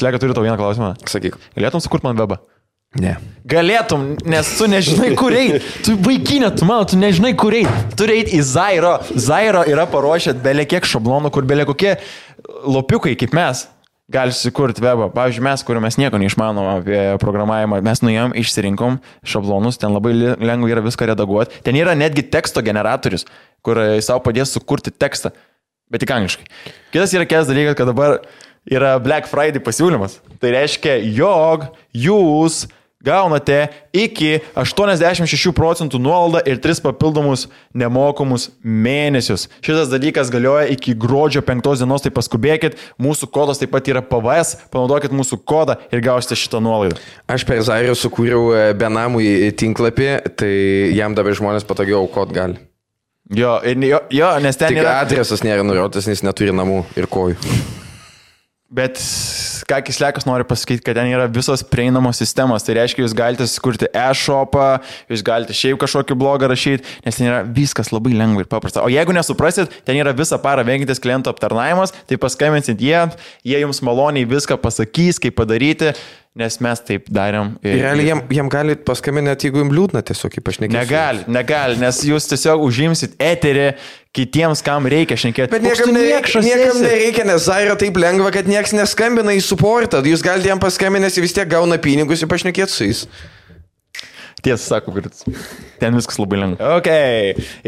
Slega, turiu tau vieną klausimą. Sakyk. Galėtum sukurti man webą? Ne. Galėtum, nes tu nežinai, kur eit. Tu vaikinė, tu nežinai, kur eit. Turi eit į Zairo. Zairo yra paruošę belė kiek šablonų, kur belė kokie lopiukai, kaip mes, gali sukurti webą. Pavyzdžiui, mes, kuriuo mes nieko neišmanom apie programavimą, mes nuėjom, išsirinkom šablonus, ten labai lengva yra viską redaguoti. Ten yra netgi teksto generatorius, kur savo padės sukurti tekstą, bet tik angliškai. Kitas yra kitas dalykas, kad dabar yra Black Friday pasiūlymas. Tai reiškia, jog jūs gaunate iki 86% nuolaidą ir 3 papildomus nemokamus mėnesius. Šitas dalykas galioja iki gruodžio 5 dienos, tai paskubėkit. Mūsų kodas taip pat yra PVS, panaudokit mūsų kodą ir gausite šitą nuolaidą. Aš per Zairą sukūriau benamui tinklapį, tai jam dabar žmonės patogiau aukot gali. Jo, nes ten Tik yra... adresas nėra nurodytas, nes neturi namų ir kojų. Bet ką Kislekas nori pasakyti, kad ten yra visos prieinamos sistemos. Tai reiškia, jūs galite sukurti e-shopą, jūs galite šiaip kažkokį blogą rašyti, nes ten yra viskas labai lengva ir paprasta. O jeigu nesuprasit, ten yra visą parą vengiantis klientų aptarnavimas, tai paskambinsit jie jums maloniai viską pasakys, kaip padaryti, nes mes taip darėm. Realiai jam gali paskambinti, jeigu jums liūdna tiesiog, ypač nekėsiu. Negali, nes jūs tiesiog užimsit eterį kitiems, kam reikia šnekėti. Bet niekam nereikia, nes Zaira taip lengva, kad nieks neskambina į supportą. Jūs galite jam paskambinęs, vis tiek gauna pinigus ir pašnekėti su jais. Tiesą sako, kad ten viskas labai lengva. Ok,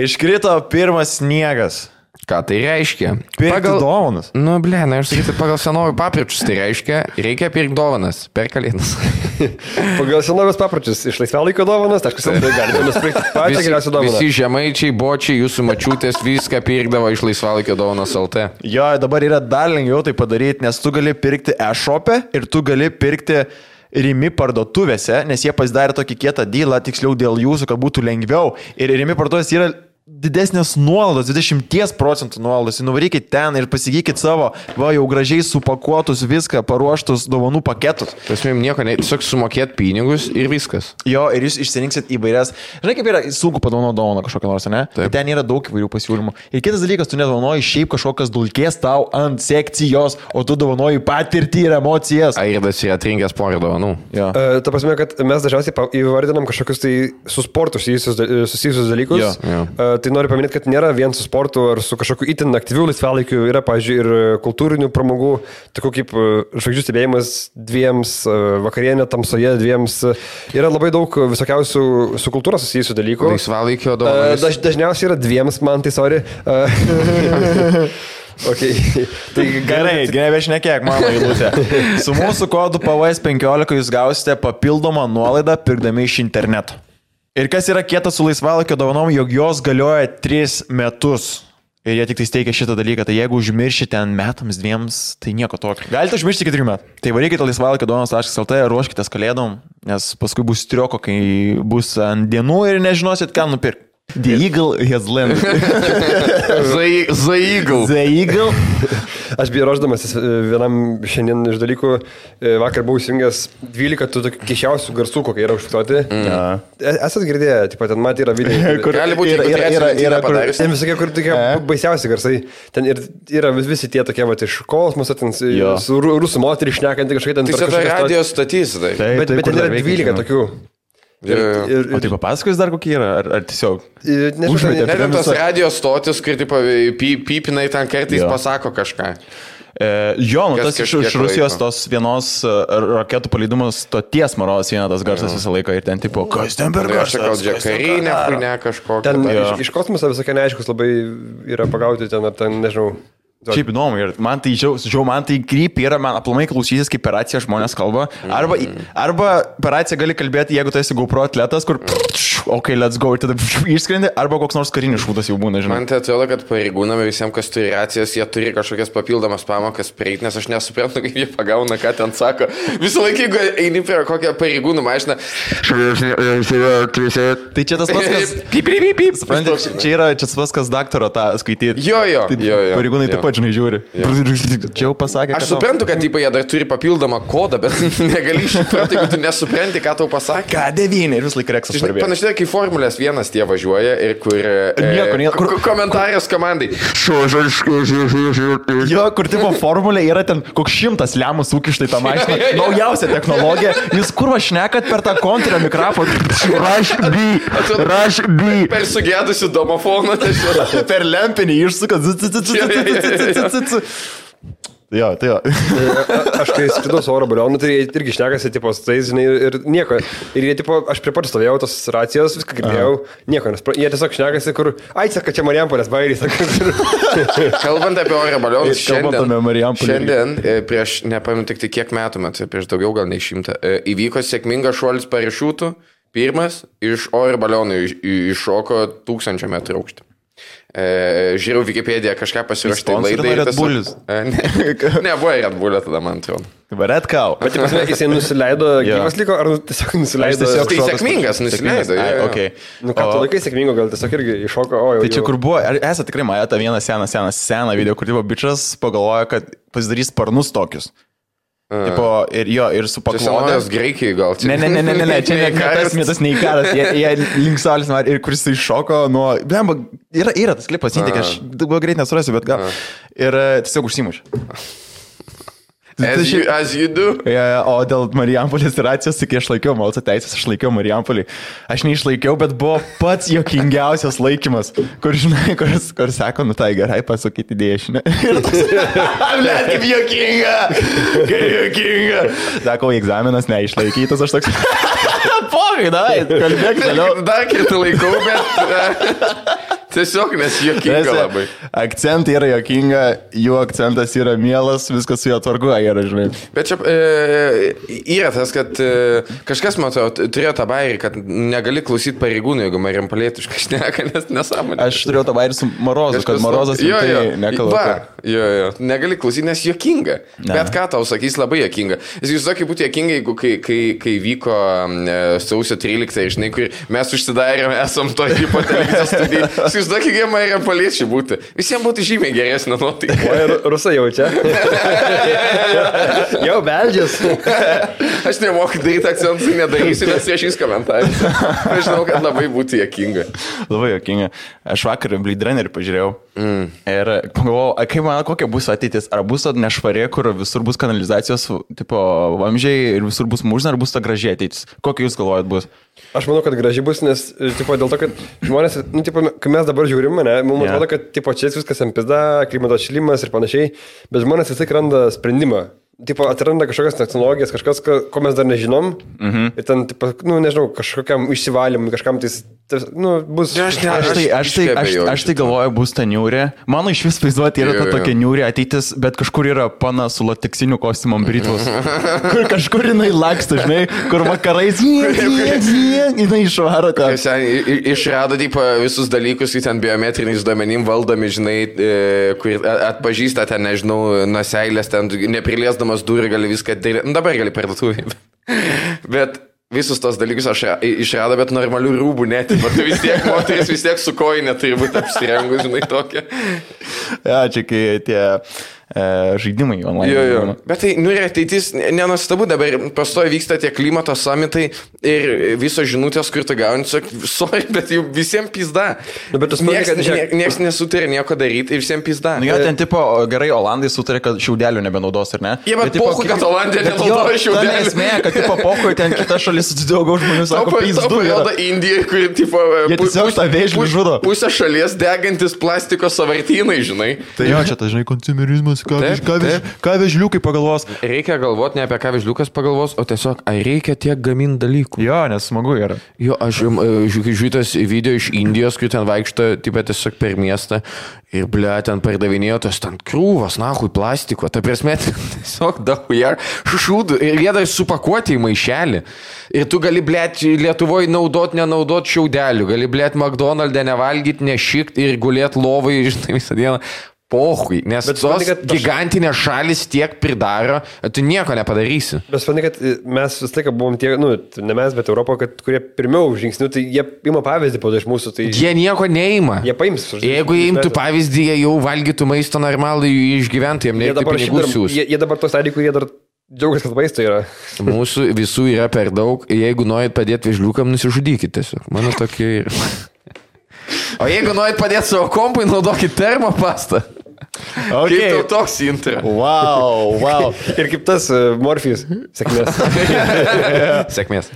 iškrito pirmas sniegas. Ką tai reiškia? Pirkti dovanas. Nu, aš sakyčiau, pagal senovų papročius tai reiškia, reikia pirkti dovanas per kalėdas. Pagal senovės papročius iš laisvalaikio dovanas, tai galime nusipirkti pačią geriausią dovaną. Visi žemaičiai, bočiai, jūsų mačiutės viską pirkdavo iš laisvalaikio dovanas LT. Jo, dabar yra dar lengviau tai padaryti, nes tu gali pirkti e-shop'e ir tu gali pirkti Rimi parduotuvėse, nes jie pasidarė tokį kietą dylą, tiksliau dėl jūsų, kad būtų lengviau. Ir Rimi parduotuvės yra didesnės nuolaidos, 20% nuolaidos. Nuvarykit ten ir pasigykit savo, jau gražiai supakuotus viską, paruoštus dovanų paketus. Tasmėjom nieko, tiesiog sumokėt pinigus ir viskas. Jo, ir jūs išsirinksit įvairias. Žinai, kaip yra sunku padovanoti dovaną kažkokią nors, ne? Taip. Ten yra daug įvairių pasiūlymų. Ir kitas dalykas, tu nedovanoji šiaip kažkokias dulkės tau ant sekcijos, o tu dovanoji patirtį ir emocijas. Airdas yra atrinkęs porą dovanų. Ta prasme, kad mes dažniausiai įvardinam kažkokius tai su sportu susijusius dalykus. Jo. Tai noriu paminėti, kad nėra vien su sportu ar su kažkokiu itin aktyviu laisvalaikiu, yra, pavyzdžiui, ir kultūrinių pramogų, tokių kaip žvaigždžių stebėjimas 2, vakarienė tamsoje 2. Yra labai daug visokiausių su kultūra susijusių dalykų. Laisvalaikio dovanas. Dažniausiai yra 2, man tai sorry. Okay. Tai gerai, šnekėk, mano eilutė. Su mūsų kodu PVS15 jūs gausite papildomą nuolaidą pirkdami iš interneto. Ir kas yra kietas su laisvalaikio dovanom, jog jos galioja 3 metus. Ir jie tik tai steikia šitą dalyką. Tai jeigu užmiršite ten metams 2, tai nieko tokio. Galite užmiršti iki 3 metų. Tai varykite laisvalaikio dovanos.lt, ruoškitės kalėdom, nes paskui bus trioko, kai bus ant dienų ir nežinosit, ką nupirkti. The Eagle has landed. The Eagle. Aš buvau ruoždamasis vienam šiandien iš dalykų, vakar buvau įsijungęs 12 tų keisčiausių garsų, kokie yra užfiksuoti. Esat girdėję, ten matė yra video. Kur gali būti yra padarys. Ten visokie, kur tokie baisiausi garsai. Ten yra visi tie tokie, iš kosmoso, ten su rusų moterį šnekantį kažkaip ten. Tai čia radio statys, tai. Bet ten yra 12 tokių. O tai papasakos dar kokie yra, ar tiesiog? Nežinau, tos radio stotis, kur pipinai ten kartais pasako kažką. Jo, tas iš Rusijos tos vienos raketų paleidimo stoties maros eina tas garsas visą laiką ir ten tipo, kas ten per garsas? Gal džekarinė, ne kažkokia. Ten iš kosmoso visokie neaiškus labai yra pagauti ten, ar ten, nežinau. Šiaip įdomu, ir man tai krypį yra, man aplamai klausysis, kaip per raciją žmonės kalba. Arba per raciją gali kalbėti, jeigu tu esi GoPro atletas, kur ok, let's go, ir tada išskrendi, arba koks nors karinis šūdas jau būna, žinai. Man tai atrodo, kad pareigūnami visiems, kas turi racijas, jie turi kažkokias papildomas pamokas prieiti, nes aš nesuprantu, kaip jie pagauna, ką ten sako. Visą laiką, jeigu eini prie kokią pareigūnų mašiną. Tai čia tas pats, kas... Supranti, čia yra tas pats, kas daktaro tą skaityti. Jo. Pareigūnai taip pat, žinai, žiūri. Čia jau pasakė, aš suprantu, kad jie dar turi papildomą kodą, bet negali išsupranti, jeigu tu nesupranti, ką tau pasakė. K9 ir vis laik reksas parbėjo. Panašiai, įsivaizduoju, kai Formulės 1 tie važiuoja ir kur komentarijos komandai. Jo, kur tipo Formulė yra ten koks 100 lemų sukištai tą mašiną. Naujausia technologija. Jūs kur vašnekat per tą kontrio mikrofoną? Rush B. Per sugėdusių domofoną. Per lempinį išsukat. Jo, tai jo. Aš kai skridau su oro balionu, tai jie irgi šnekasi, tipo, su tais, žinai, ir nieko. Ir jie, tipo, aš prie pat stovėjau tos racijos, viską girdėjau, nieko, nes jie tiesiog šnekasi, kur, saka, čia Marijampolės bairys. Kalbant apie oro balionus, šiandien prieš, nepamenu tik kiek metų, prieš daugiau gal nei 100, įvyko sėkmingas šuolis parašiutų, pirmas iš oro balionų iššoko 1000 metrų aukštį. Žiūrėjau Wikipediją, kažką pasiruošti laidai. Red Bullis. Ne, buvo Red Bullio tada, man atrodo. Red Cow. Bet jisai nusileido, gyvas liko, ar tiesiog nusileido? Tai sėkmingas nusileido. Okay. Nu ką, tu laikai sėkmingo, gal tiesiog irgi iššoko, Tai čia kur buvo, esate tikrai matę tą vieną seną video, kur tipo bičas pagalvoja, kad pasidarys sparnus tokius. Tipo, ir su paklodė. Čia senovės Graikijai gal. Ne, čia nekas nei karas. Jie link saulės ir kuris iššoko nuo... Blemba, yra tas klipas, įtikė, aš dabar greit nesurasiu, bet gal. Ir tiesiog užsimušė. As you do. O dėl Marijampolės racijos, kai aš laikiau Malco teisės, aš laikiau Marijampolį. Aš neišlaikiau, bet buvo pats jokingiausias laikymas, kur, žinai, kur sako, nu tai gerai, pasakyti dešinę. Ir toks, blėt, kaip jokinga. Sako, egzaminas neišlaikytas, aš toks, pogai, dai, kalbėk toliau. Dar kitą laikau, bet... Tiesiog, nes jokinga labai. Akcentai yra jokinga, jų akcentas yra mielas, viskas su jo tvarkoja yra, žinai. Bet čia yra tas, kad kažkas, matau, turėjo tą bairį, kad negali klausyti pareigūnų, jeigu Marijampolėtiškai šneka, nes nesąmonė. Aš turėjau tą bairį su Marozu, kad Marozas tai nekalba. Jo, negali klausyti, nes jokinga. Bet ką tau sakys, labai jokinga. Jūs sakai būtų jokinga, jeigu kai vyko sausio 13, žinai, kur mes užsidarėme, esam to tipo televizijos studijai. Jūs daug kiek Marijampoliečiai būtų. Visiems būtų žymiai geresnė nuotaika. O rusai jaučia. Jau beldžias. Aš nemoku daryti akcentų, nedarysiu, nes viešais komentarais. Aš žinau, kad labai būtų jokinga. Labai jokinga. Aš vakar Blade Runnerį pažiūrėjau. Ir pagalvojau, kaip man, kokia bus ateitis. Ar bus nešvarė, kur visur bus kanalizacijos tipo vamzdžiai ir visur bus mūžina, ar bus ta graži ateitis? Kokia jūs galvojat bus? Aš manau, kad graži bus, nes tipo, dėl to, kad žmonės, nu, tipo, kai mes dabar žiūrime, mums atrodo, kad tipo, čia viskas ant pizda, klimato atšilimas ir panašiai, bet žmonės vis tiek randa sprendimą. Tipo, atranda kažkokias technologijas, kažkas, ko mes dar nežinom. Ir ten, tipo, nu, nežinau, kažkokiam išsivalymui, kažkam tai, nu, bus... Aš tai galvoju, bus ta niūrė. Mano iš vis vaizduoti yra ta tokia niūrė ateitis, bet kažkur yra pana su lateksiniu kostiumom Britvos. Kur kažkur jinai laksta, žinai, kur vakarais jinai išvaro tą. Išrado, tipo, visus dalykus, kai ten biometriniais duomenim valdomi, žinai, kur atpažįsta ten, nežinau, nuseilės, ten nepriliesdamas durį gali viską daryti. Nu, dabar gali parduotuvį. Bet visus tos dalykus aš išrado, bet normalių rūbų net. Moteris vis tiek su kojinė turi būti apsirengus, žinai, tokia. Ja, čia kai tie žaidimai online. Jo. Bet tai, nu ir ateitis, nenuostabu, dabar pastoji vyksta tie klimato samitai ir visos žinutės, kur tu gauni, sorry, bet jau visiems pizda. Nu, bet nieks nesutarė nieko daryti ir visiems pizda. Nu, jo, ten tipo, gerai, Olandai sutarė, kad šiaudelių nebenaudos, ar ne? Jie, bet pohu, kad Olandija nenaudoja šiaudelių. Ta nesmė, kad tipo pohu, ten kita šalis daugiau žmonių sako, pizdu. Taupo Indija, kur tipo... Jie tiesiog tą vėžlį žudo. Pusę šalies degantis plastiko savartynai, žinai. Tai jo, čia tas, žinai, konsumerizmas. Ką vežliukai pagalvos? Reikia galvoti ne apie ką vežliukas pagalvos, o tiesiog, ar reikia tiek gaminti dalykų. Jo, nes smagu yra. Jo, aš žiūrėtas video iš Indijos, kur ten vaikšto, tiesiog per miestą ir, ble, ten pardavinėjo tos ten krūvas, nahui, plastiko. Ta prasme, tiesiog dahuja šūdų ir jie dar supakuoti į maišelį. Ir tu gali, ble, Lietuvoje nenaudot šiaudelių, gali, ble, McDonald'e nevalgyti, nešikti ir gulėti lovai, žinai, visą dieną. Pohui, nes tos gigantinės šalis tiek pridaro, tu nieko nepadarysi. Bet supranti, kad mes vis laiką buvom tie, nu, ne mes, bet Europo, kurie pirmiau žingsnių, tai jie ima pavyzdį po iš mūsų. Tai... Jie nieko neima. Jie paims. Jeigu jie imtų pavyzdį, jie jau valgytų maisto normalų išgyventų, jiem nereikia pinigų siūs. Jie dabar tos dalykų, jie dar Džiaugiuosi, kad maisto yra. Mūsų visų yra per daug. Jeigu norit padėti vežliukam, nusižudykite tiesiog. Mano tokia ir. O jeigu norit padėti savo kompui, naudokit termopastą. Okay. Kaip tau toks intro? Wow. Ir kaip tas Morfijus. Sėkmės. Sėkmės.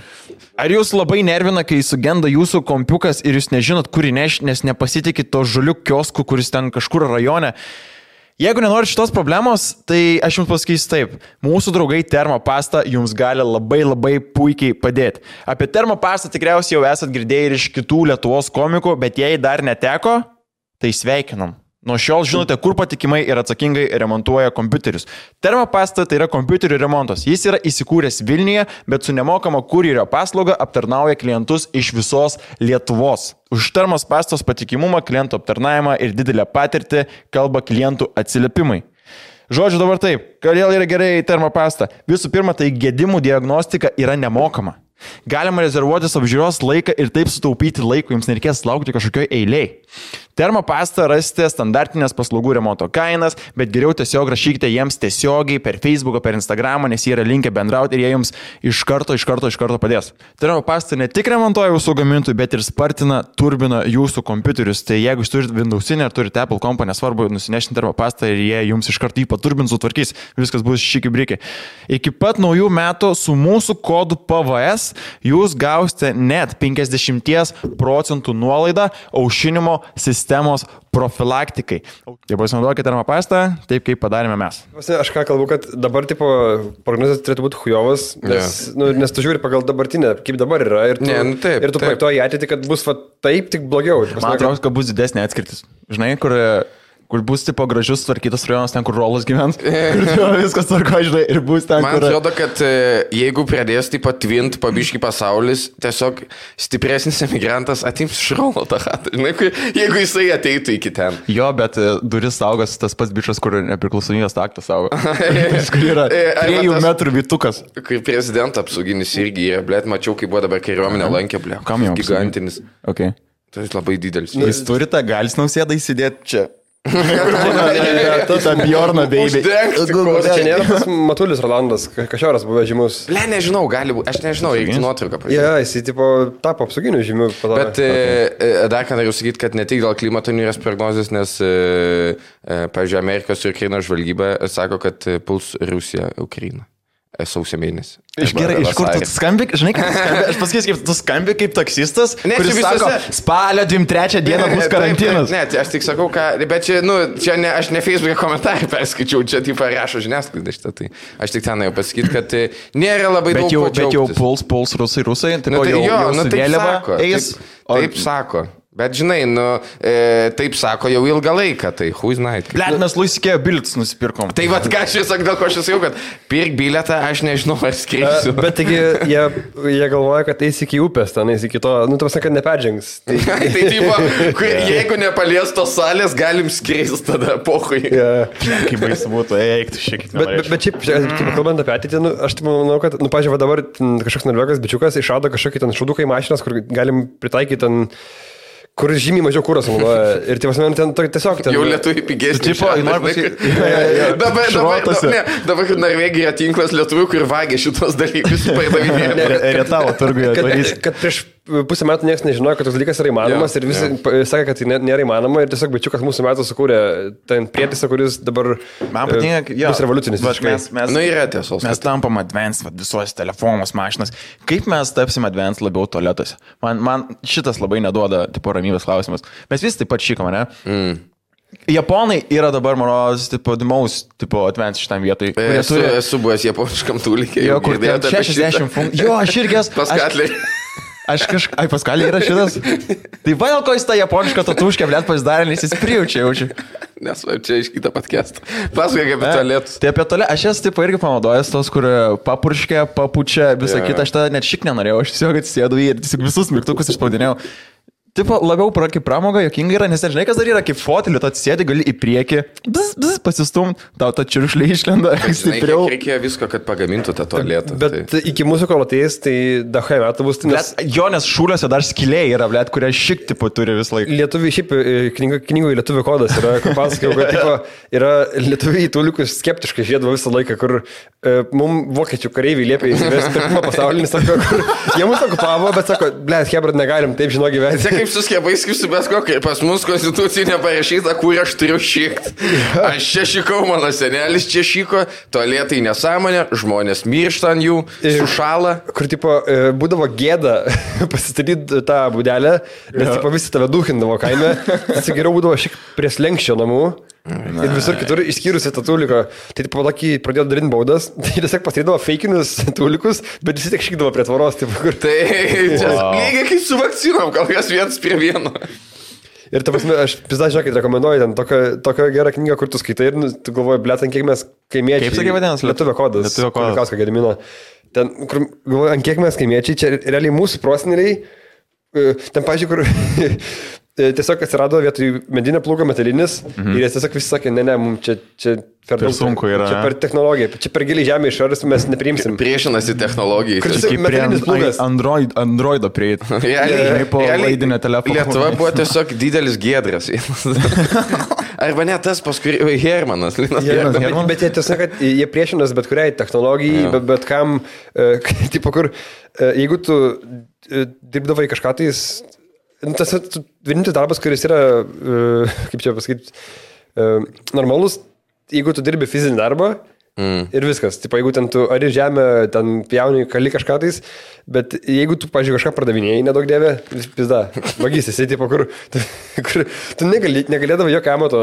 Ar jūs labai nervina, kai sugenda jūsų kompiukas ir jūs nežinot, kur įnešti, nes nepasitikit to žaliuk kiosku, kuris ten kažkur rajone? Jeigu nenorit šitos problemos, tai aš jums pasakysiu taip. Mūsų draugai Termopasta jums gali labai puikiai padėti. Apie Termopastą tikriausiai jau esat girdėję ir iš kitų Lietuvos komikų, bet jei dar neteko, tai sveikinam. Nuo šiol žinote, kur patikimai ir atsakingai remontuoja kompiuterius. Termopasta tai yra kompiuterių remontas. Jis yra įsikūręs Vilniuje, bet su nemokama kurjerio paslauga aptarnauja klientus iš visos Lietuvos. Už Termopastos patikimumą, klientų aptarnavimą ir didelę patirtį kalba klientų atsiliepimai. Žodžiu dabar taip, kodėl yra gerai Termopasta? Visų pirma, tai gedimų diagnostika yra nemokama. Galima rezervuotis apžiūros laiką ir taip sutaupyti laiko, jums nereikės laukti kažkokioj eiliai. Termopastą rasite standartinės paslaugų remonto kainas, bet geriau tiesiog rašykite jiems tiesiogiai per Facebooką, per Instagramą, nes jie yra linkę bendrauti ir jie jums iš karto padės. Termopasta ne tik remontuoja jūsų gamintojų, bet ir spartina, turbina jūsų kompiuterius. Tai jeigu jūs turite Windowsinę ar turite Apple kompą, nesvarbu, nusinešti Termopastą ir jie jums iš karto jį paturbins, sutvarkys, viskas bus šiki-briki. Iki pat naujų metų su mūsų kodu PVS jūs gausite net 50% nuolaidą aušinimo sistemos profilaktikai. Tai pasinaudokite Termopastą, taip kaip padarėme mes. Aš ką kalbu, kad dabar tipo prognozės turėtų būti hujovas, nes tu žiūri pagal dabartinę, kaip dabar yra, ir tu projektuoji ateitį, kad bus taip, tik blogiau. Man atrodo, kad bus didesnė atskirtis. Žinai, kur bus tipo gražus tvarkytas rajonas, ten, kur Rolas gyvens, kur viskas tvarko, žinai, ir bus ten, Man atrodo, kad jeigu pradės taip atvint pabiški pasaulis, tiesiog stipresnis emigrantas atims iš Rolo tą chatą, žinai, jeigu jisai ateitų iki ten. Jo, bet duris saugos tas pats bičas, kur nepriklausomybės aktas saugo. Kur yra 3 metrų vytukas. Kai prezidento apsauginis irgi yra, blėt, mačiau, kaip buvo dabar kariuomenė lankė, blėt. Kam jau? Gigantinis. Okay. Tai labai didelis. Jis turi tą galis Nausėdą įsidėti čia. Ta Bjorna baby. Čia nėra pas Matulis Rolandas, kažioras buvo žymus. Nežinau, gali būti, aš nežinau, reikia nuotrauką pažiūrėti. Ja, jisai tipo tapo apsauginiu žymiu. Bet dar ką noriu sakyti, kad ne tik dėl klimato niūrės prognozės, nes, pavyzdžiui, Amerikos ir Ukrainos žvalgyba sako, kad puls Rusija Ukrainą. Sausio mėnesį. Gerai, iš kur tu skambi, žinai, kaip tu skambi? Aš pasakysiu, kaip tu skambi kaip taksistas, kuris sako, spalio 23 dieną bus karantinas. Ne, aš tik sakau, bet čia, aš ne Facebook'e komentarį perskaičiau, čia taip rašo žiniasklaida šitą, tai aš tik ten jau pasakyti, kad nėra labai daug džiaugtis. Bet jau puls rusai, tai taip sako. Bet žinai, taip sako jau ilgą laiką, tai who's night. Blet, mes Luisikėjo bilietus nusipirkom. Tai vat ką aš sakau, dėl ko aš sakiau, kad pirk bilietą, aš nežinau, ar skreisiu. Bet taigi jie galvoja, kad eis iki upės, ten eis iki to, tu kad neperžengs. Tai tipo, jeigu nepalies tos salės, galim skreisti tada pohui. Kaip baisu būtų, eiktų šiek tiek. Bet šiaip, kalbant apie ateitį, aš manau, kad, pažiūrėjau, dabar kažkoks norvegas bičiukas išrado kažkokį ten šauduką į mašinas, kur galim pritaikyti ten kur žymiai mažiau kūros naudoja. Ir tai pasmen, ten tiesiog ten... Jau lietuviai pigesnį. Dabar Norvegija tinklas lietuvių, kur vagia šitos dalykus pardavinėja. Rietavo turguje. Kad prieš pusę metų niekas nežinojo, kad toks dalykas yra įmanomas ir visi sakė, kad tai nėra įmanoma ir tiesiog bičiukas mūsų metų sukūrė ten prietaisą, kuris dabar bus revoliucinis. Yra tiesos. Mes tampam advanced visuose telefonus, mašinas. Kaip mes tapsim advanced labiau tualetuose? Man šitas labai neduoda tipo ramybės klausimas. Mes visi taip pat šykam, ne? Japonai yra dabar, mano, tipo, the most, tipo, advanced šitam vietoj. Esu buvęs japoniškam tūlikai. Jo, kur 60 funkcijų. Jo, aš irgi esu. Paskatliai. Ai, Paskalė yra šitas. Tai va, dėl ko jis tą japonišką tatuškę, blėt, pasidarė, nes jis prijaučia jaučiu. Nes čia iš kitą podcastą. Pasakai apie tualetus. Tai apie tualetą, aš esu tipo irgi panaudojęs tos, kur papurškia, papučia, visą kitą, aš tą net šik nenorėjau, aš tiesiog atsisėdau ir tiesiog visus mygtukus išspaudinėjau. tipo, labiau kaip pramoga, jokinga yra, nes nežinai, kas dar yra, kaip fotelį, tu atsėdi, gali į priekį, pasistum, tau ta čiuršlė išlenda stipriau. Reikėjo visko, kad pagamintų tą tualetą. Bet iki mūsų kol ateis, tai dahai metų bus. Nes šūliuose dar skiliai yra, blėt, kurie šik tipo turi vis laik. Lietuviai, šiaip knygoje lietuvių kodas yra, kur pasakiau, kad tipo, yra lietuviai tūlikus skeptiškai žiedavo visą laiką, kur mums vokiečių kareiviai liepia įsivesti pirmą pasaulinį, sako, kur jie mūsų okupavo, bet sako, blėt, hebrat, negalim taip žino gyventi. Kaip su skiepais, kaip su bet kokia, pas mus konstitucijai neparašyta, kur aš turiu šikti. Aš čia šikau, mano senelis čia šiko, tualetai nesąmonė, žmonės miršta ant jų, sušala. Kur, tipo, būdavo gėda pasistatyti tą būdelę, nes, tipo, visi tave duhindavo kaime, tas geriau būdavo šiek prie slenkščio namų. Ir visur kitur išskyrus tą tūliką. Tai tipo tokį pradėjo darinti baudas, tai tiesiog pasirydavo feikinius tūlikus, bet visi tik šykdavo prie tvoros. Tipo, kur... Tai lygiai kaip su vakcinom, gal kas 1:1. Ir ta prasme, aš pizda, žinokit, rekomenduoju ten tokią gerą knygą, kur tu skaitai ir tu galvoji, blėt, ant kiek mes kaimiečiai. Kaip sakė vadinasi? Lietuvio kodas. Lietuvio kodas. Kausko Gedimino. Ten, kur galvoji, ant kiek mes kaimiečiai, čia realiai mūsų proseneliai, ten, pažiūrėjau, kur... Tiesiog atsirado vietoj medinio plūgo metalinis ir jis tiesiog visi sakė, ne, mums čia per sunku yra. Čia per technologiją, čia per giliai žemė išorės mes nepriimsim. Priešinasi technologijai. Kaip metalinis plūgas. Androido prieit. Realiai po laidinio telefono. Lietuva buvo tiesiog didelis giedras. Arba ne tas paskui Hermanas. Bet jie tiesiog, kad jie priešinas bet kuriai technologijai, bet kam, tipo kur, jeigu tu dirbdavai kažką tais, tas vienintelis darbas, kuris yra, kaip čia pasakyti, normalus, jeigu tu dirbi fizinį darbą ir viskas. Tipo, jeigu ten tu ari žemę, ten pjauni, kali kažką tais, bet jeigu tu, pažiūrėjau, kažką pardavinėjai, nedaug dėvė, pizda, vagys, esi, tipo, kur tu negalėdavai jokio amato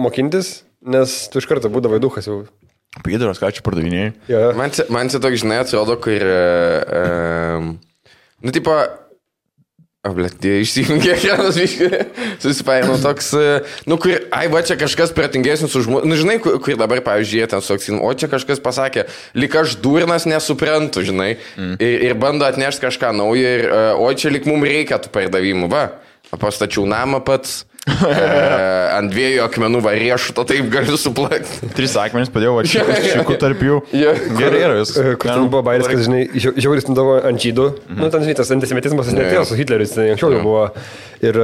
mokintis, nes tu iš karto būdavai duchas jau. Pėdaras, ką čia pardavinėjai? Ja. Man čia toks, žinai, atrodo, kur, tipo, išsijungė ekranas, susipaėmė toks, kur, va čia kažkas pratingesnis už mūsų, žinai, kur dabar, pavyzdžiui, ten suksin, o čia kažkas pasakė, lyg aš durnas nesuprantu, žinai, ir bando atnešti kažką naujo, ir, o čia lyg mums reikia tų pardavimų, va, pastačiau namą pats. Ant 2 akmenų riešuto, taip galiu suplakti. 3 akmenys padėjau, šiekų tarp jų. Gerai yra vis. Kur ten buvo bairis, kad, žinai, žiauris nudavo ant žydų. Nu, ten, žinai, tas antisemitizmas netėjo su Hitleriu, tai anksčiau jau buvo. Ir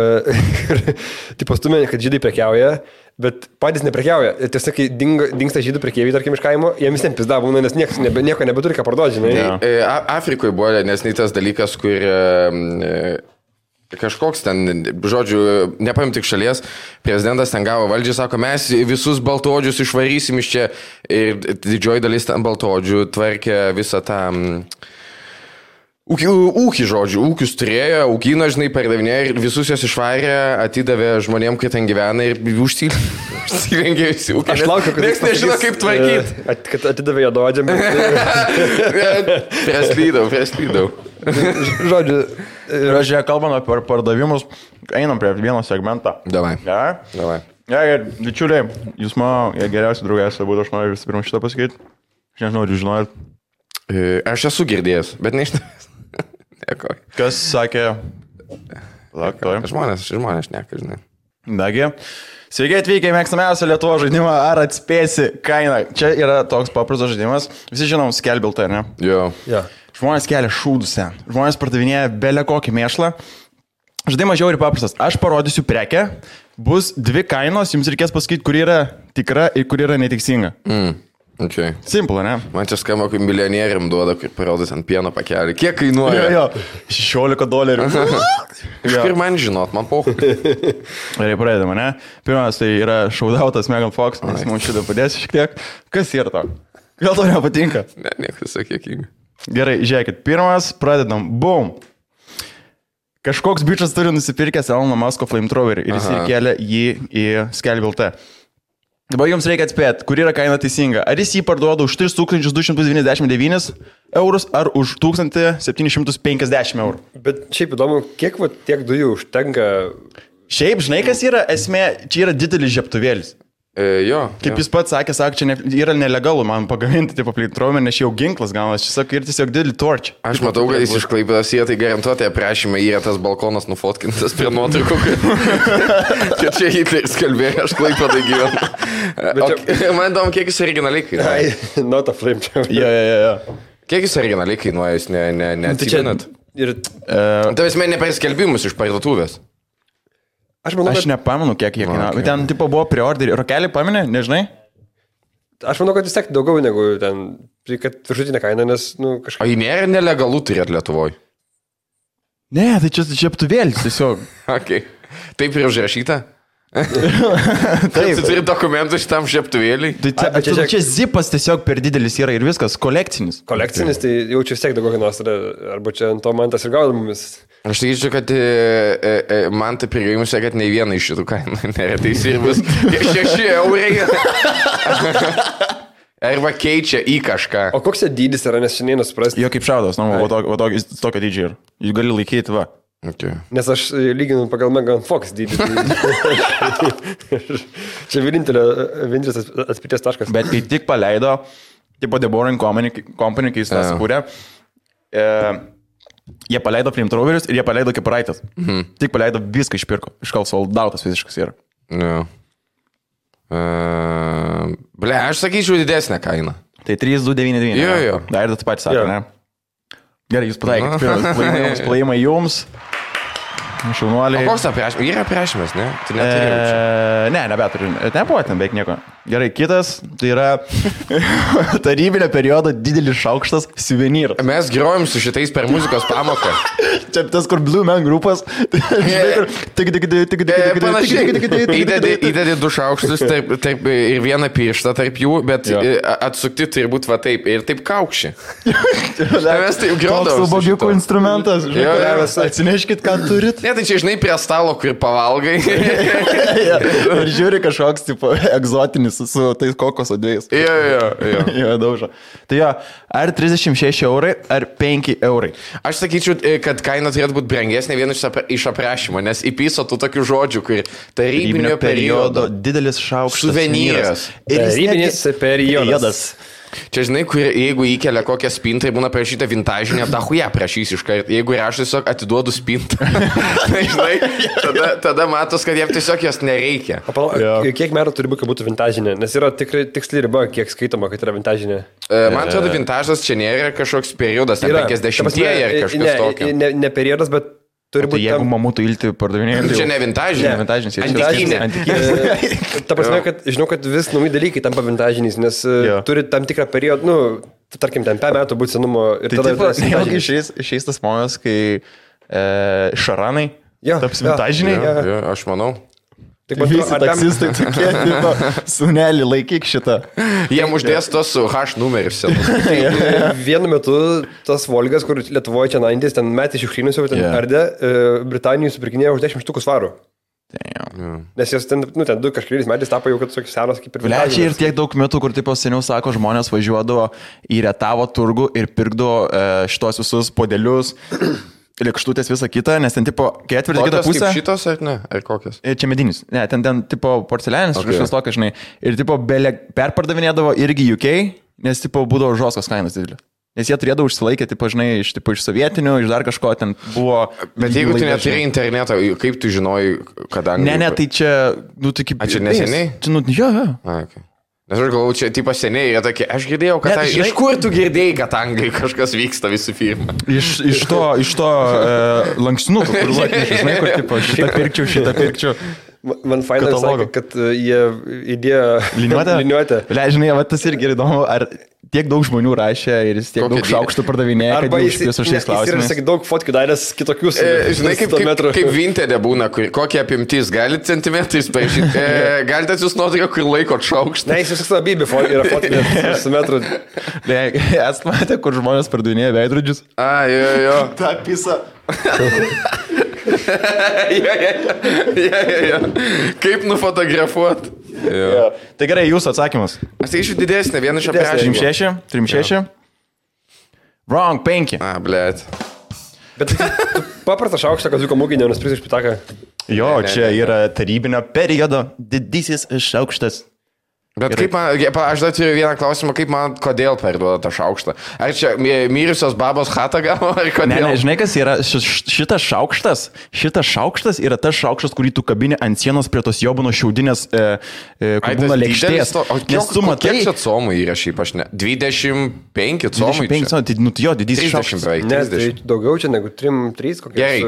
tipo stumė, kad žydai prekiauja, bet patys neprekiauja. Tiesiog, kai dingsta žydų prekeiviai, tarkim, iš kaimo, jiems ten pizda būna, nes nieko nebeturi ką parduoti, žinai. Afrikoje buvo nesneitas dalykas, kur... Kažkoks ten, žodžiu, nepaim tik šalies, prezidentas ten gavo valdžią, sako, mes visus baltaodžius išvarysim iš čia ir didžioji dalis ten baltaodžių tvarkė visą tą ūkį, žodžiu, ūkius turėjo, ūkino, žinai, pardavinėjo ir visus jos išvarė, atidavė žmonėm, kai ten gyvena ir užsirengė visi ūkį. Aš laukiu, kad niekas nežino, kaip tvarkyti. Kad atidavė jo dodžiam. Prislydau. Žiūrėk, kalbant apie pardavimus, einam prie vieno segmentą. Davai. Ja, bičiuliai, jūs mano geriausi draugai būtų, aš noriu visų pirma šitą pasakyti. Aš nežinau, ar jūs žinojat. Aš esu girdėjęs, bet nežinau. Kas sakė? Žmonės šneka, žinai. Dagi. Sveiki atvykę į mėgstamiausią Lietuvos žaidimą, ar atspėsi kainą. Čia yra toks paprastas žaidimas. Visi žinom Skelbiltą, ar ne? Jo. Žmonės kelia šūdus ten. Žmonės pardavinėja belę kokį mėšlą. Žaidimas žiauriai paprastas. Aš parodysiu prekę, bus 2 kainos, jums reikės pasakyti, kur yra tikra ir kur yra netiksinga. Okay. Simple, ne? Man čia skamba, kaip milijonieriam duoda, kaip parodys ant pieno pakelį. Kiek kainuoja? Jo, $16. Iš kur man žinot, man pauch. Gerai, pradedame, ne? Pirmas tai yra šaudautas Megan Fox, nes mums šitą padėsi šiek tiek. Kas yra to? Gal to nepatinka? Ne, niekas sakėkinga. Gerai, žiūrėkit, pirmas, pradedam. Boom. Kažkoks bičas turi nusipirkęs Elono Musko flamethrowerį ir jis įkelia jį į Skelbiltą. Dabar jums reikia atspėti, kur yra kaina teisinga. Ar jis jį parduoda už 3299 eurus ar už 1750 eurų. Bet šiaip įdomu, kiek tiek dujų užtenka? Šiaip, žinai, kas yra esmė, čia yra didelis žiebtuvėlis. Jo. Kaip jis pats sakė, čia yra nelegalu man pagaminti, tipo, plytrovę, nes jau ginklas gaunas, jis sako, ir tiesiog didelį torčią. Aš matau, kad jis iš Klaipėdos tai garantuotai aprašymai yra tas balkonas nufotkintas prie nuotraukų. Čia Hitleris kalbėjo, aš Klaipėdai gyvenu. Man įdomu, kiek jis originaliai kainuoja. Not a flame. Jo. Kiek jis originaliai kainuoja, jūs neatsimenat? Tavęs ne per skelbimus iš parduotuvės. Aš manau, aš nepamenu, kiek jie kainavo. Bet ten tipo buvo preorderį. Rokelį paminė, nežinai? Aš manau, kad vis tiek daugiau negu ten, kad viršutinė kaina, nes, kažkaip... O jį nėra nelegalų turėti Lietuvoje? Ne, tai čia žiaptuvėlis tiesiog. Okay. Taip ir užrašyta? Taip. Tu turi dokumentų šitam žiaptuvėliui? Čia zipas tiesiog per didelis yra ir viskas, kolekcinis. Kolekcinis, tai jau čia vis tiek daugiau kainos, arba čia ant to man tas ir gaudamumis. Aš sakyčiau, kad man tai prigaimusi, kad nei viena iš šitų kainų nėra teisybės. 6 eurai. Arba keičia į kažką. O koks dydis yra, nes šiandien nesuprasti? Jo kaip šaudas, tokio dydžio yra. Jūs gali laikyti, va. Okay. Nes aš lyginu pagal Megan Fox dydį. Čia vienintelis atspirties taškas. Bet kai tik paleido, tipo The Boring Company, kai jis tą sukūrė, jie paleido flamethrowerius ir jie paleido kepuraites. Tik paleido viską išpirko. Iškal soldautas visiškas yra. Jo. Aš sakyčiau didesnę kainą. Tai 3,299. Jo. Dar ir tu patys sakai, ne? Gerai, jūs pataikėt. Pirmas plojimai jums. Šaunuoliai. O koks aprašymas? Yra aprašymas, ne? Tai neturėjau čia. Ne, nebeturiu. Nebuvo ten beveik nieko. Gerai, kitas, tai yra tarybinio periodo didelis šaukštas suvenyras. Mes grojom su šitais per muzikos pamoką. Čia tas, kur Blue Man grupas. Įdedi 2 šaukštus ir vieną pirštą tarp jų, bet atsukti turi būti va taip ir taip kaukši. Mes taip grodom. Toks ubogiukų instrumentas. Atsineškit, ką turit. Ne, tai čia, žinai, prie stalo, kur pavalgai. Ir žiūri kažkoks, tipo, egzotinis su tais kokoso dviejais. Jo, daužo. Tai jo, ar 36 eurai, ar 5 eurai. Aš sakyčiau, kad kaina turėtų būti brangesnė vienas iš aprašymo, nes įpiso tų tokių žodžių, kur tarybinio periodo didelis šaukštas. Suvenyras. Tarybinis periodas. Čia, žinai, jeigu įkelia kokią spintą ir būna prašyta vintažinė, dahuja prašys iš karto. Jeigu ir aš tiesiog atiduodu spintą, tai, žinai, tada matos, kad jam tiesiog jos nereikia. Kiek metų turi būti, kad būtų vintažinė? Nes yra tikrai tiksli riba, kiek skaitoma, kad yra vintažinė. Man atrodo, vintažas čia nėra kažkoks periodas, ne 50-ieji ar kažkas tokio. Ne periodas, bet turi būti... Jeigu mamutų ilti pardavinėjai... Čia ne vintažinė. Antikinė. Ta prasme, kad žinau, kad vis nauji dalykai tampa vintažiniais, nes turi tam tikrą periodą, tarkim, ten 5 metų būti senumo ir tada... Tai išeis tas momentas, kai šaranai taps vintažiniai. Aš manau. Visi taksistai tokie, sunelį, laikyk šitą. Jiem uždės tos su H numerius. Vienu metu tas Volgas, kur Lietuvoje čia 90, ten metį šiukšlynus jau ten ardė, Britanijai supirkinėjo už 10 štukų svarų. Nes jos ten, ten 2 kažkeliais metais tapo jau, kad tokios senos kaip ir vintažinės. Čia ir tiek daug metų, kur tipo seniau sako, žmonės važiuodavo į Rietavo turgų ir pirkdavo šitos visus podelius. Lėkštutės visą kitą, nes ten tipo ketvirtį kitą pusę. Kaip šitos ar ne? Ar kokios? Čia medinis. Ne, ten tipo porcelianis, kažkas tokia, žinai. Ir tipo perpardavinėdavo irgi UK, nes tipo būdavo žoskos kainos didelė. Nes jie turėdavo užsilaikę, tipo, žinai, iš sovietinių, iš dar kažko ten buvo... Bet jeigu tu neturi interneto, kaip tu žinojai, kad anglai... Ne, tai čia, tai kaip... A čia neseniai? Čia, jo. Okay. Nes aš galvoju, čia tipo seniai yra tokie, aš girdėjau, kad... Iš kur tu girdėjai, kad angai kažkas vyksta visų firmą? Iš to lanksnuko, kur žinai, kur tipo šitą pirkčiau. Man fainai sakė, kad jie įdėjo liniuotę. Žinai, tas irgi įdomu, ar tiek daug žmonių rašė ir jis tiek daug šaukštų pardavinėja, kad jis užpės už šiais klausimais. Jis daug fotkų daręs kitokius. Žinai, kaip Vinted būna, kokie apimtys, galite centimetrais paaišyti, galite jūs nuotrauką, kur laikot šaukštą. Ne, jis viskas labybė yra fotkų su metru. Esate matę, kur žmonės pardavinėja veidrodžius? Jo. Ta pisa. Kaip nufotografuot? Tai gerai, jūsų atsakymas. Aš tai iš didesnė, vieną iš aprašymų. 3,6. Wrong, 5. Blėt. Bet paprastą šaukštą, kad zuko mūginė, nuspręs iš pitaką. Jo, čia yra tarybinio periodo didysis šaukštas. Bet kaip man, aš dar turiu vieną klausimą, kaip man, kodėl parduoda tą šaukštą? Ar čia mirusios babos chatą gavo, ar kodėl? Ne, žinai, kas yra šitas šaukštas yra tas šaukštas, kurį tu kabini ant sienos prie tos jobuno šiaudinės būna lėkštės. Nes tu matai... Kiek čia comų yra šiaip, aš ne? 25 comų. 25 comų, tai nu jo, didysis šaukštas. Ne, tai daugiau čia negu 3 kokie. Gerai,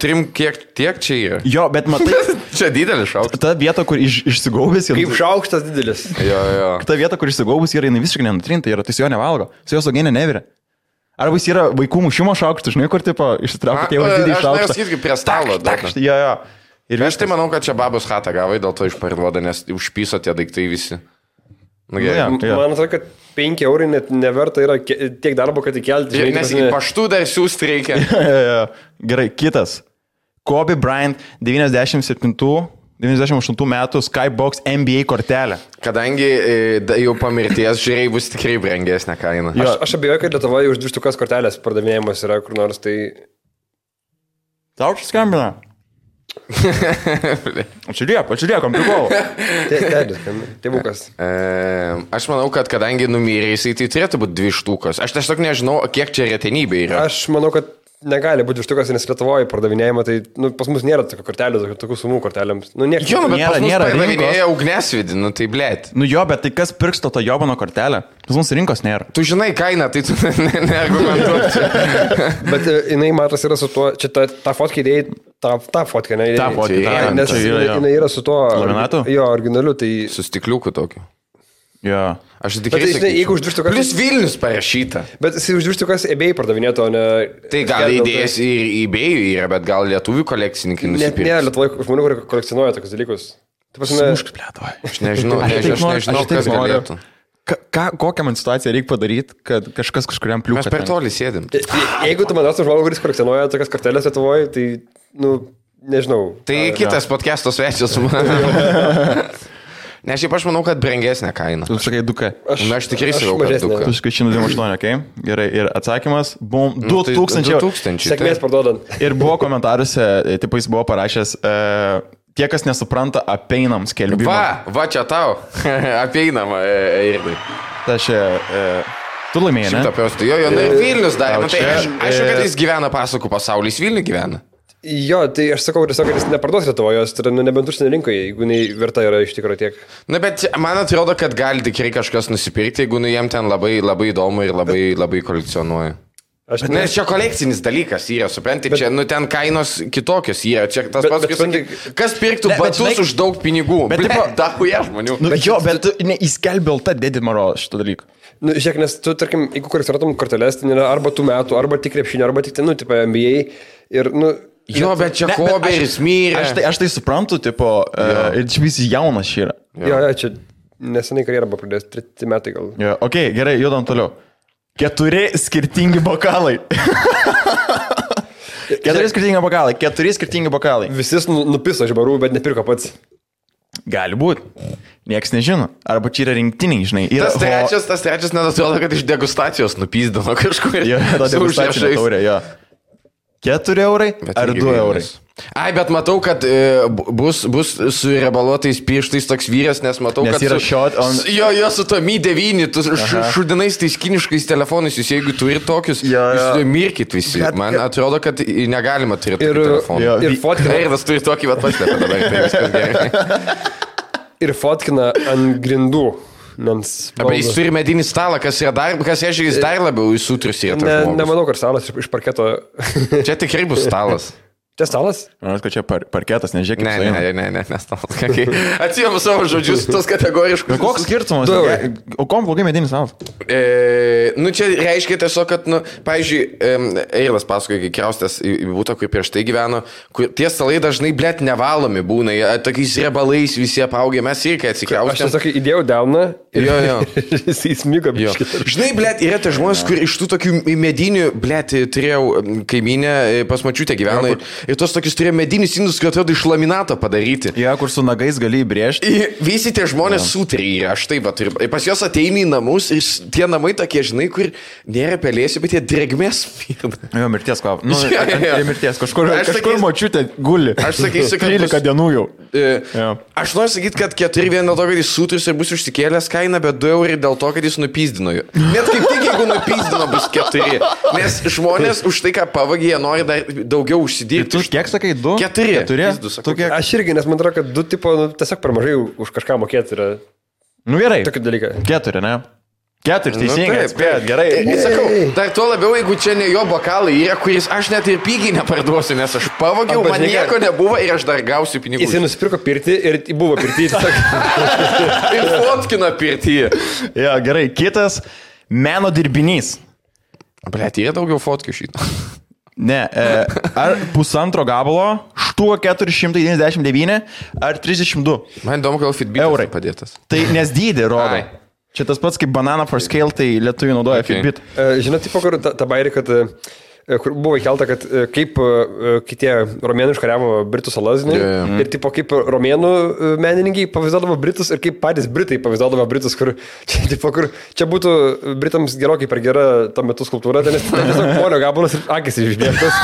3 kiek tiek čia yra? Jo, bet matai... Čia didelis šaukštas. Ta vieta, kur išsigaubęs... Kaip šaukštas didelis. Jo. Ta vieta, kur išsigaubęs yra, jinai visiškai nenutrinta yra, tai su jo nevalgo, su jo saugienė neviria. Arba jis yra vaikų mušimo šaukštas, žinai, kur tipo išsitraukia tėvas didį šaukštą. Aš irgi prie stalo. Jo. Ir aš tai manau, kad čia babos chatą gavai, dėl to išparduoda, nes užpyso tie daiktai visi. Man atrodo, kad 5 eurai net neverta yra tiek darbo, kad įkelti. Nes į paštų dar siūsti reikia. Gerai, kitas. Kobe Bryant 98 metų Skybox NBA kortelė. Kadangi jau po mirties žiūrėjai bus tikrai brangesnė kaina. Aš abejoju, kad Lietuvoje už 2 štukas kortelės pardavinėjimas yra kur nors, tai... Tau čia skambina. Ačiūliekam, prikol. Tėvukas. Aš manau, kad kadangi numirė jisai, tai turėtų būti 2 štukas. Aš tiesiog nežinau, kiek čia retenybė yra. Aš manau, kad negali būti 2 štukas, nes Lietuvoje pardavinėjama, tai pas mus nėra tokių kortelių, tokių sumų kortelėms. Bet nėra pardavinėja ugnesvidį, tai blėt. Jo, bet tai kas pirks to jobano kortelę? Pas mums rinkos nėra. Tu žinai kainą, tai tu neargumentuosi. Bet jinai matos yra su tuo, čia ta fotkė idėjai, ta fotkė, ne? Ta fotkė, nes jinai yra su tuo... Laminatu? Jo, originaliu, tai... Su stikliuku tokiu. Jo. Aš tikrai sakyčiau. Jeigu už 2 štukas... Plius Vilnius parašyta. Bet jis už 2 štukas eBay pardavinėtų, o ne... Tai gal idėjas ir eBay yra, bet gal lietuvių kolekcininkai nusipirks. Ne, Lietuvoje žmonių, kurie kolekcionuoja tokius dalykus. Aš nežinau, kas galėtų. Kokią man situaciją reikia padaryti, kad kažkas kažkuriam pliūpą... Mes per toli sėdim. Jeigu tu manas žmogų, kuris kolekcionuoja tokias kortelės Lietuvoje, tai, nežinau. Tai kitas podcast'o svečias su manimi. Nes šiaip aš manau, kad brangesnė kaina. Tu sakai 2K. Aš tikrai sakau, kad 2K. Tu sakai 128, okei? Gerai, ir atsakymas, bum, 2000 eurų. Sėkmės parduodant. Ir buvo komentaruose, tipo jis buvo parašęs, tie, kas nesupranta apeinam skelbimą. Va čia tau, apeinam, Irdai. Tai čia, tu laimėjai, ne? Jo, ir Vilnius darė. Aišku, kad jis gyvena pasakų pasaulyje, jis Vilnių gyvena. Jo, tai aš sakau tiesiog, kad jis neparduos Lietuvoje, tai yra nebent užsienio rinkoje, jeigu jinai verta yra iš tikrųjų tiek. Na, bet man atrodo, kad gali tikrai kažkas nusipirkti, jeigu jiem ten labai įdomu ir labai kolekcionuoja. Nes čia kolekcinis dalykas yra, supranti, čia ten kainos kitokios yra, čia tas pats, kas pirktų batus už daug pinigų, bet dahuja žmonių. Bet įskelbė LT Dedi Maro šitą dalyką. Žiūrėk, nes tu, tarkim, jeigu kolekcionuotum korteles, tai yra arba tų metų, arba tik krepšinio, arba tik, tipo NBA ir, Jo, bet čia Koberis mirė. Aš tai suprantu, tipo, ir čia visi jaunas čia yra. Jo, čia nesenai karjerą buvo pradėjęs, 3 metai gal. Jo, okei, gerai, judam toliau. 4 skirtingi bokalai. 4 skirtingi bokalai. Visi nupiso iš barų, bet nepirko pats. Gali būti. Nieks nežino. Arba čia yra rinktiniai, žinai. Tas trečias net atrodo, kad iš degustacijos nupizdino kažkur. Jo, ta degustacinė taurė, jo. 4 eurai ar 2 eurai? Ai, bet matau, kad bus su rebaluotais pirštais toks vyras, nes matau, nes kad... yra shot on... Jo, su to Mi 9, tu šudinais tais kiniškais telefonais, jūs jeigu turi tokius, jūs mirkit visi. Man atrodo, kad negalima turėti telefonų. Ir fotkina... Erdas turi tokį paslėpę dabar, tai viskas gerai. Ir fotkina ant grindų. Arba jis turi medinį stalą, kas reiškia, jis dar labiau įsutrius yra. Nemanau, kad stalas iš parketo. Čia tikrai bus stalas. Čia stalas? Manau, kad čia parketas, nežiūrėk. Ne, stalas. Atsijamu savo žodžius, tos kategoriškus. Koks skirtumas? O kom blogai medinis stalas? Čia reiškia tiesiog, kad, pavyzdžiui, Eilas pasakoja, kai kraustės į būtą, kur prieš tai gyveno, kur tie stalai dažnai, blėt, nevalomi būna, tokiais rebalais visi apaugė, mes irgi atsikraustėm. Aš tiesiog įdėjau delną ir jis įsmigo biškį. Žinai, blėt, yra tie žmonės, kur iš tų tokių medinių, blėt, turėjau kaiminę, pas mačiutę gyveno ir tos tokius turėjo medinius indus, kurie atrodo iš laminato padaryti. Ja, kur su nagais gali įbrėžti. Visi tie žmonės sutrį yra, aš taip pat. Ir pas juos ateini į namus ir tie namai tokie, žinai, kur nėra pelėsių, bet jie drėgmės mirda. Jo, mirties kvap. Nu, mirties. Kažkur močiutė guli. Aš sakysiu, kad 13 dienų jau. Aš noriu sakyti, kad 4 vien dėl to, kad jis sutris ir bus užsikėlęs kainą, bet 2 eurai dėl to, kad jis nupyzdino jų. Net kaip tik, jeigu nupyzdino, bus 4. Nes žmonės už tai, ką pavagė, jie nori dar daugiau užsidirbti. Tu kiek sakai, 2? 4. Aš irgi, nes man atrodo, kad 2 tipo tiesiog per mažai už kažką mokėti yra. Nu gerai. Tokį dalyką. 4, ne? 4, teisingai, atspėjot, gerai. Sakau, dar tuo labiau, jeigu čia ne jo bokalai yra, kuris aš net ir pigiai neparduosiu, nes aš pavogiau, man nieko nebuvo ir aš dar gausiu pinigų. Jis nusipirko pirtį ir buvo pirtį. Ir fotkino pirtį. Ja, gerai, kitas meno dirbinys. Blet, yra daugiau fotkų šitą. Ne, ar 1,5 gabalo, štuo 499 ar 32 Man įdomu, gal Fitbitas padėtas. Tai nes dydį rodo. Čia tas pats kaip Banana for Scale, tai lietuvių naudoja Fitbit. Žinot, tipo, kur ta bairė, kad kur buvo įkelta, kad kaip kitie romėnų iškariavo Britų salas, ir tipo, kaip romėnų menininkai pavaizduodavo Britus ir kaip patys Britai pavaizduodavo Britus, kur čia būtų Britams gerokai per gera tuo metu skulptūra, tai nes tiesiog polio gabalas ir akis išbėgtas.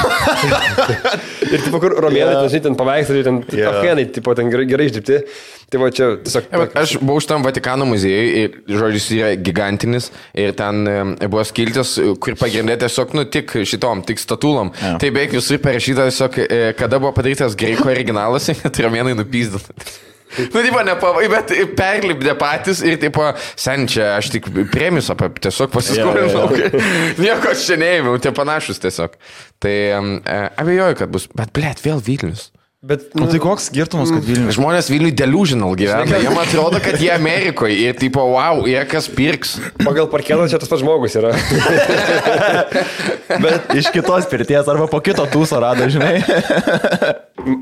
Ir tipo, kur romėnai, ten paveikslai, ten afganai, tipo, ten gerai išdirbti. Tai va čia tiesiog... Aš buvau šitam Vatikano muziejui ir, žodžiu, jis yra gigantinis ir ten buvo skiltis, kur pagrindė tiesiog, tik šitom, tik statulom. Tai beveik visur parašyta tiesiog, kada buvo padarytas graikų originalas, kad romėnai nupyzdino. Tipo, nepavai, bet perlipdė patys ir, tipo, sen čia aš tik premius tiesiog pasiskolinau. Nieko aš čia neėmiau, tie panašus tiesiog. Tai abejoju, kad bus, bet, blėt, vėl Vilnius. Bet, tai koks skirtumas, kad Vilnius? Žmonės Vilniui delusional gyvena. Jiem atrodo, kad jie Amerikoje ir tipo, wow, jie kas pirks. Pagal parkelą čia tas pats žmogus yra. Bet iš kitos pirties arba po kito tūso rado, žinai.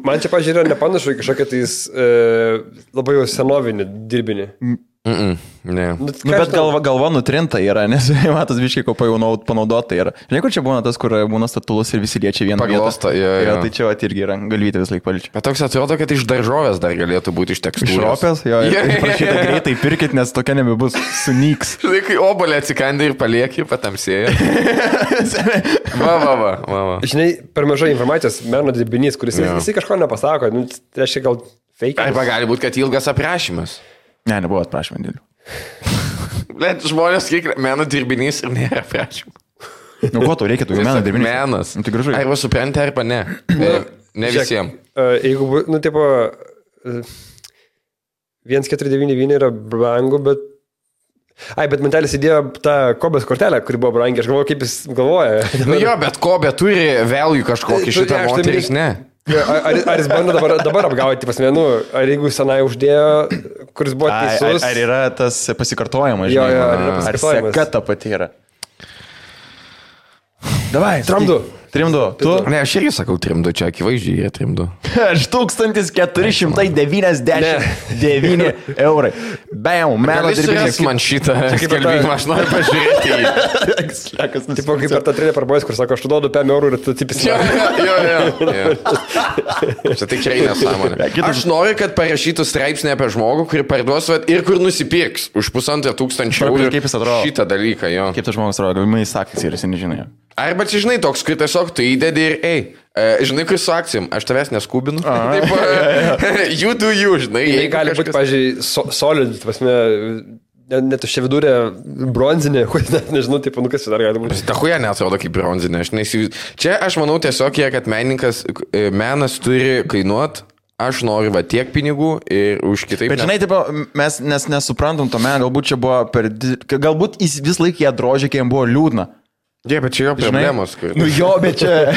Man čia, pažiūrėjau, nepanašu į kažkokią tais labai jau senovinį dirbinį. Ne. Bet galva nutrinta yra, nes matas biškai ko panaudota yra. Žinai, kur čia būna tas, kur būna statulus ir visi liečia vieną vietą. Tai čia irgi yra, galvyti vis laik paličia. Bet toks atrodo, kad iš daržovės dar galėtų būti iš tekstūros. Iš ropės, jo. Prašyta greitai pirkit, nes tokia nebebus, sunyks. Žinai, kai obolė atsikandė ir palieki, patamsėjo. Va. Žinai, per mažai informacijos meno dirbinys, kuris visi kažko nepasako, tai reiškia gal fake. Arba gali būti, kad ilgas aprašymas. Ne, nebuvo aprašymą dėlių. Bet žmonės kiek meno dirbinys ir nėra aprašymą. Nu, ko tau reikia, tu meno dirbinys? Menas. Tai gražu. Arba supranti, arba ne. Ne visiems. Jeigu, tipo, 1,499 yra brangu, bet... Bet mantelis įdėjo tą Kobės kortelę, kuri buvo brangi. Aš galvoju, kaip jis galvoja. Jo, bet Kobė turi value kažkokį šitą moteris, ne? Ar jis bando dabar apgauti pas menu, ar jeigu senai uždėjo, kuris buvo teisus. Ar yra tas pasikartojimas, žinai? Jo, ar yra pasikartojimas. Ar seka ta pati yra. Davai, Trimdu. Tu? Ne, aš irgi sakau trimdu, čia akivaizdžiai yra trimdu. Aš 1499 eurai. Bam, meno dirbinys. Man šitą skelbimą, aš noriu pažiūrėti jį. Tipo kaip per tą trinę parbojus, kur sako, aš tu duodu 5 eurų ir tu tipisi. Jo. Čia tikrai nesąmonė. Aš noriu, kad parašytų straipsnį apie žmogų, kurį parduos ir kur nusipirks už 1500 eurų šitą dalyką. Kaip tas žmogus atrodo, galimai sakys ir jis nežinai. Arba čia, žinai, toks, kur tiesiog tu įdedi ir žinai, kur su akcijom, aš tavęs neskubinu. Taip, you do you, žinai. Jei gali būti, pažiūrėjau, solid, pasme, net už čia vidurė bronzinė, nežinau, taip, kas čia dar gali būti. Ta huja neatrodo kaip bronzinė. Čia aš manau tiesiog, kad menas turi kainuoti. Aš noriu tiek pinigų ir už kitaip. Bet žinai, tipo, mes nesuprantam to meną, galbūt čia buvo galbūt jis vis laik ją drožė, kai jam buvo liūdna. Jie, bet čia jo problemos. Nu jo, bet čia...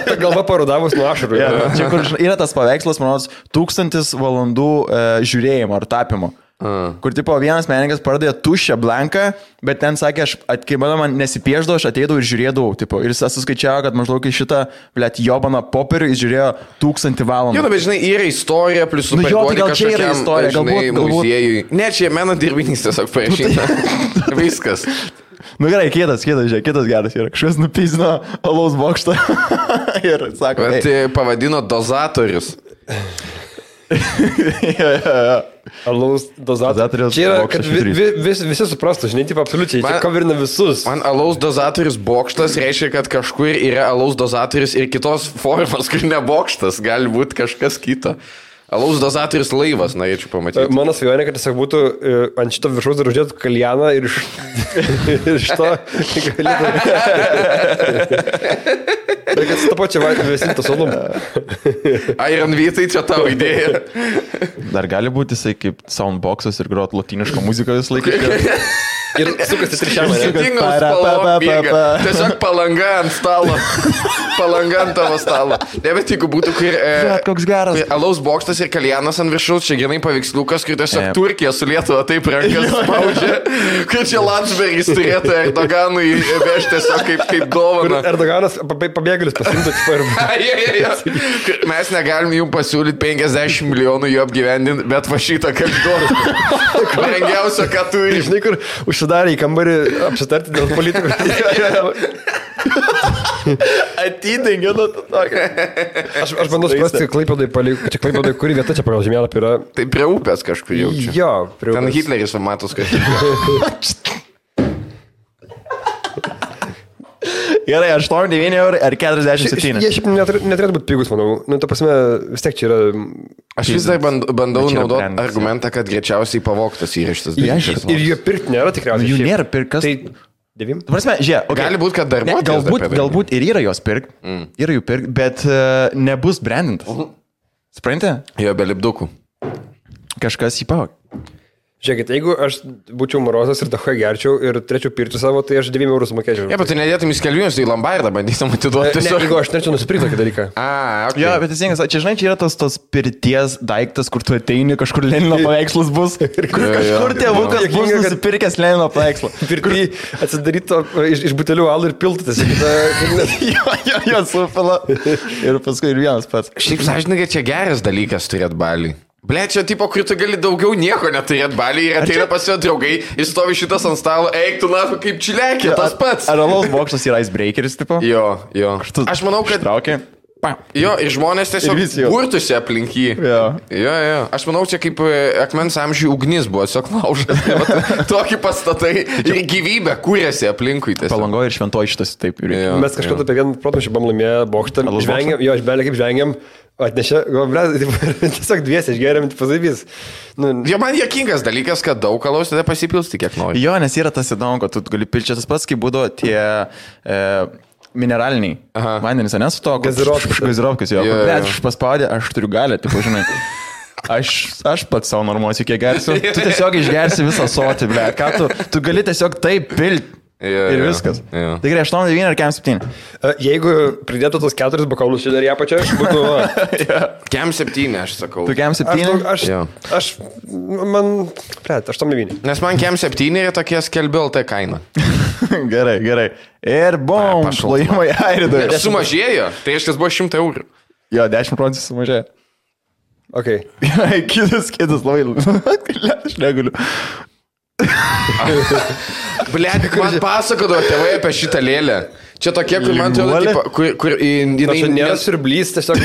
Ta galva parudavus nuo ašarų. Čia kur yra tas paveikslas, manau, 1000 valandų žiūrėjimo ar tapimo. Kur, tipo, vienas menininkas pardavė tuščią blanką, bet ten sakė, kai man nesipieždavo, aš ateidavau ir žiūrėdavau, tipo, ir jis suskaičiavo, kad maždaug į šitą, jobaną popierių jis žiūrėjo 1000 valandų. Jo, bet žinai, yra istorija, plus superduodi kažkokiam, žinai, muziejui. Ne, čia meno dirbinys tiesiog parašyta. Viskas. Nu gerai, kitas geras yra. Kažkas nupizino alaus bokštą ir sako, Bet pavadino dozatorius. Alaus dozatorius. Čia yra, kad visi suprastų, žinai, taip absoliučiai, čia coverina visus. Man alaus dozatorius bokštas reiškia, kad kažkur yra alaus dozatorius ir kitos formos, kur ne bokštas, gali būti kažkas kito. Alaus dozatorius laivas, norėčiau pamatyti. Mano svajonė, kad tiesiog būtų ant šito viršaus dar uždėtų kaljaną ir iš to galėtų... Ir kad su to pačiu vėsintas olum. Iron Vytai, čia tavo idėja. Dar gali būti jisai kaip soundboxas ir grot lotynišką muziką vis laiką. Ir sukasi trišiamą. Skirtingos spalvos bėga. Tiesiog palanga ant stalo. Palanga ant tavo stalo. Ne, bet jeigu būtų, kur... koks geras. Alaus bokštas ir kaljanas ant viršaus, čia grinai paveiksliukas, kur tiesiog Turkija su Lietuva taip rankas spaudžia, kur čia Landsbergis turėtų Erdoganui vežti tiesiog kaip dovaną. Erdoganas pabėgėlis pasimtų tipo. Mes negalim jums pasiūlyti 50 milijonų jų apgyvendinti, bet va šitą kaip duoną. Brangiausia, ką turi. Žinai, kur užsidarė į kambarį apsitarti dėl politikų. Atidengė nuo to tokio. Aš bandau suprasti, Klaipėdai, kuri vieta čia pagal žemėlapį yra. Tai prie upės kažkur jaučiu. Jo, prie upės. Ten Hitleris matos kažkur. Gerai, 8-9 eurų ar 47. Jie šiaip neturėtų būti pigus, manau. Nu, ta prasme, vis tiek čia yra... Aš vis dar bandau naudoti argumentą, kad greičiausiai pavogtas yra šitas dalykas. Ir jų pirkti nėra tikriausiai. Jų nėra pirkas. Tai 9? Prasme, žiūrėk, okay. Gali būti, kad darbuotojas. Galbūt ir yra jos pirk, yra jų pirk, bet nebus brandintas. Supranti? Jo, be lipdukų. Kažkas jį pavog. Žiūrėkit, jeigu aš būčiau morozas ir dahoje gerčiau ir turėčiau pirti savo, tai aš 9 eurų sumokėčiau. Ne, bet tu nedėtum į skelbimus į Lombardą, bandytum atiduoti. Ne, jeigu aš norėčiau nusipirkti tokį dalyką. Okay. Jo, bet teisingas, čia žinai, čia yra tos pirties daiktas, kur tu ateini, kažkur Lenino paveikslas bus. Kažkur tėvukas bus nusipirkęs Lenino paveikslą. Pirkti atsidaryto iš butelių alų ir piltas. Jo, supila. Ir paskui ir vienas pats. Šiaip sąžininkai, čia geras dalykas turėti balį. Ble, čia tipo, kur tu gali daugiau nieko neturėti balį ir ateina pas jo draugai, jis stovi šitas ant stalo, eik tu nafu kaip čilekė, tas pats. Ar alaus bokštas yra icebreakeris, tipo? Jo. Aš manau, kad... Traukė. Jo, ir žmonės tiesiog burtusi aplink jį. Jo. Aš manau, čia kaip akmens amžiui ugnis buvo, tiesiog laužas. Tokį pastatai ir gyvybę kūrėsi aplinkui. Palangoje ir Šventoji šitas taip. Mes kažkada apie vieną protmūšį buvom laimėję bokštą. Jo, aš belė kaip žvengiam. Atnešė, tiesiog dviesi išgeriam, pasavys. Jo, man juokingas dalykas, kad daug alaus tada pasipilsti, kiek nori. Jo, nes yra tas įdomu, kad tu gali pilti tas pats, kaip būdavo tie mineraliniai vandenys, nes to gazirovkis, jo. Bet aš paspaudė, aš turiu galę, taip žinai. Aš pats savo normuosiu, kiek gersiu. Tu tiesiog išgersi visą sotį, ble. Ką tu gali tiesiog taip pilti. Ir viskas. Tai gerai, 8-9 ar 7? Jeigu pridėtų tos 4 bokalus čia dar ją pačią, būtų... Kem 7, aš sakau. Tu kem 7? Man... 8-9. Nes man kem 7 yra tokie skelbiau tai kaina. Gerai. Ir bom, plojimai airidai. Sumažėjo, tai iškas buvo 100 eurų. Jo, 10% sumažėjo. Ok. Kitas labai... Aš negaliu. Blet, man pasakodavo tėvai apie šitą lėlę. Čia tokie, kur man atrodo, kur jinai nėra siurblys, tiesiog...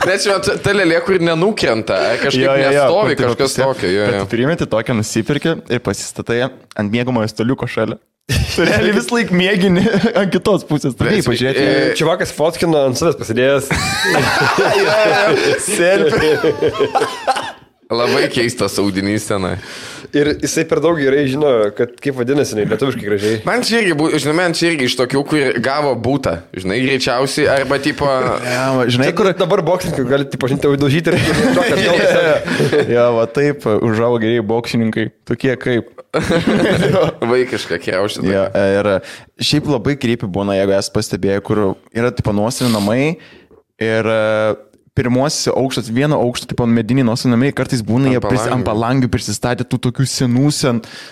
Bet čia ta lėlė, kur nenukrenta, kažkaip nestovi, kažkas tokio. Tu primeti tokią, nusipirki ir pasistatai ant miegamojo staliuko šalia. Tu realiai vis laik mėgini ant kitos pusės. Taip, pažiūrėti. Čivakas fotkino ant savęs pasidėjęs. Selfie. Labai keistas audinys tenai. Ir jisai per daug gerai žino, kad kaip vadinasi, lietuviškai gražiai. Man čia irgi iš tokių, kur gavo būtą, žinai, greičiausiai, arba tipo... Žinai, kur dabar boksininkai gali, tipo, žinai, daužyti ir... Jo, va taip, užaugo geriai boksininkai, tokie kaip... Vaikiška kriaušė. Jo, ir šiaip labai kreipi būna, jeigu esi pastebėję, kur yra, tipo, nuosavį namai ir... Pirmuosiuose aukštas, vieno aukšto, tipo, mediniai nuosinamai, kartais būna jie ant palangių prisistatė tų tokių senų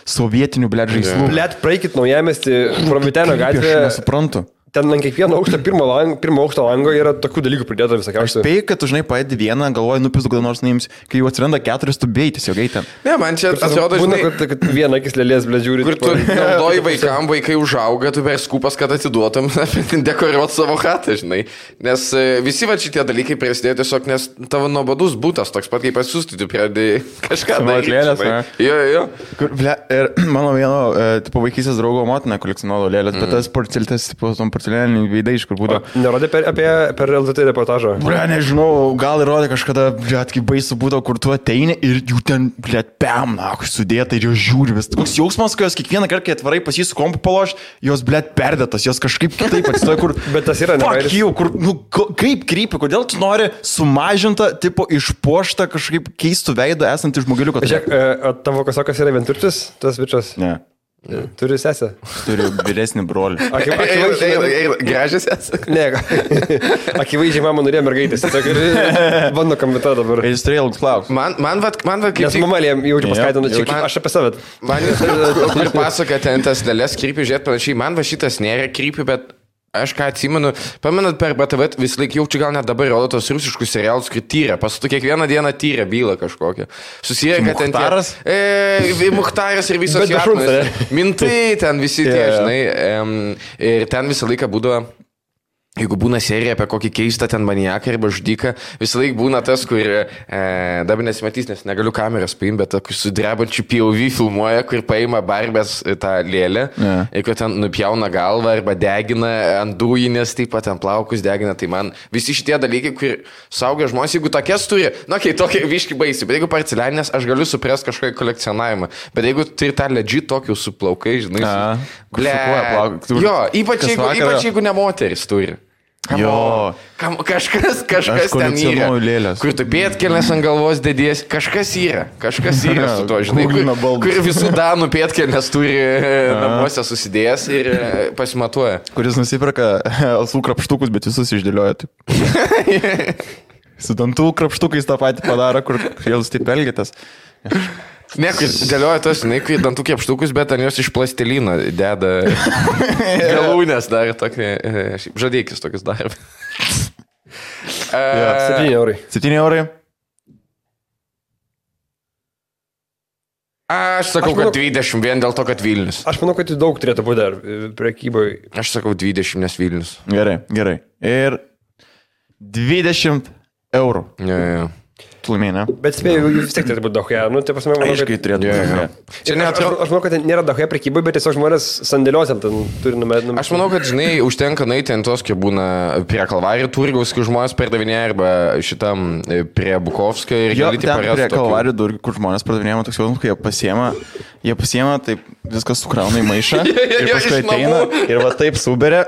sovietinių, blėt, žaislų. Blėt, praeikit naujamestį, Prometeno gatvėje. Aš nesuprantu. ten ant kiekvieno aukšto pirmo aukšto lango yra tokių dalykų pridėta visokiausių. Spėjai, kad tu žinai paėdi vieną, galvoji, nupis kada nors naims, kai jau atsiranda 4, tu bėjai tiesiog eiti ten. Ne, man čia atrodo, žinai, žinai, kad viena akis lėlės, ble, žiūri. kur tu naudoji vaikai užauga, tu per skupas, kad atiduotum, dekoruot savo chatą, žinai. Nes visi va šitie dalykai prasidėjo tiesiog, nes tavo nuobodus būtas, toks pat kaip pasiūsti, tu pradėjai kažką daryti. Jo. Kur, ble, ir mano vieno, tipo, vaikysės draugo motina kolekcionuodavo lėlės, bet tas porcelėtas, tipo, tom porcelianiniai veidai, iš kur būdavo. Nerodė per LTT reportažą. Ble, nežinau, gal įrodė kažkada, ble, kaip baisu būdavo, kur tu ateini ir jų ten, ble, pem, na, sudėta ir jos žiūri vis. Toks jausmas, kai jos kiekvieną kartą, kai atvarai pas jį su kompu paloš, jos, ble, perdėtas, jos kažkaip kitaip atsistoja, kur... Bet tas yra nevairis. Kur, nu, kaip krypi, kodėl tu nori sumažintą, tipo, išpuoštą kažkaip keistų veidą esantį žmogeliuką? Žiūrėk, tavo kasokas yra vienturtis, tas bičias? Ne. Turi sesę? Turiu vyresnį brolį. Gražias esi? Ne, akivaizdžiai mama norėjo mergaitės. Bando kamita dabar. Jis turėjo ilgus klausimus. Man kaip... Nes mama jaučiu paskaitinu, čia aš apie save. Man ir pasaka ten tas lėlės krypį, žiūrėt panašiai, man va šitas nėra krypį, bet aš ką atsimenu, pamenat per BTV vis laik jaučiu, gal net dabar rodo tos rusiškus serialus, kur tyria, pasatų kiekvieną dieną tyria bylą kažkokią. Susiję, kad ten... Muchtaras? Muchtaras ir visos jatmas. Mintai ten visi tie, žinai. Ir ten visą laiką būdavo... Jeigu būna serija apie kokį keistą ten maniaką arba žudiką, visą laiką būna tas, kur dabar nesimatys, nes negaliu kameros paimti, bet su drebančiu POV filmuoja, kur paima barbės tą lėlę, ir kur ten nupjauna galvą arba degina ant dujinės, taip pat ant plaukus degina. Tai man visi šitie dalykai, kur saugia žmonės, jeigu tokias turi, tokie viški baisi, bet jeigu porcelianinės, aš galiu suprasti kažkokį kolekcionavimą, bet jeigu turi tą legit tokių su plaukai, žinai, jo, ypač jeigu ne moteris turi. Jo. Kažkas ten yra. Kur tu pėtkelnes ant galvos dėdės, kažkas yra su to, žinai, kur visų danų pėtkelnes turi namuose susidėjęs ir pasimatuoja. Kuris nusipirka alsų krapštukus, bet visus išdėlioja taip. Su dantų krapštukais tą patį padaro, kur jūs taip elgitės. Ne, kai dėlioja tos, kai dantų krapštukus, bet ant jos iš plastelino deda galūnės dar tokį, žadėkis tokius dar. 7 eurai. 7 eurai. Aš sakau, kad 20 vien dėl to, kad Vilnius. Aš manau, kad daug turėtų būti dar prekyboje. Aš sakau 20, nes Vilnius. Gerai. Ir 20 eurų. Jo. Laimėjai, ne? Bet spėjau, vis tiek turėtų būti dahoje. Nu, tai pasime, manau, aiškiai turėtų būti. Aš manau, kad nėra dahoje prekybai, bet tiesiog žmonės sandėliuose ten turi numetę. Aš manau, kad, žinai, užtenka nueiti ant tos, kai būna prie Kalvarijų turgaus, kai žmonės pardavinėja, arba šitam prie Bukovskio ir gali tik parėti. Prie Kalvarijų turgaus, kur žmonės pardavinėja, toks jausmas, kai jie pasiema, taip viskas sukrauna į maišą ir paskui ateina ir va taip suberia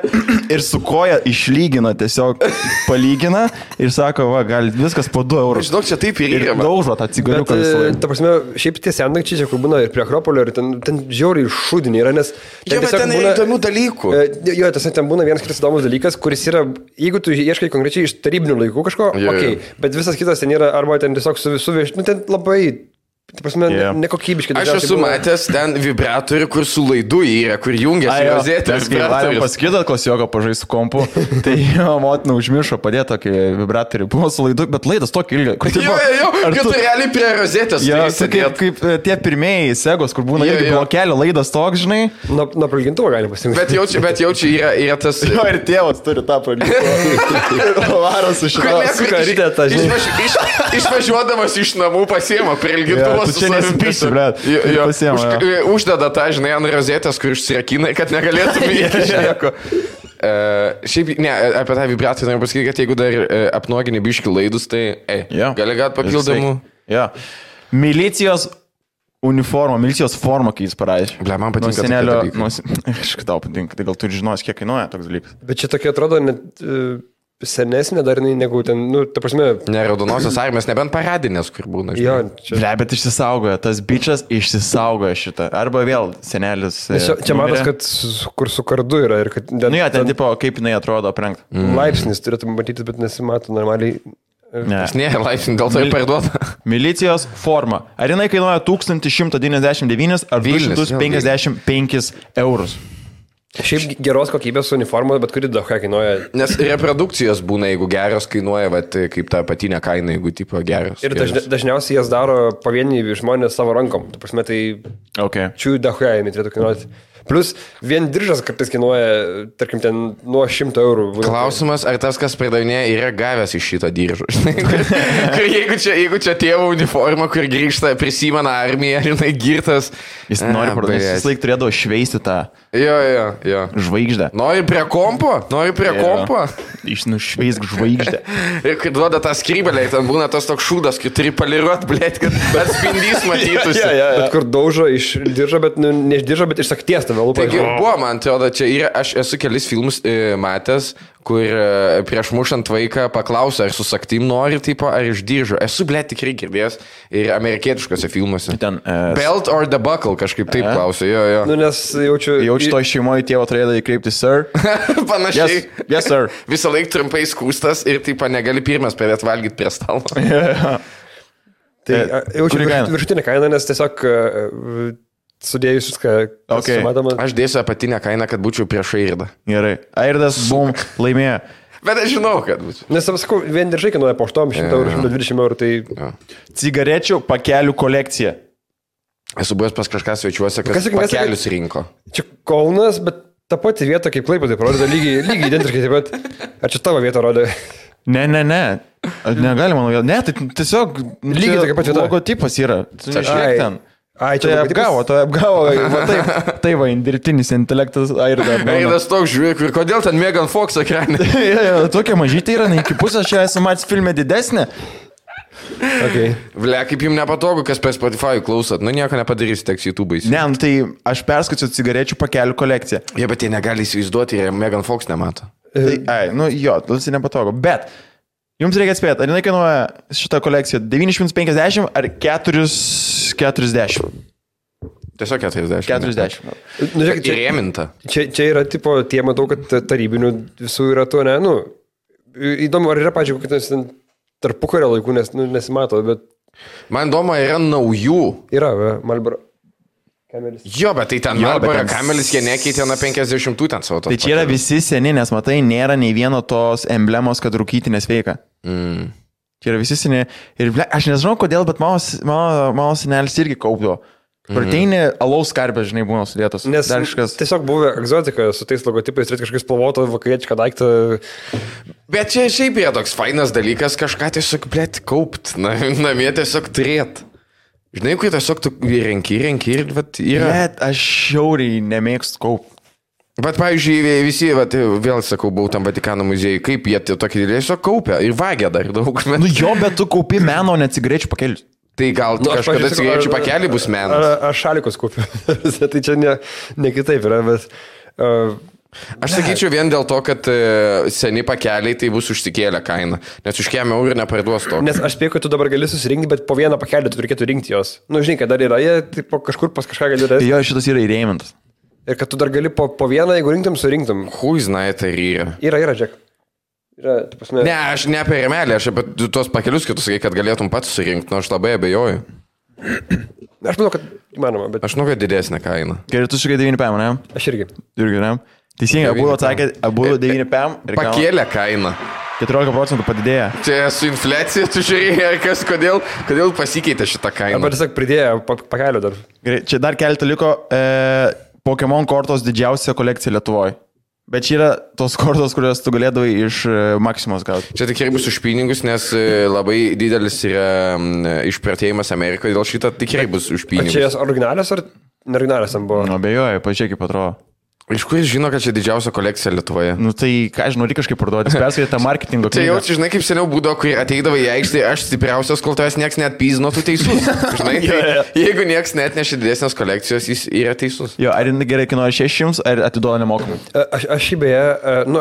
ir su koja išlygina, tiesiog palygina ir sako, va, gal viskas po 2 eurus. Žinok, čia taip ir yra. Daužo tą cigariuką visą laiką. Ta prasme, šiaip tie sendakčiai čia, kur būna ir prie Akropolio, ir ten žiauriai šūdiniai yra, nes... Jo, bet ten yra įdomių dalykų. Jo, ten būna vienas kitas įdomus dalykas, kuris yra, jeigu tu ieškai konkrečiai iš tarybinių laikų kažko, okei, bet visas kitas ten yra, arba ten tiesiog suvieš, nu ten labai... Tai prasme, nekokybiškai. Aš esu matęs ten vibratorių, kur su laidu yra, kur jungiasi rozetė. Mes kai paskaitot klasioką pažaistų kompu, tai jo motina užmiršo padėti tokį vibratorių. Buvo su laidu, bet laidas tokį ilgą. Jo, kad tu realiai prie rozetės. Kaip tie pirmieji segos, kur būna irgi blokelio laidas toks, žinai. Nuo prailgintuvo galima pasirinkti. Bet jaučiu yra tas... Jo, ir tėvas turi tą prailgintuvą. Varas su karytė tą, žinai. Išvažiuodamas iš namų pasiema prailgintuvą. Tu čia nesipysi, blet. Uždeda tą, žinai, ant rozetės, kur išsirakina, kad negalėtum įeiti nieko. Šiaip, ne, apie tą vibraciją noriu pasakyti, kad jeigu dar apnuogini biški laidus, tai gali gauti papildomų. Milicijos uniforma, milicijos forma, kai jis parašė. Ble, man patinka senelio, aš tau patinka, tai gal tu žinosi, kiek kainuoja toks dalykas. Bet čia tokia atrodo net... senesnė dar negu ten, nu, ta prasme... Ne, raudonosios armijos, nebent paradinės, kur būna. Jo, čia... Ble, bet išsisaugoja, tas bičas išsisaugoja šitą. Arba vėl senelis... Čia matas, kad kur su kardu yra ir kad... Nu jo, ten tipo, kaip jinai atrodo aprengta. Laipsnis turėtų matyti, bet nesimato normaliai. Nes nėra laipsnis, dėl to ir parduoda. Milicijos forma. Ar jinai kainuoja 1199 ar 255 eurus? Šiaip geros kokybės uniformos, bet kuri daug ką kainuoja. Nes reprodukcijos būna, jeigu geros kainuoja, vat, kaip ta patinė kaina, jeigu tipo geros. Ir dažniausiai jas daro pavieniai žmonės savo rankom. Tu prasme, tai čiū daug ką jie turėtų kainuoti. Plus, vien diržas kartais kainuoja, tarkim, ten nuo 100 eurų. Klausimas, ar tas, kas pardavinėja, yra gavęs iš šito diržo. jeigu čia tėvo uniforma, kur grįžta, prisimena armiją, žinai, girtas. Jis nori pardavinėti, jis laik turėdavo šveisti tą žvaigždę. Nori prie kompo? Nušveisk žvaigždę. Ir kai duoda tą skrybelę, ten būna tas toks šūdas, kai turi poliruot, blėt, kad atspindys matytųsi. Bet kur daužo iš diržo, bet ne iš diržo, bet iš sakties. Taigi buvo, man atrodo, čia yra, aš esu kelis filmus matęs, kur prieš mušant vaiką paklausia, ar su saktim nori, tipo, ar iš diržo. Esu, blėt, tikrai girdėjęs ir amerikietiškose filmuose. Belt or the buckle, kažkaip taip klausia, jo. Nu, nes jaučiu to šeimoje tėvo turėdavo įkreipti, sir. Panašiai. Yes, sir. Visą laiką trumpai skūstas ir, tipo, negali pirmas pradėti valgyti prie stalo. Tai jaučiu viršutinę kainą, nes tiesiog sudėjus viską, sumatoma. Aš dėsiu apatinę kainą, kad būčiau prieš Airdą. Gerai. Airdas, bum, laimėjo. Bet aš žinau, kad būčiau. Nes, sakau, vien diržai kainuoja po 800 eurų, 120 eurų, tai... Cigarečių pakelių kolekcija. Esu buvęs pas kažką svečiuose, kas pakelius rinko. Čia Kaunas, bet ta pati vieta, kaip Klaipėda, parodo lygiai identiškai taip pat. Ar čia tavo vieta rodė? Ne. Negalima nuo vėl. Ne, tai tiesiog... Lygiai tokia pati vieta. Logotipas yra. Tu nežiūrėk ten. Tai apgavo, tai va, dirbtinis intelektas Airdas toks žiūrėk, ir kodėl ten Megan Fox ekranė? Tokia mažytė yra, iki pusės čia esu matęs filme didesnė. Ble, kaip jums nepatogu, kas per Spotify klausot, nu nieko nepadarysi, teks YouTube'ais. Ne, tai aš perskaičiu cigarečių pakelių kolekciją. Bet jie negali įsivaizduoti ir Megan Fox nemato. Tas nepatogu, bet... Jums reikia atspėti, ar jinai kainuoja šitą kolekciją 950 ar 440? Tiesiog 40. 40. Nu, žiūrėk, įrėminta. Čia yra, tipo, tie matau, kad tarybinių visų yra to, ne, nu, įdomu, ar yra, pažiūrėjau, kad tarpukario laikų, nes nesimato, bet... Man įdomu, yra naujų. Yra, Marlboro. Kamelis. Jo, bet tai ten Marlboro kamelis, jie nekeitė nuo 50 ten savo tos. Tai čia yra visi seni, nes matai, nėra nei vieno tos emblemos, kad rūkyti nesveika. Čia yra visi seni. Ir aš nežinau kodėl, bet mano senelis irgi kaupdavo. Prateini alaus karpės, žinai, būna sudėtos. Nes tiesiog buvo egzotika su tais logotipais, turėti kažkokį spalvotą vakarietišką daiktą. Bet čia šiaip yra toks fainas dalykas, kažką tiesiog, blėt, kaupt. Namie tiesiog turėt. Žinai, kai tiesiog tu renki ir vat, yra. Bet aš šiauriai nemėgstu kaup. Bet, pavyzdžiui, visi, vat, vėl sakau, buvau tam Vatikano muziejui, kaip jie tokį tiesiog kaupia ir vagia dar daug. Nu jo, bet tu kaupi meno, ne cigarečių pakelius. Tai gal kažkada cigarečių pakelį bus menas. Aš šalikus kaupiu. Tai čia ne kitaip yra, bet... Aš sakyčiau vien dėl to, kad seni pakeliai tai bus užsikėlę kainą, nes už kiek eurų neparduos to. Nes aš spėju, kad tu dabar gali susirinkti, bet po vieną pakelį tu reikėtų rinkti jos. Nu, žinai, kad dar yra, jie taip, kažkur pas kažką gali rasti. Jo, šitas yra įrėmintas. Ir kad tu dar gali po vieną, jeigu rinktum, surinktum. Huiznai tai yra. Yra, Džek. Ne, aš ne apie remelį, aš apie tuos pakelius, kad tu sakai, kad galėtum pats surinkti, nors labai abejoju. Aš manau, kad įmanoma, bet... Aš manau, kad didesnė kaina. Gerai, tu sakai 9 PM, ne? Aš irgi. Ne? Teisingai, abu atsakė, abu 9 PM. Pakėlė kainą. 14% padidėjo. Čia su infliacija, tu žiūrėjai, kodėl pasikeitė šitą kainą. Arba tiesiog pridėjo pakelio dar. Gerai, čia dar keletą liko. Pokemon kortos didžiausia kolekcija Lietuvoje. Bet čia yra tos kortos, kurios tu galėdavai iš Maximos gauti. Čia tikrai bus už pinigus, nes labai didelis yra išpratėjimas Amerikoje, dėl šito tikrai bus už pinigus. Čia jas originalios ar neoriginalios tam buvo? Nu, abejoju, pažiūrėk, kaip atrodo. Iš kur jis žino, kad čia didžiausia kolekcija Lietuvoje? Nu tai, ką žinau, reikia kažkaip parduoti, perskaitė tą marketingo knygą. Tai jau, žinai, kaip seniau būdavo, kai ateidavo į aikštę, aš stipriausias, kol tavęs nieks net pyzino, tu teisus. Žinai, jeigu nieks net nešė didesnės kolekcijos, jis yra teisus. Jo, ar gerai kainuoja 600, ar atiduoda nemokamai? Aš šį beje,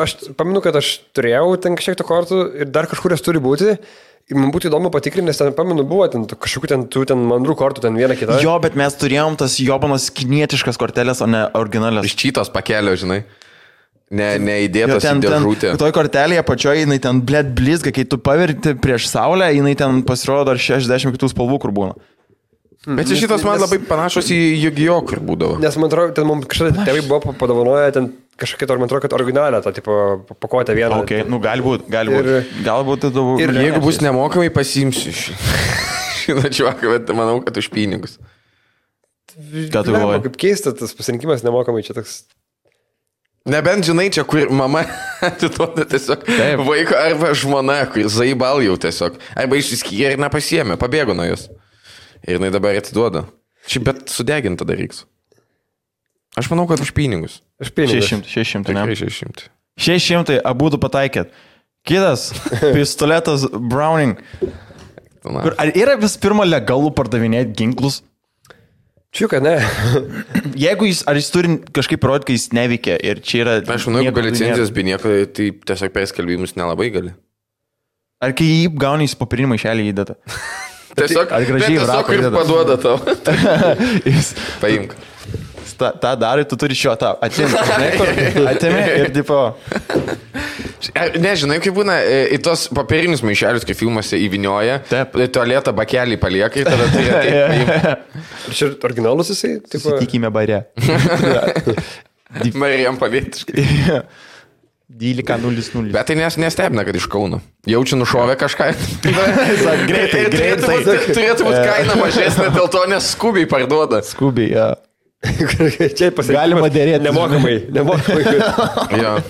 aš pamenu, kad aš turėjau ten kažkiek tų kortų ir dar kažkur jas turi būti. Ir man būtų įdomu patikrinti, nes ten, pamenu, buvo ten kažkokių ten mandrų kortų, ten vieną kitą. Jo, bet mes turėjom tas jobanos kinietiškas kortelės, o ne originalias. Iš čytos pakelio, žinai. Neįdėtas į dėžutę. Toj kortelėje pačioje, jinai ten blėt blizga, kai tu paverti prieš saulę, jinai ten pasirodo dar 60 kitų spalvų, kur būna. Bet šitos man labai panašos į Yu-Gi-Oh, kur būdavo. Nes man atrodo, ten mums kažkada tėvai buvo padovanoję ten kažkokia, man atrodo, kad originalią, tą tipo pakuotę vieną. Okay, nu galbūt. Galbūt tai daug. Ir jeigu bus nemokamai, pasiimsiu šitą čiuoką, bet manau, kad už pinigus. Ką tu galvoji? Kaip keista, tas pasirinkimas nemokamai čia toks. Nebent žinai, čia kur mama atiduoda tiesiog vaiko arba žmona, kur zaibal jau tiesiog. Arba išsiskyrė ir nepasiėmė, pabėgo nuo jos. Ir jinai dabar atiduoda. Šiaip bet sudeginta dar reiks. Aš manau, kad už pinigus. Už pinigus. 600, ne? 600. 600, abudu pataikėt. Kitas, pistoletas Browning. Ar yra vis pirma legalų pardavinėti ginklus? Čiuka, ne. Jeigu jis turi kažkaip parodyti, kai jis neveikia ir čia yra... Aš manau, jeigu be licenzijos, be nieko, tai tiesiog perskelbimus nelabai gali. Ar kai jį gauni, jis popierinį maišelį įdeda? Tiesiog, ar gražiai tiesiog ir paduoda tau. Paimk. tą darai, tu turi šio tą atėmė ir tipo... Nežinai, kaip būna, į tos papirinius maišelius, kai filmuose įvinioja, tualetą bakelį palieka ir tada tai yra. Ir čia originalus jisai? Susitikime bare. Marijam pavietiškai. 12.00. Bet tai nestebina, kad iš Kauno. Jaučiu nušovę kažką. Greitai. Turėtų būti kaina mažesnė, dėl to nes skubiai parduoda. Skubiai, ja. Čia pasirinkti. Galima dėrėti. Nemokamai.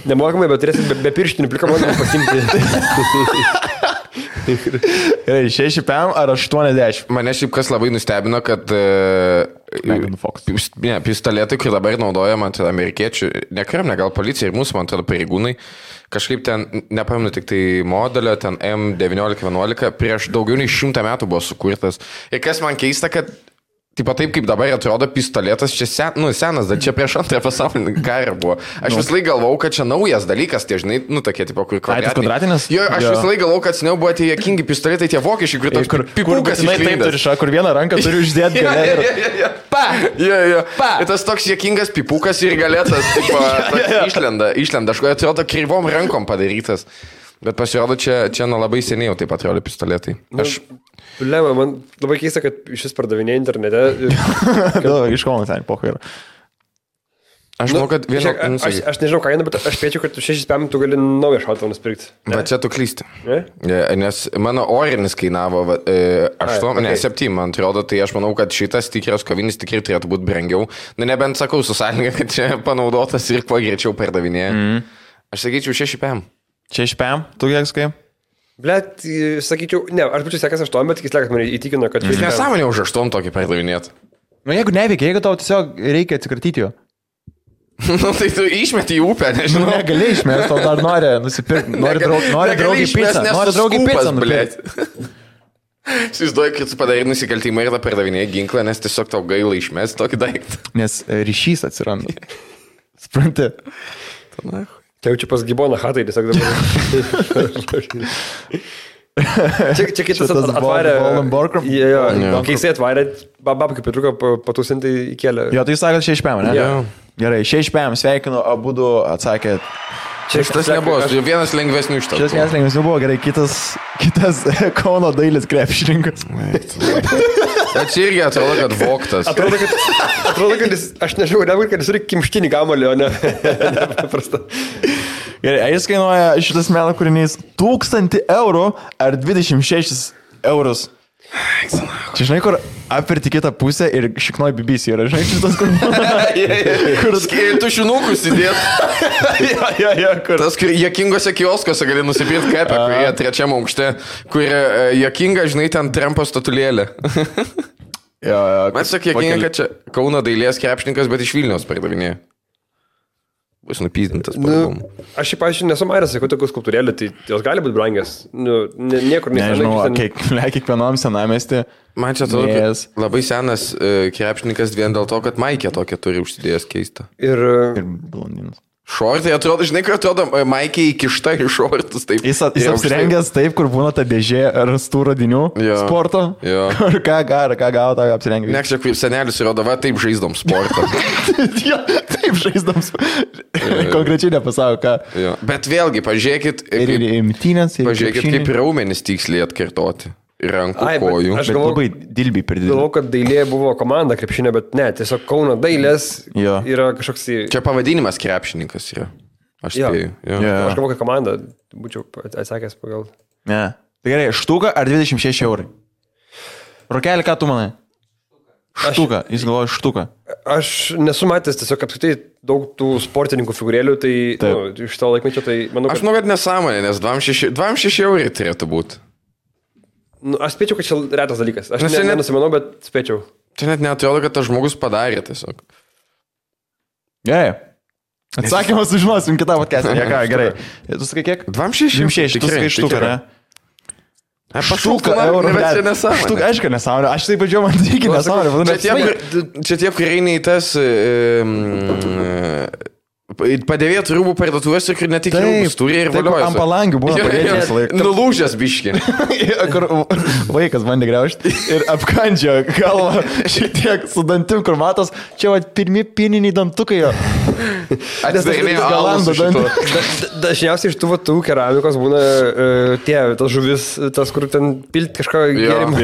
Nemokamai, bet turėsi be pirštinių plikamonų pasimti. Gerai, 6 PM ar 80? Mane šiaip kas labai nustebino, kad pistoletai, kur dabar naudojama amerikiečių, ne kariuomenė, gal policija ir mūsų, man atrodo, pareigūnai, kažkaip ten, nepamenu, tik tai modelio, ten M1911, prieš daugiau nei 100 metų buvo sukurtas. Ir kas man keista, kad taip kaip dabar atrodo pistoletas, čia senas, dar čia prieš antrą pasaulinį karą buvo. Aš vis laik galvau, kad čia naujas dalykas, tie žinai, tokie, tipo, kur kvadratinis. Jo, aš vis laik galvau, kad seniau buvo tie juokingi pistoletai, tie vokiečiai, kur toks pipukas išlindęs. Kur vieną ranką turi uždėti galę. Pa! Jo. Ir tas toks juokingas pipukas ir galėtas, tipo, išlenda. Aš atrodo kryvom rankom padarytas. Bet pasirodo, čia labai seniai jau taip atrodo pistoletai. Man labai keista, kad šis pardavinė internete. Iš Kauno ten pokai yra. Aš manau, kad aš nežinau kainą, bet aš spėčiau, kad 6 PM tu gali naują šautuvą nusipirkti. Bet čia tu klysti. Nes mano orinis kainavo 7, man atrodo, tai aš manau, kad šitas tikras kovinis tikrai turėtų būti brangiau. Nebent sakau su sąlyga, kad čia panaudotas ir kuo greičiau pardavinėja. Aš sakyčiau 6 PM. 6 PM, tu kiek skai? Blet, sakyčiau, ne, aš būčiau sekęs 8, bet tikis lekas mane įtikino, kad... Jis nesąmonė už 8 tokį pardavinėt. Jeigu neveikia, jeigu tau tiesiog reikia atsikratyti jo. Tai tu išmeti į upę, nežinau. Negali išmesti, tau dar nori nusipirkti, nori draugiai pizzą. Nori draugiai pizzą, blėt. Įsivaizduoju, kad tu padarai nusikaltimą ir tą pardavinėjai ginklą, nes tiesiog tau gaila išmesti tokį daiktą. Nes ryšys atsiranda. Supranti? Čia jau čia pas Giboną hatai, tiesiog dabar. Čia kitas atvarė. Kai jisai atvarė, babkai Petruką patūsinti įkėlė. Jo, tai sakot 6 PM, ne? Gerai, 6 PM, sveikinu, abudu atsakėt. Šitas nebuvo, vienas lengvesnių iš to. Šitas vienas lengvesnių buvo, gerai, kitas Kauno Dailis krepšininkas. Bet čia irgi atrodo, kad voktas. Atrodo, kad jis, aš nežinau, nebūtų, kad jis turi kimštinį gamalį, o ne paprastą. Gerai, jis kainuoja šitas meno kūrinys 1000 eurų ar 26 eurus. Čia žinai, kur apverti kitą pusę ir šiknoj BBC yra, žinai, šitas kur... Kur tušinukus įdėt. Kur... Tas, kur jokingose kioskose gali nusipirkti kapę, kurie trečiam aukšte, kur jokinga, žinai, ten Trumpo statulėlė. Man sakė, jokinga, kad čia Kauno Dailės krepšininkas, bet iš Vilniaus pardavinėja. Bus nupyzdintas. Aš šiaip, pavyzdžiui, nesu maręs, sakau, tokių skulptūrėlių, tai jos gali būti brangias. Niekur nežinau, kiekvienam senamesti. Man čia atrodo, kad labai senas krepšininkas vien dėl to, kad Maikė tokia turi užsidėjęs keistą. Ir blondinas. Šortai atrodo, žinai, kur atrodo, Maikė įkišta į šortus. Taip, jis apsirengęs taip, kur būna ta dėžė rastų radinių sporto. Kur ką gavo, tą apsirengęs. Ne, čia kaip senelis įrodo, va, taip žaisdom sportą. Taip žaisdom sportą. Konkrečiai nepasako, ką. Bet vėlgi, pažiūrėkit, pažiūrėkit, kaip raumenis tiksliai atkartoti. rankų, Ai, bet kojų. aš Bet galvoju- labai dilbiai per didelį. Galvoju, kad dailė buvo komanda krepšinio, bet ne, tiesiog Kauno dailės Jo. yra kažkoks... Čia pavadinimas krepšininkas yra. Aš Jo. spėju. Jo. Jo. Aš galvoju, kad komanda, būčiau atsakęs pagal... Ne. Tai gerai, štuka ar 26 eurai? Rokelį, ką tu manai? Štuka, jis galvoja štuka. Aš nesu matęs tiesiog apskritai daug tų sportininkų figūrėlių, tai iš to laikmečio, tai manau, Aš kad... manau, kad nesąmonė, nes 26 eurai turėtų būti. Aš spėčiau, kad čia retas dalykas. Aš Nes čia net- nenusimanau, bet spėčiau. Čia net neatrodo, kad tas žmogus padarė tiesiog. Gerai. Atsakymą sužinosim kitą podcast'ą. Ja, ką, gerai. Tu sakai kiek? 26. 26, tu sakai štuką, ne? Štuka, eurų, bet čia nesąmonė. Štuka, aišku, nesąmonė. Aš taip vadžiau, man reikia nesąmonė. Čia tie, kurie eina į tas padėvėtų rūbų parduotuvės ir kur ne tik rūbus turi ir valiojasi. Ant palangių buvo padėtas laikas. Nulūžęs biški. Kur vaikas bandė graužti ir apkandžio galvą šitiek su dantim, kur matos, čia va pirmi pieniniai dantukai jo. Atsidarinėjo galando Dažniausiai iš tų keramikos būna tas žuvis, tas, kur ten pilt kažką gėrimą.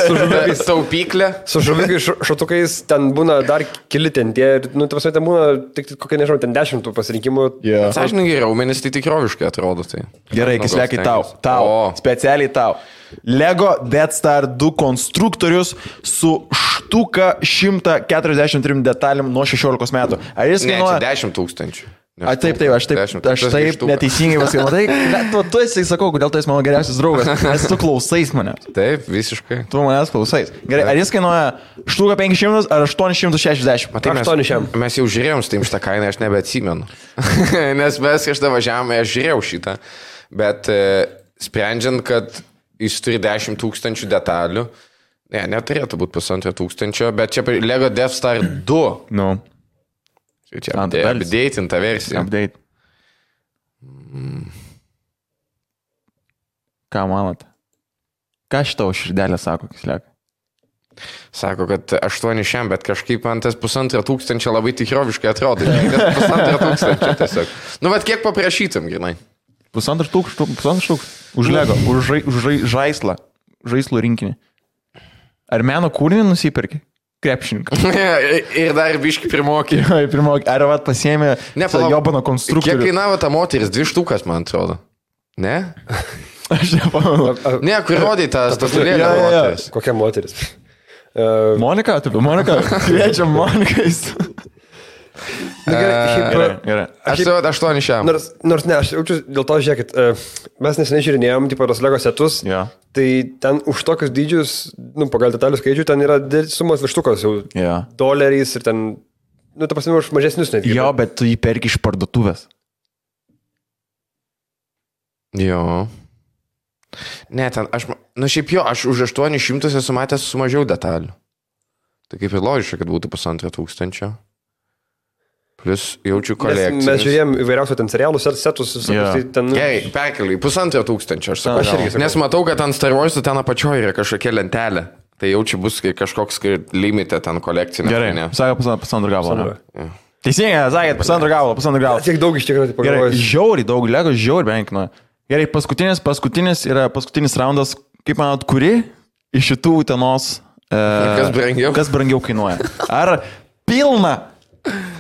Su žuvikais. Taupyklė. Su žuvikais šotukais ten būna dar keli ten tie, nu, ta prasme, ten būna tik kokie, nežinau, ten 10 pasirinkimų. Sąžininkai, raumenis tai tikroviškai atrodo. Tai. Gerai, kislekai tau. Specialiai tau. Lego Death Star 2 konstruktorius su štuka 143 detalėm nuo 16 metų. Ar jis kainuoja? 10 000. Taip, aš taip neteisingai pasakiau. Tai tu esi, sakau, kodėl tu esi mano geriausias draugas, nes tu klausais mane. Taip, visiškai. Tu manęs klausais. Gerai, ar jis kainuoja štuka 500 ar 860? Matai, mes jau žiūrėjom su šitą kainą, aš nebeatsimenu. Nes mes kažkada važiavome, aš žiūrėjau šitą. Bet sprendžiant, kad jis turi 10 000 detalių, neturėtų būti 1500, bet čia Lego Death Star 2. Nu. Čia updatinta versija. Update. Ką manot? Ką šitau širdelė sako, kisliakai? Sako, kad 800, bet kažkaip man tas 1500 labai tikroviškai atrodo. 1500 tiesiog. Nu, bet kiek paprašytum, grinai? 1500 už Lego, už žaislą, žaislų rinkinį. Ar meno kūrinį nusipirki? Krepšininką. Ir dar biški primokė. Ar vat pasiėmė jobano konstruktorių? Kiek kainavo ta moteris? 2 štukas, man atrodo. Ne? Aš nepamenu. Ne, kur rodai tas lėlė moteris. Kokia moteris? Monika, taip, Monika. Kviečiam Monikais. Gerai. Aš tai 800. Nors ne, aš jaučiu dėl to, žiūrėkit, mes neseniai žiūrinėjom, tipo, tos Lego setus, tai ten už tokius dydžius, nu, pagal detalių skaičių, ten yra sumos virštukos jau doleriais ir ten, nu, ta prasme, už mažesnius netgi. Jo, bet tu jį perki iš parduotuvės. Jo. Ne, ten, šiaip jo, aš už 800 esu matęs su mažiau detalių. Tai kaip ir logiška, kad būtų 1500. Plus jaučiu kolekciją. Mes žiūrėjom įvairiausių ten serialų setus. Tai ten... Gerai, perkeliai, 1500 aš sakau. Nes matau, kad ant Star Wars'ų ten apačioje yra kažkokia lentelė. Tai jaučiu bus kažkoks limite ten kolekcinė. Gerai, sakė pusantro gabalo. Teisingai, sakėt, pusantro gabalo. Tiek daug iš tikrųjų pagalvojus. Gerai, žiauriai daug, Lego žiauriai benkino. Gerai, paskutinis raundas, kaip manot, kuri iš šitų Utenos kas brangiau kainuoja? Ar pilna?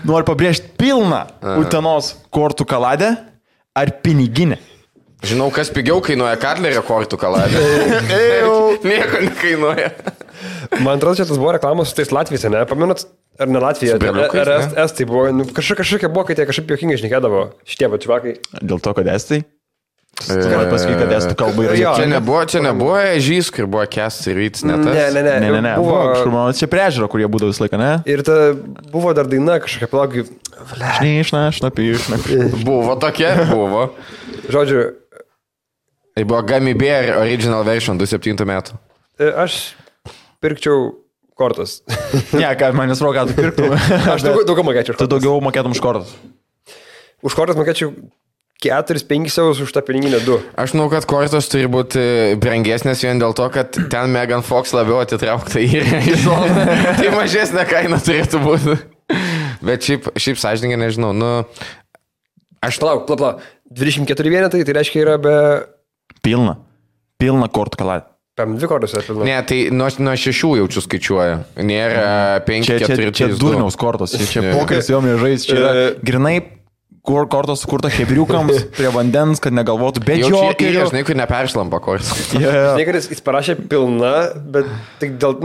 Noriu pabrėžti pilną Utenos kortų kaladę ar piniginę. Žinau, kas pigiau kainuoja Katlerio kortų kaladę. Nieko nekainuoja. Man atrodo, čia tas buvo reklamos su tais Latvijose, ne? Pamenat, ar ne Latvija? Ar Estai buvo? Nu, kažkokia buvo, kai tie kažkaip juokingai šnekėdavo šitie pačivakai. Dėl to, kad Estai? Gali pasakyti, kad estų kalba yra. Čia nebuvo ežys, kur buvo Kęstas ir Vytis, ne tas? Ne. Buvo čia priežiūro, kurie būdavo visą laiką, ne? Ir ta buvo dar daina kažkokia plaugi. Buvo tokia, buvo. Žodžiu. Tai buvo Gummy Bear Original Version 2007 metų. Aš pirkčiau kortas. Ne, ką manęs roga, tu pirktum. Aš daugiau mokėčiau. Tu daugiau mokėtum už kortas. Už kortas mokėčiau 4-5 eurus už tą piniginę 2. Aš žinau, kad kortos turi būti brangesnės vien dėl to, kad ten Megan Fox labiau atitraukta į zoną. Tai mažesnė kaina turėtų būti. Bet šiaip sąžininkai nežinau. Nu, aš plauk. 24 vienetai, tai reiškia yra be... Pilna kortų kaladę. 2 kortos yra pilna. Ne, tai nuo 6 jaučiu skaičiuoja. Nėra 5, 4, 3, 2. Čia durniaus kortos, čia pokeris jo mėžais, čia yra grinai kortos sukurta hebriukams prie vandens, kad negalvotų, bet jokerių. Žinai, kur neperšlampa kortos. Žinai, kad jis parašė pilna, bet tik dėl,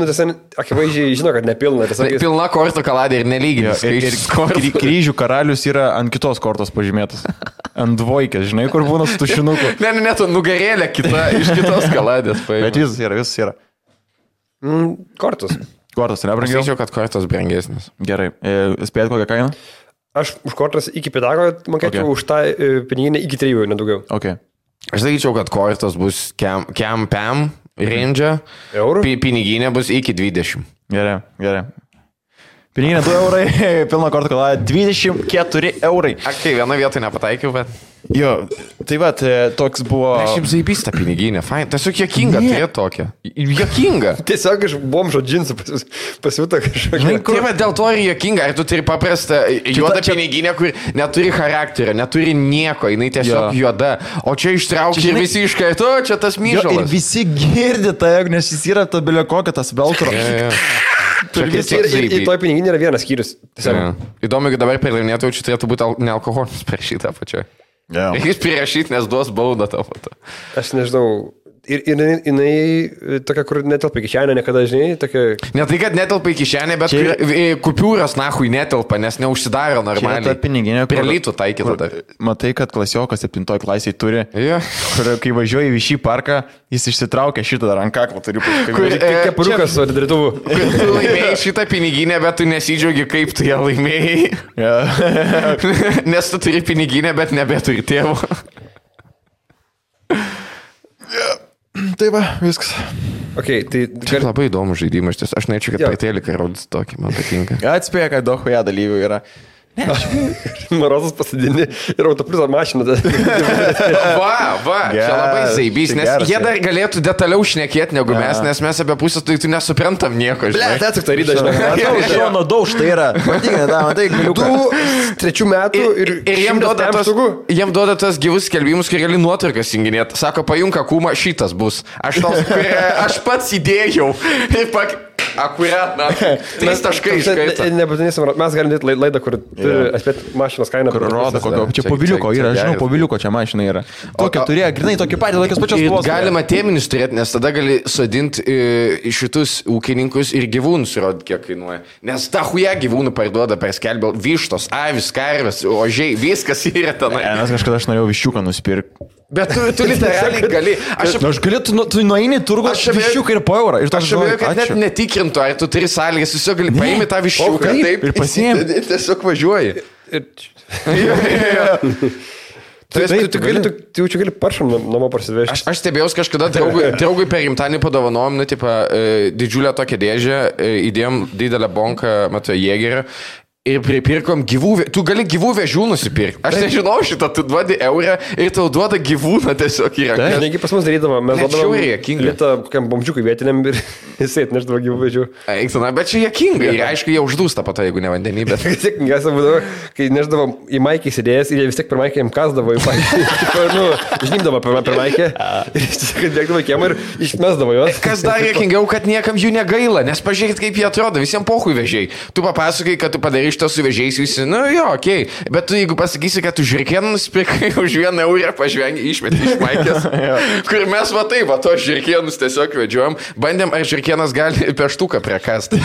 akivaizdžiai žino, kad nepilna. Pilna kortų kaladė ir nelyginis. Ir kryžių karalius yra ant kitos kortos pažymėtas. Ant dvoikės, žinai, kur būna su tušinuku. Ne, tu nugarėlė kita iš kitos kaladės. Bet visas yra. Kortos. Kortos, ne brangiau? Aš sakyčiau, kad kortos brangesnis. Gerai. Spėjat kokią kainą? Aš už kortas iki pedago mokėčiau, už tą piniginę iki 3, nedaugiau. Okay. Aš sakyčiau, kad kortas bus pam range, piniginė bus iki 20. Gerai. Piniginė 2 eurai, pilna kortų kaladė 24 eurai. Kai viena vietoj nepataikiau, bet... Jo, tai va, toks buvo... Aš šiaip zaibystą piniginę, fain. Tiesiog jokinga turėti tokią. Jokinga. Tiesiog iš bomžo džinsų pasiūta kažkokia. Tai va, dėl to ir jokinga. Ar tu turi paprastą juodą piniginę, kur neturi charakterio, neturi nieko, jinai tiesiog juoda. O čia ištraukia ir visi iš karto, čia tas myžalas. Ir visi girdi tai, nes jis yra to bilio kokia tas veltro. Ir toj piniginė yra vienas skyrius. Įdomu, kad dabar per laimėtojų čia turėtų būti nealkoholis per šitą pačią. Jis prirašyti, nes duos baudą tavo. Aš nežinau. Ir jinai tokia, kur netelpa į kišenę niekada, žinai, tokia... Ne tai, kad netelpa į kišenę, bet kupiūras nahui netelpa, nes neužsidaro normaliai. Čia ta piniginė, prie lytų taikyta dar. Matai, kad klasiokas 7 klasiai turi, kur kai važiuoji į šį parką, jis išsitraukia šitą dar ant kaklo, turiu pasakyti. Kepuriukas su drituvų. Tu laimėjai šitą piniginę, bet tu nesidžiaugi, kaip tu ją laimėjai. Nes tu turi piniginę, bet nebeturi tėvo. Tai va, viskas. Okay, tai labai įdomus žaidimas. Aš norėčiau, kad paitėlikai rodytų tokį, man patinka. Atspėja, kad daug huja dalyvių yra. Marozas pasidini ir autopliuso mašiną. Čia labai zaibys, nes jie dar galėtų detaliau šnekėti negu mes, nes mes apie pusę tai tu nesuprantam nieko. Tai tik taryda, žinai. Šono dauž, tai yra. Matai, galiu. 3 metų ir jiem duoda tas gyvus skelbimus, kur gali nuotraukas junginėti. Sako, pajunka kūmą, šitas bus. Aš pats įdėjau. Akurat, 3 taškai iškaita. Nebūtinai, mes galim dėti laidą, kur turi atspėti mašinos kainą. Kur rodo, kokio. Čia poviliuko yra, žinau, poviliuko čia mašina yra. Tokia turėjo, grinai, tokį patį, tokias pačias spalvos. Galima tėminis turėti, nes tada gali sodinti šitus ūkininkus ir gyvūnus rodyti, kiek kainuoja. Nes ta huja gyvūnų parduoda per skelbę vištos, avis, karvės, ožiai, viskas yra tenai. Nes kažkada aš norėjau viščiuką nusipirkti. Bet tu literaliai gali. Aš galiu, tu nueini turgų, aš viščiuką ir po eurą. Aš žinau, kad net netikrintų, ar tu turi sąlygas, tiesiog gali paimti tą viščiuką taip ir pasiimti. Tiesiog važiuoji. Tu jau čia gali paršam namo parsivežti. Aš stebėjau kažkada draugui per gimtadienį padovanojom, didžiulę tokią dėžę, įdėjom didelę bonką, Jėgerio. Ir pripirkom gyvų, tu gali gyvų vežių nusipirkti. Aš nežinau šitą, tu duodi eurą ir tau duoda gyvūną tiesiog į ranką. Negi pas mus darydama, mes duodam litą kokiam bomžiukui vietiniam ir jisai atneždavo gyvų vežių. Eiksana, bet čia jėkinga ir aišku, jie uždūsta po to, jeigu ne vandenį, bet... Jėkingiausia būdavo, kai neždavo į maikį sėdėjęs ir jie vis tiek per maikę jam kasdavo į maikį. Žnymdavo per maikę ir jis tiesiog bėgdavo į kiemą ir išmesdavo juos. Kas dar jėkingiau, kad niekam jų negaila, nes pažiūrėkit, kaip jie atrodo, visiems pohui vežiai. Tu papasakai, kad tu padarai šitą su vežiais visi, okei. Bet tu jeigu pasakysi, kad tu žirkieną nusipirkai už 1 eurą, pažvengi, išmeti iš maikės, kur mes to žirkienus tiesiog vedžiojom, bandėm, ar žirkienas gali peštuką prekasti.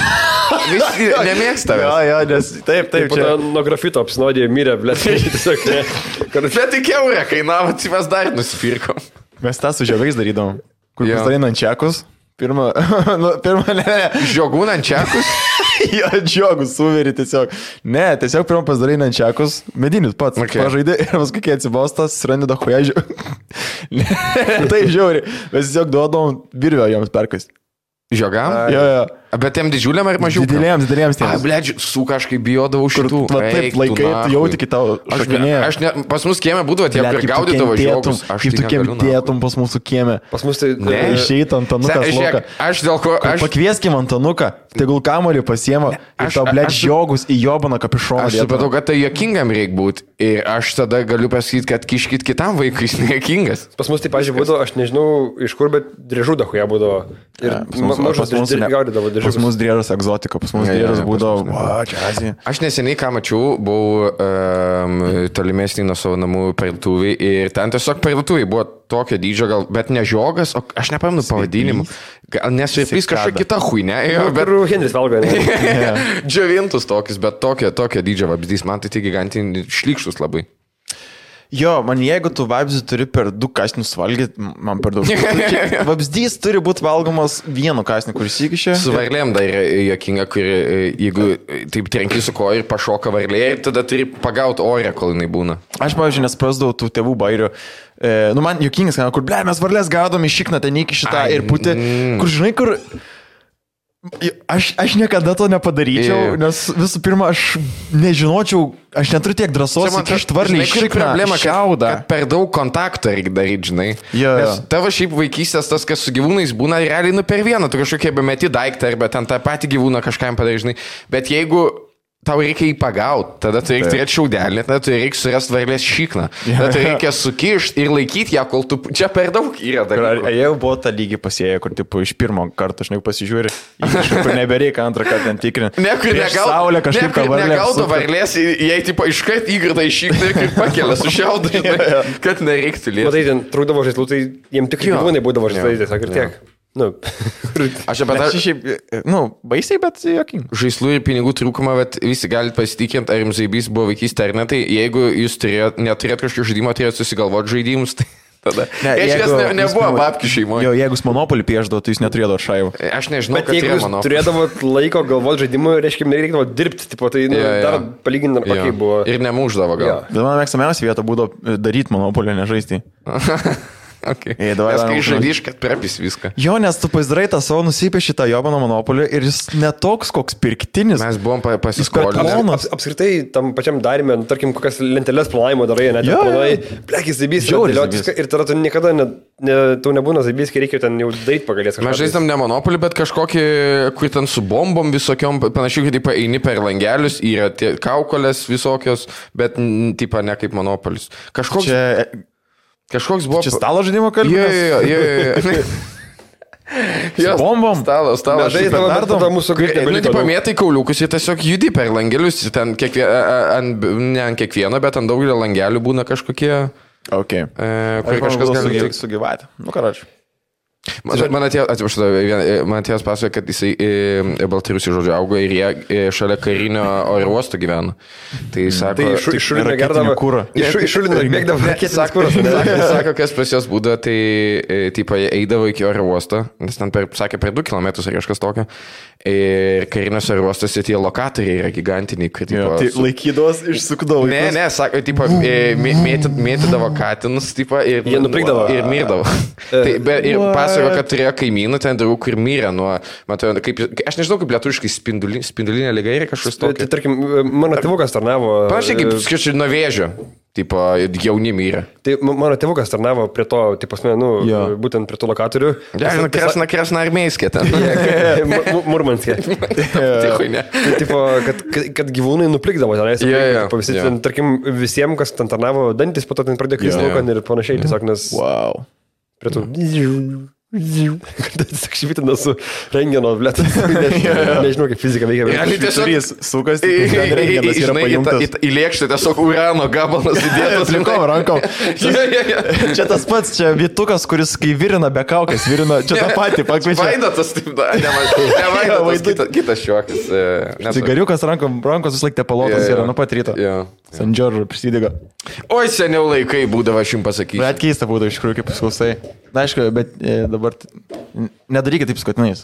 Visi nemėgsta. Jo, nes taip. Nuo grafito apsinodė mirė, blėt. Bet tik eurą kainavo, tai mes dar nusipirkom. Mes tą su žiogais darydom, kur pasidalinant čekus. Pirma, Žiogų nančiakus? Jo, žiogų suveri tiesiog. Ne, tiesiog pirmą pasidarai nančiakus, medinius pats. Pažaidė ir paskui, kai atsibostas, surandi dahuja žiogų. Tai žiauri. Mes tiesiog duodom virvę joms perkais. Žiogam? Jo. Bet tiem didžiuliam ar mažiau? Dideliems tiems. Blėdžiu, su kažkaip bijodavau šitų. Taip, laikai, tu jauti kitą šakinėje. Pas mus kieme būdavo tie, kur gaudydavo žiogus. Kaip tu kentėtum pas mūsų kieme. Pas mus tai... Išeit Antanukas loka. Aš dėl ko... Pakvieskim Antanuką, tegul kamuolį pasiema ir tau, blėdž, žiogus į jobaną kapišoną. Aš supratau, kad tai juokingam reikia būti. Ir aš tada galiu pasakyti, kad kiškit kitam vaikui, jis nejuokingas. Pas mus tai, pažiūrėjau, būdavo, aš nežinau iš kur, bet driežų dahuja būdavo. Ir mažas gaudydavo driežus. Pas mus driežas egzotika, pas mus driežas būdavo, čia Azija. Aš neseniai ką mačiau, buvau tolimesnį nuo savo namų parduotuvį ir ten tiesiog parduotuvį buvo tokio dydžio, gal, bet ne žiogas, o aš nepamenu pavadinimų. Gal nesveipys kažkokia kita huinė. Bet Henris valgo, ne? Džiovintus tokius, bet tokio dydžio vabzdys, man tai gigantinį šlykštus labai. Jo, man jeigu tu vabzdį turi per 2 kasnius valgyti, man per daug. Vabzdys turi būti valgomas vienu kasniu, kuris įkišė. Su varlėm dar juokinga, kur jeigu taip trenki su koja ir pašoka varlė, tada turi pagauti orę, kol jinai būna. Aš, pavyzdžiui, nesprasdavau tų tėvų bairių. Man juokingas, kur, mes varlės gaudom į šikną, ten įkišį tą ir putį, kur, žinai, kur... Aš niekada to nepadaryčiau, nes visų pirma, aš nežinočiau, aš neturiu tiek drąsos įkišti varlį į šikną, šiaudą. Kad per daug kontakto reikia daryti, žinai. Nes tavo šiaip vaikystės tas, kas su gyvūnais būna, realiai per vieną, tu kažkokie bemeti daiktą, arba ten tą patį gyvūną kažkam padarai, žinai. Bet jeigu tau reikia jį pagauti, tada tu reikia turėti šiaudelį, tada tu reikia surasti varlės šikną, tada tu reikia sukišti ir laikyti ją, kol tu... Čia per daug yra dalykų. Jau buvo tą lygį pasėję, kur tipo, iš pirmo karto, žinai, pasižiūri, kur nebereikia antrą kartą ten tikrinti. Nekur negaudo varlės, jei tipo iškart įgrida į šikną ir kaip pakelia su šiaudu, kad nereiktų lieti. Matai, ten trūkdavo žaislų, tai jiems tik gyvūnai būdavo žaislai, tiesiog ir tiek. Aš apie tą... Šiaip, baisiai, bet jokingai. Žaislų ir pinigų trūkumą, bet visi galite pasitikinti, ar jums zaibys buvo vaikystė ar ne, tai jeigu jūs neturėt kažkokio žaidimo, turėt susigalvoti žaidimus, tai tada... Nebuvo babkių šeimoje. Jo, jeigu monopolį pieždavo, tai jūs neturėdavo šaivų. Aš nežinau, bet jeigu jūs turėdavot laiko galvoti žaidimų, reiškia, nereikdavo dirbti, tipo, tai dar palyginti, ar kokiai buvo. Ir nemuždavo gal. Bet man mėgstamiausia vieta būdavo daryti monopolį, nežaisti. Okay. Nes kai žaidžiš, kad prepis viską. Jo, nes tu pasidarai tą savo nusipieši tą jobano monopolį ir jis netoks koks pirktinis. Mes buvom pasiskolinę. Apskritai, tam pačiam darime, tarkim, kokias lenteles planavimo darai, net planai, plekis zaibys, ir tada tu niekada tau nebūna zaibys, kai reikia ten jau daryti pagalės. Mes žaidžiam ne monopolį, bet kažkokį, kur ten su bombom visokiom, panašiai, kad eini per langelius, yra tie kaukolės visokios, bet tipo ne kaip monopolis. Kažkoks buvo... Čia stalo žaidimo kalbės? Jo, bombom. Stalo žaidimo mūsų greitai. Nu, tipo, mėtai kauliukus ir tiesiog judi per langelius. Ten ne ant kiekvieno, bet ant daugelio langelių būna kažkokie... Ok. Kur kažkas gali sugyvati. Nu, karočiui. Man atėjęs pasakoja, kad jisai Baltarusių žodžiu augo ir jie šalia karinio oro uosto gyvena. Tai sako... Tai iššulino gerdavo kūrą. Iššulino bėgdavo raketinis kūras. Sako, kas pas jos būdavo, tai tipo, jie eidavo iki oro uosto, nes ten sakė per 2 km ar kažkas tokio. Ir karinės oro uostose tie lokatoriai yra gigantiniai. Tai laikydavos išsukdavo. Ne, sako, tipo, mėtydavo katinus, tipo, ir jie nuplikdavo. Ir mirdavo. Ir pasako, kad turėjo kaimynų ten draugų, kur mirė nuo, matau, kaip, aš nežinau, kaip lietuviškai spindulinė liga yra kažkas tokio. Tai tarkim, mano tėvukas tarnavo... Panašiai kaip, skaičiu, nuo vėžio. Tipo, jauni mirė. Tai mano tėvukas tarnavo prie to, tipo, būtent prie to lokatorių. Kresna armėjskė ten. Murmanskė. Tipo, kad gyvūnai nuplikdavo ten. Tarkim, visiems, kas ten tarnavo dantis, po to ten pradėjo kristi laukan ir panašiai. Tiesiog, nes... Wow. Prie to... Tiesiog švitina su rengeno, blėt. Nežinau, kaip fizika veikia. Realiai tiesiog sukas, rengenas yra pajungtas. Į lėkštę tiesiog urano gabalas įdėtas. Rankom. Čia tas pats, čia Vytukas, kuris kai virina be kaukės, virina, čia tą patį pakviečia. Vaidotas, taip, ne Vaidotas, kitas šiuokis. Cigariukas rankos vis laik tepalotas yra nuo pat ryto. San Džordžo prisidega. Oi, seniau laikai būdavo, aš jums pasakysiu. Bet keista būdavo iš tikrųjų, kaip paskausai. Na, aišku, bet dabar nedarykit taip skutinais.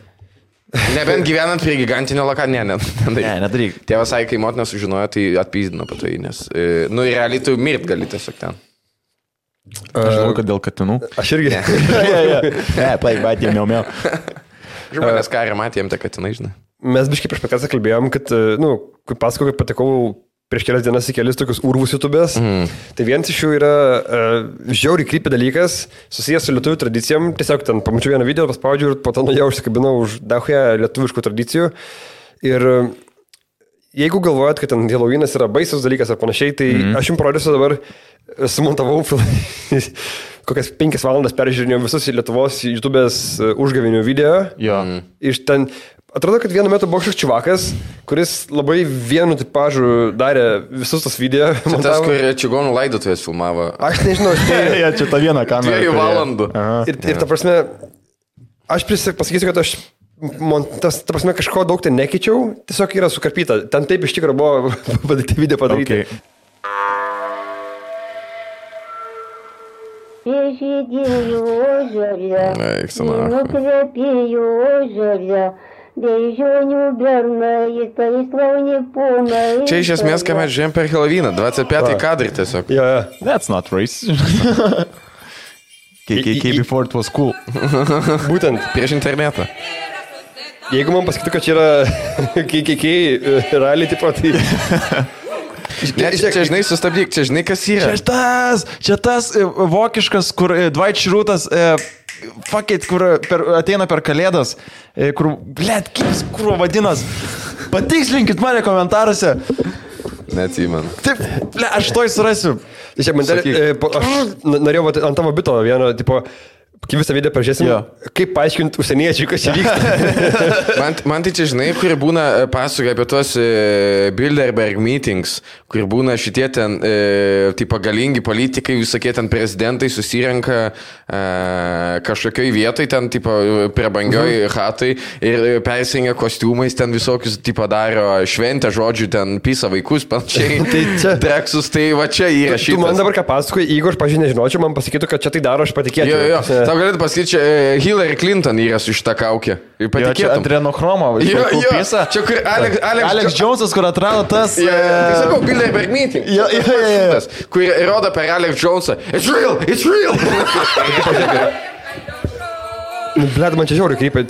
Nebent gyvenant prie gigantinio lokalio, nedaryk. Tėvas sakė, kai motina sužinojo, tai atpyzdino po tai, nes, nu, realiai tu mirt gali tiesiog ten. Aš žinau, kad dėl katinų. Aš irgi. Ne, plaik, bet jie miau. Žmonės karį matėm, tai katinai, žinai. Mes biškai prieš podcastą kalbėjom, kad, kaip pasakau, kad patekau prieš kelias dienas į kelis tokius urvus YouTube'ės. Tai vienas iš jų yra žiauriai krypį dalykas, susijęs su lietuvių tradicijom. Tiesiog ten pamačiau vieną video, paspaudžiau ir po to nuėjau užsikabinau už dahują lietuviškų tradicijų. Ir jeigu galvojat, kad ten Halloweenas yra baisus dalykas ar panašiai, tai aš jums parodysiu dabar, sumontavau kokias 5 valandas peržiūrinėjau visus Lietuvos YouTube'ės užgavinių video. Iš ten, atrodo, kad vienu metu buvo kažkoks čiuvakas, kuris labai vienu tipažu darė visus tos video. Čia tas, kur čigonų laidotuvės filmavo. Aš nežinau, čia ta viena kamera. 2 valandų. Ir ta prasme, aš pasakysiu, kad aš ta prasme, kažko daug ten nekeičiau, tiesiog yra sukarpyta. Ten taip iš tikrųjų buvo video padaryti. Pėžydėjų oželė, nukvėpėjų oželė, bežonių bernai, tai slauni ponai. Čia iš esmės, ką mes žiūrėjom per Halloweeną, 25 kadrai tiesiog. That's not racist. KKK before it was cool. Būtent. Prieš internetą. Jeigu man pasakytų, kad čia yra KKK realiai tipo, tai... Čia žinai, sustabdyk, čia žinai, kas yra. Čia tas vokiškas, kur Dwight Schrutas, kur ateina per kalėdas, kur, kur vadinas. Patikslinkit mane komentaruose. Neatsimenu. Taip, aš to surasiu. Aš norėjau ant tavo bito vieno, tipo, kai visą video pažiūrėsim, kaip paaiškinti užsieniečiui, kas čia vyksta. man tai čia, žinai, kur būna pasakoja apie tuos Bilderberg meetings, kur būna šitie ten, tipo, galingi politikai, visokie ten prezidentai susirenka kažkokioj vietoj, ten, tipo, prabangioj hatai ir persingia kostiumais, ten visokius, tipo, daro šventę, žodžiu, ten pisa vaikus, panašiai, treksus, tai va čia įrašytas. Tu man dabar ką pasakoji, jeigu aš pažiūrėjau, nežinočiau, man pasakytų, kad čia tai daro, aš patikėčiau. Tau galėtų pasakyti, čia Hillary Clinton yra su šitą kaukę. Čia adrenochromo. Čia kur Alex Jonesas, kur atrado tas... Tai sakau, Bilderberg meeting. Kur rodo per Alex Jonesą. It's real, it's real. Blet, man čia žiauriai krypia.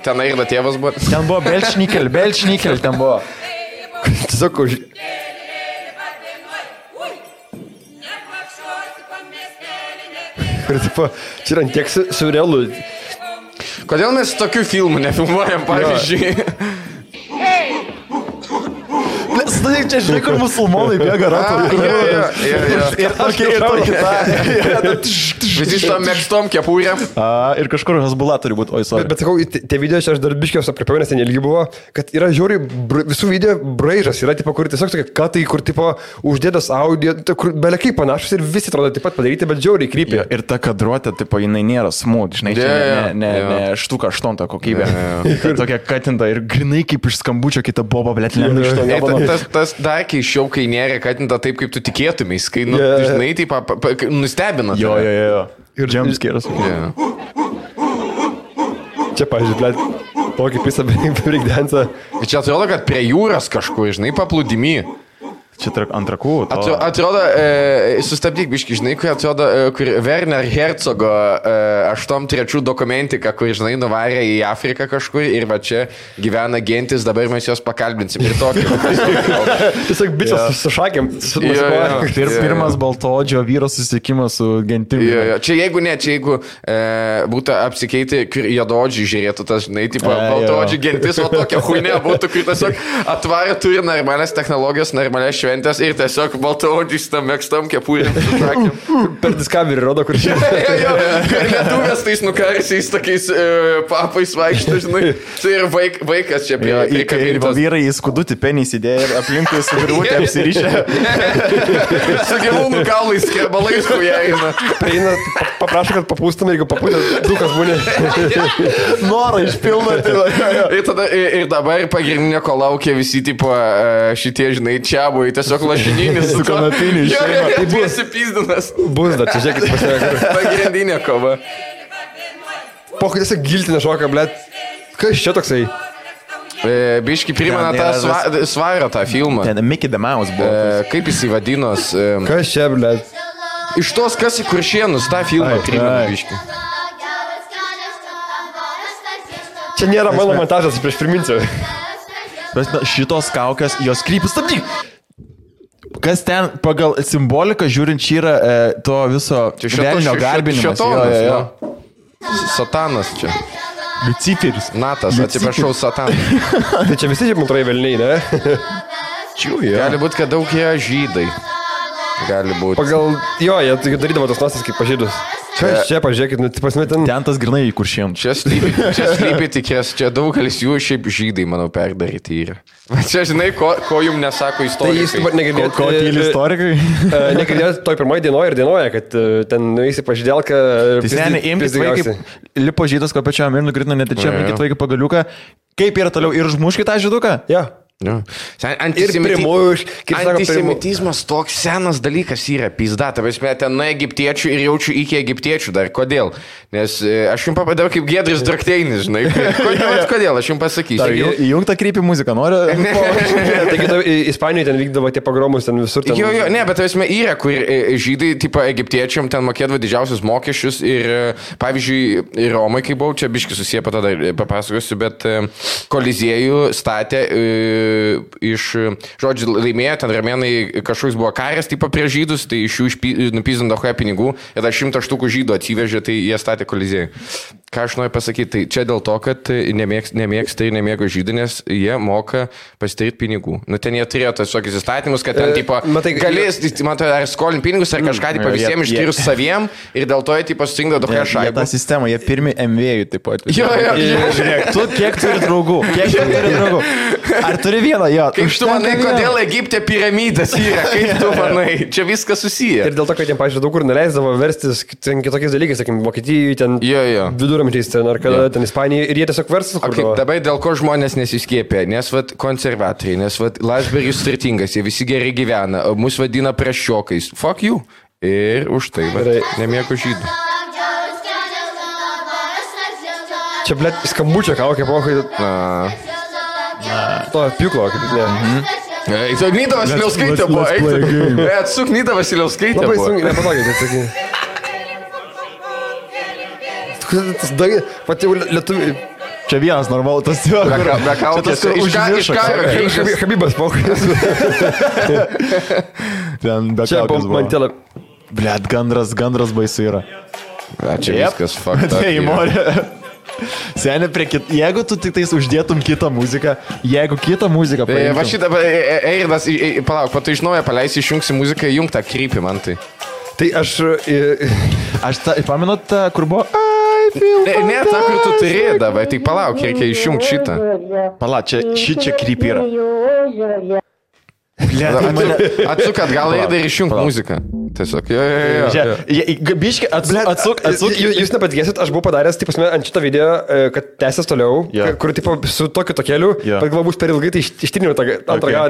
Ten Airda tėvas buvo. Ten buvo Belčnikel, ten buvo. Tiesiog už... Ir tipo, čia yra tiek surrealų. Kodėl mes tokių filmų nefilmuojam, pavyzdžiui? Čia žinai, kur musulmonai bėga ratų. Visi iš tom mėgstom kepūrėm. Ir kažkur Hezbollah turi būti, oi, sorry. Bet sakau, tie video čia aš dar biškiaus apriepiau, nes ten ilgi buvo, kad yra žiauriai visų video braižas, yra tipo, kur tiesiog tokie katai, kur tipo uždėtas audio, kur belekai panašus ir visi atrodo taip pat padaryti, bet žiauriai krypia. Ir ta kadruotė, tipo, jinai nėra smooth, žinai, ne štuka aštonta kokybė. Tokia katinta ir grinai kaip iš skambučio kita boba, blėt, tas dar keiščiau, kai nėra katinta taip, kaip tu tikėtumės, kai, žinai, taip, nustebina. Jo. Ir jumpscares. Čia, pažiūrėjau, blėt, tokį pisą breakdance'ą. Čia atrodo, kad prie jūros kažkur, žinai, paplūdimy. Čia ant rakų. Atrodo, sustabdyk biški, žinai, kur atrodo, kur Werner Herzogo 83 dokumentika, kur, žinai, nuvarė į Afriką kažkur ir va čia gyvena gentis, dabar mes jos pakalbinsim ir tokį. Tiesiog bičias su šakėm. Pirmas baltoodžio vyro susitikimas su gentimi. Čia jeigu būtų apsikeiti, kur juodaodžiai žiūrėtų tas, žinai, tipo, baltoodžiai gentis, o tokia huinė būtų, kur tiesiog atvarė, turi normalias technologijas, normalias šventės ir tiesiog baltaodžiais tam mėgstam kepūrėm su šakėm. Per Discovery rodo, kur čia. Lietuvės tais nukarsiais tokiais papais vaikšto, žinai. Tai ir vaikas čia prie kabintos. Vyrai į skudutį penį įsidėjo ir aplinkui su virvutė apsirišę. Su gyvūnų kaulais, skerbalais, kuo jie eina. Prieina, paprašo, kad papūstum, jeigu papūtė, dukas būnė. Norą išpildo. Ir dabar pagrindinė, ko laukia visi, tipo, šitie, žinai, čia buvo tiesiog lašininis su kanapiniu išeina. Tai buvo supizdinas. Bus dar, čia žiūrėkit pasiekti. Pagrindinė kova. Pokai tiesiog giltinė šoka, blėt. Kas čia toksai? Biški primena tą Svarą tą filmą. Ten Mickey the Mouse buvo. Kaip jis įvadinos? Kas čia, blėt? Iš tos, kas į Kuršienus tą filmą primena biški. Čia nėra mano montažas, prieš priminsiu. Šitos kaukės, jos krypis, stabdyk. Kas ten pagal simboliką žiūrint čia yra to viso velnio garbinimas. Šėtonas, Satanas čia. Luciferis. Natas, atsiprašau, Satanas. Tai čia visi šiaip antroji velniai, ne? Gali būti, kad daug jie žydai. Gali būti. Pagal, jie darydavo tos nosas kaip pažydus. Čia pažiūrėkit, ten... Ten tas grinai į kuršėm. Čia slypi tikės, čia daugelis jų šiaip žydai, manau, perdaryti yra. Čia, žinai, ko jums nesako istorikai. Tai negirdėt, ko tyli istorikai? Negirdėt toj pirmoji dienoje ir dienoje, kad ten nueisi pažydėlką... Tai seniai, imkit vaikai, lipo žydas kopečiam ir nukritino netyčia, imkit vaikai pagaliuką. Kaip yra toliau ir užmuškit tą žyduką? Ja. Antisemitizmas toks senas dalykas yra, pizda, ta prasme, ten nuo egiptiečių ir jaučiu iki egiptiečių dar. Kodėl? Nes aš jums papadariau kaip Giedris Drakteinis, žinai. Kodėl? Aš jums pasakysiu. Įjungtą krypį muziką, noriu? Taigi, Ispanijoje ten vykdavo tie pogromus, ten visur. Jo, ne, bet ta prasme, yra, kur žydai, tipo egiptiečiam, ten mokėdavo didžiausius mokesčius ir, pavyzdžiui, Romai, kai buvau, čia biški susiję, po tada papasakosiu, bet Koliziejų statė iš, žodžiu, laimėjo, ten ramėnai kažkoks buvo karas, tipo prieš žydus, tai iš jų nupizindavo pinigų ir dar 100 štukų žydų atsivežė, tai jie statė Koliziejų. Ką aš noriu pasakyti, tai čia dėl to, kad nemėgsta ir nemėgo žydų, nes jie moka pasidaryti pinigų. Nu, ten jie turėjo tas tokius įstatymus, kad ten, tipo, galės, matai, ar skolin pinigus, ar kažką, tipo, visiems išskyrus saviem ir dėl to jie, tipo, surinkdavo tokią šaibą. Ta sistema, jie pirmi MV-jų, taip pat. Jo. Žiūrėk, tu kiek turi draugų? Ar turi vieną? Jo. Kaip tu manai, kodėl Egipte piramidės yra? Kaip tu manai? Čia viskas susiję. Ir dėl to, kad jiems, pavyzdžiui, daug kur neleisdavo verstis kitokiais dalykais, sakykim, Vokietijai, ten viduramžiais, ten ar kada, ten Ispanijai, ir jie tiesiog verstis. Dabar dėl ko žmonės nesiskiepė? Nes vat konservatoriai, nes vat Landsbergis turtingas, jie visi gerai gyvena, mus vadina prasčiokais. Fuck you. Ir už tai, nemėgo žydų. Čia, blėt, skambučio kaukė, pokai. To pjūklo, kaip ne. Nida Vasiliauskaitė buvo, eik. Atsuk Nida Vasiliauskaitė buvo. Labai sunkiai, nepatogė, tai sakai. Tas dagi, pati jau lietuviai. Čia vienas normalus, tas jo. Be kaukės, iš karo. Habibas, pokai. Ten be čia kaukės buvo. Mantelė. Blet, gandras baisu yra. Čia viskas fucked up. Seni, jeigu tu tik tais uždėtum kitą muziką, jeigu kitą muziką paimtum. Va šitą, Eiridas, palauk, tu iš naujo paleisi, išjungsi muziką, įjung tą krypį man tai. Tai aš pamenot tą, kur buvo... Ne, tą, kur tu turėdavai, tai palauk, reikia išjungti šitą. Palauk, čia krypį yra. Atsuk atgal ir išjung muziką. Tiesiog, Biški, atsuk. Jūs nepatikėsit, aš buvau padaręs, taip pasme, ant šitą video, kad tęsės toliau, kur, tipo, su tokiu tokeliu, bet galbūt per ilgai, tai ištriniau tą antrą galą.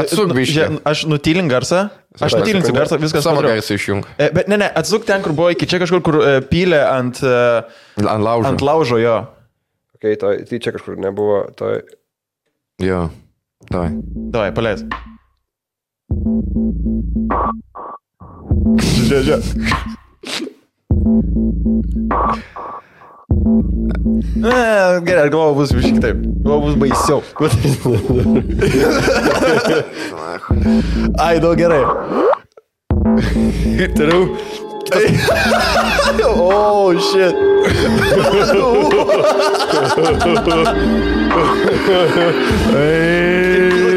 Atsuk biški. Aš nutilink garsą. Aš nutylinsiu garsą, viskas. Savo garsą išjung. Bet ne, atsuk ten, kur buvo iki čia kažkur, kur pylė ant laužo, jo. Ok, tai čia kažkur nebuvo, tai... Jo, davai. Davai, paleis. Žiūrėk. Gerai, aš galvoju, bus visiškai taip. Galvoju, bus baisiau. Ai, daug gerai. Ir toliau. Oh, shit.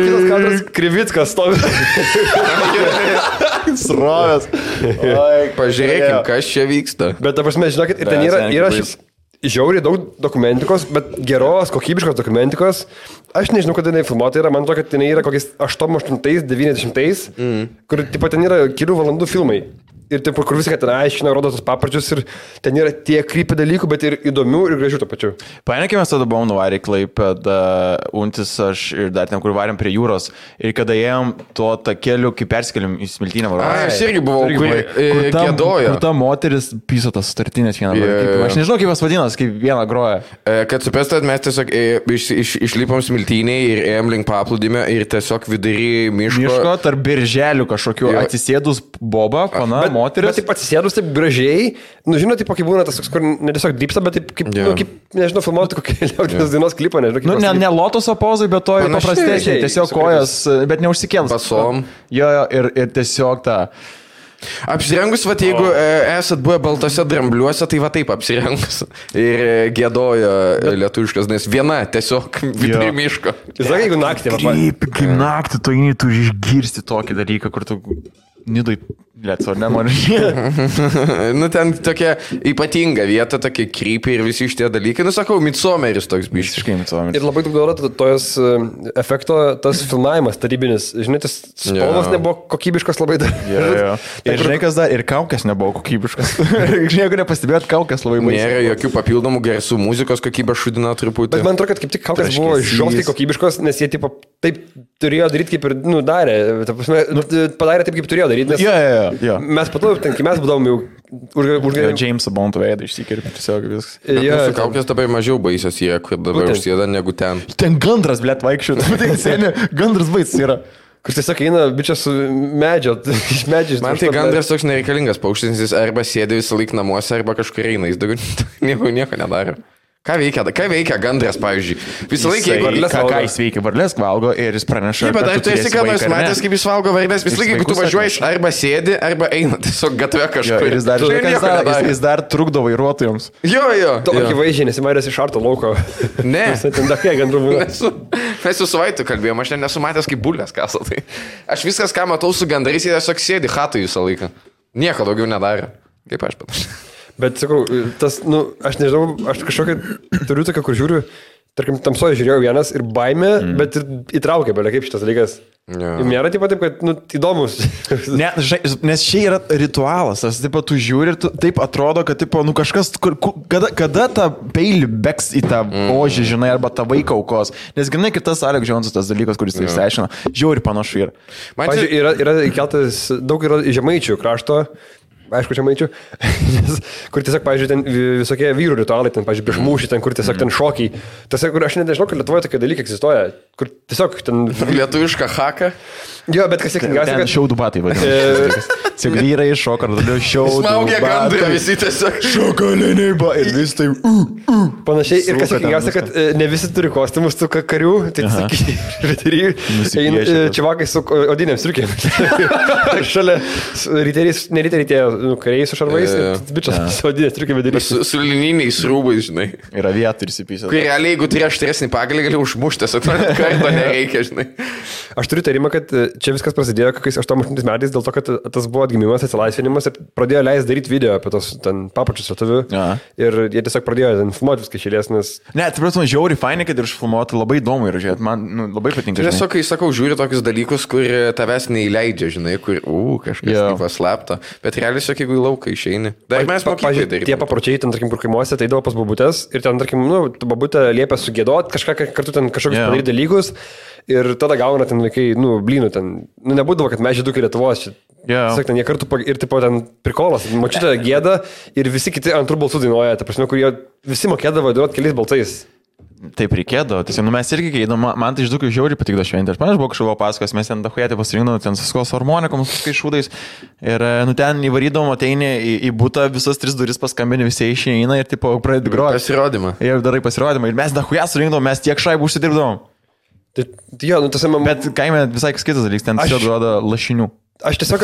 Kitas kadras, Krivickas stovi. Srovės. Pažiūrėkim, kas čia vyksta. Bet, ta prasme, žinokit, ir ten yra žiauriai daug dokumentikos, bet geros, kokybiškos dokumentikos. Aš nežinau, kada jinai filmuota yra, man to, kad jinai yra kokiais 88-90, kur, tipo, ten yra kelių valandų filmai. Ir taip, kur viską ten aiškina, rodo tos paparčius ir ten yra tiek krypį dalykų, bet ir įdomių ir gražių to pačiu. Paėmėkime, mes tada buvom nuvarę į Klaipėdą, Untis, aš ir dar ten, kur varėm prie jūros. Ir kada ėjom to takeliu, kai persikėlėm į Smiltynę varą. Aš irgi buvau, kur kėdojo. Kur ta moteris piso tas startinės vieną. Aš nežinau, kaip jos vadinas, kaip vieną groja. Kad supestat, mes tiesiog išlipom Smiltynėj ir ėjom link paplūdimio ir tiesiog vidury miško tarp birželių kažkokių atsisėdus boba, pana, moteris. Bet taip atsisėdus taip gražiai, nu žinot, taip kaip būna tas, kur ne tiesiog drypsta, bet taip kaip, nu, kaip nežinau, filmuoti kokį liaudinės dainos klipą, nežinau. Nu, ne lotoso pozai, bet to paprastesnė, tiesiog kojas, bet neužsikėlus. Pasom. Jo, ir tiesiog tą... Apsirengus, va, jeigu esat buvę baltose drambliuose, tai va taip apsirengus. Ir gėdojo lietuviškas, nes viena tiesiog vidury miško. Jis sakė, jeigu naktį, va. Kaip naktį, tu eini, tu išgirsti tokį dalyką, kur tu... Nidai, lietso, nenori. Nu, ten tokia ypatinga vieta, tokia krypė ir visi šitie dalykai. Nu, sakau, Midsommeris toks biškas. Visiškai Midsommeris. Ir labai daug duoda tojos efekto, tas filmavimas tarybinis. Žinai, tas spalvas nebuvo kokybiškas labai dar. Jo. Ir žinai, kas dar, ir kaukės nebuvo kokybiškas. Žinai, jeigu nepastebėjot, kaukės labai baisiai. Nėra jokių papildomų garsų, muzikos kokybė šudina truputį. Bet man atrodo, kad kaip tik kaukės buvo žiauriai kokybiškos, nes jie tipo, taip turėjo daryti, kaip ir darė. Padarė taip, kaip turėjo daryti. Jo. Mes po to, kai mes būdavom jau užgavę. James Bond'o veidą išsikirpti tiesiog viskas. Mūsų kaukės dabar mažiau baisios jie, kur dabar užsėda negu ten. Ten gandras, blėt, vaikščiu. Gandras baisas yra. Kur tiesiog eina bičias su medžio, iš medžio. Man tai gandras toks nereikalingas paukštis, jis arba sėdi visą laiką namuose, arba kažkur eina, jis daugiau nieko nedaro. Ką veikia gandras, pavyzdžiui? Visą laiką, ką jis veikia, varlės valgo ir jis praneša. Taip, bet ar tu esi ką nors matęs, kaip jis valgo varlės? Visą laiką, jeigu tu važiuoji, arba sėdi, arba eina tiesiog gatve kažkur. Ir jis dar trukdo vairuotojams. Jo. Tokį vaizdžiai, nesimairęs iš arto lauko. Ne. Mes su Vaitu kalbėjom, aš nesu matęs, kaip bulės kasa. Tai. Aš viskas, ką matau su gandrais, jie tiesiog sėdi chatui visą laiką. Nieko daugiau nedarė. Kaip aš panašiai. Bet sakau, tas, nu, aš nežinau, aš kažkokią turiu tokią, kur žiūriu, tarkim, tamsoje žiūrėjau vienas ir baimė, bet ir įtraukė, belia kaip šitas dalykas. Nėra taip, kad, nu, įdomus. Ne, nes čia yra ritualas, tas, taip, tu žiūri ir taip atrodo, kad, taip, nu, kažkas, kada tą peilį beks į tą ožį, žinai, arba tą vaiką aukos. Nes, žinai, kitas Alex Jonesas, tas dalykas, kuris tai išsiaiškina, žiūri panašu yra. Pavyzdžiui, yra įkeltas, daug yra žemaičių krašto, aišku, čia maičiu, kur tiesiog, pavyzdžiui, ten visokie vyrų ritualai, ten, pavyzdžiui, prieš mūšį, ten, kur tiesiog ten šokiai. Tas, kur aš nežinau, kad Lietuvoje tokie dalykai egzistuoja, kur tiesiog ten... Lietuvišką haką. Jo, bet kas sėkmingiausia, kad... Šiaudų batai, vadinasi. Tiesiog vyrai šoka, ar tada šiaudų batai. Smaugia gandrai, visi tiesiog šokaliniai batai. Ir vis tai... Panašiai, ir kas sėkmingiausia, kad ne visi turi kostiumus tų karių, tai sakykime, čiavakai su odinėm striukėm. Šalia kariai su šarvais, bičias su odinės striukėm darys. Su lininiais rūbais, žinai. Yra vieta ir įsipysė. Kai realiai, jeigu turi aštresnį pagalį, gali užmušti, karto nereikia, žinai. Aš turiu tarimą, kad čia viskas prasidėjo kokiais 88 metais, dėl to, kad tas buvo atgimimas, atsilaisvinimas ir pradėjo leisti daryti video apie tos ten papačius lietuvių. Ir jie tiesiog pradėjo ten filmuoti viską šėlės, nes... Ne, tai prasme, žiauriai fainai, kad ir išfilmuoti labai įdomu ir žiūrėti, man labai patinka. Tiesiog, kai sakau, žiūri tokius dalykus, kur tavęs neįleidžia, žinai, kur, kažkas paslapta, bet realiai, jeigu į lauką išeini. Dar mes mokyklai daryti. Tie papročiai, ten, tarkim, kur kaimuose, tai eidavo pas babutės ir ten, tarkim, nu, babutė liepia sugėdoti, kartu ten kažkokius padaryti dalykus. Ir tada gauna ten vaikai, nu, blynų ten, nu, nebūdavo, kad mes žydukai Lietuvos, tiesiog ten jie kartu ir tipo ten prikolas, močiutė gėda ir visi kiti antrų balsų dainuoja, ta prasme, kur jie visi mokėdavo dainuoti keliais balsais. Taip reikėdavo, tiesiog, nu, mes irgi keidom, man tai žydukai žiauriai patikdo šventė, aš man buvo kažkoko paskos, mes ten dahujatė pasirinkdom, ten suskos harmonikom, suskai šūdais ir, nu, ten įvarydom, ateini į butą, visas 3 duris paskambini, visi išeina ir, tipo, pradedi groti. Pasirodymą. Ir darai pasirodymą ir mes dahujat surinkdom, mes tiek šaibų užsidirbdom. Jo, nu, tas man... Bet kaime visai kitas dalykas, ten tiesiog duoda lašinių. Aš tiesiog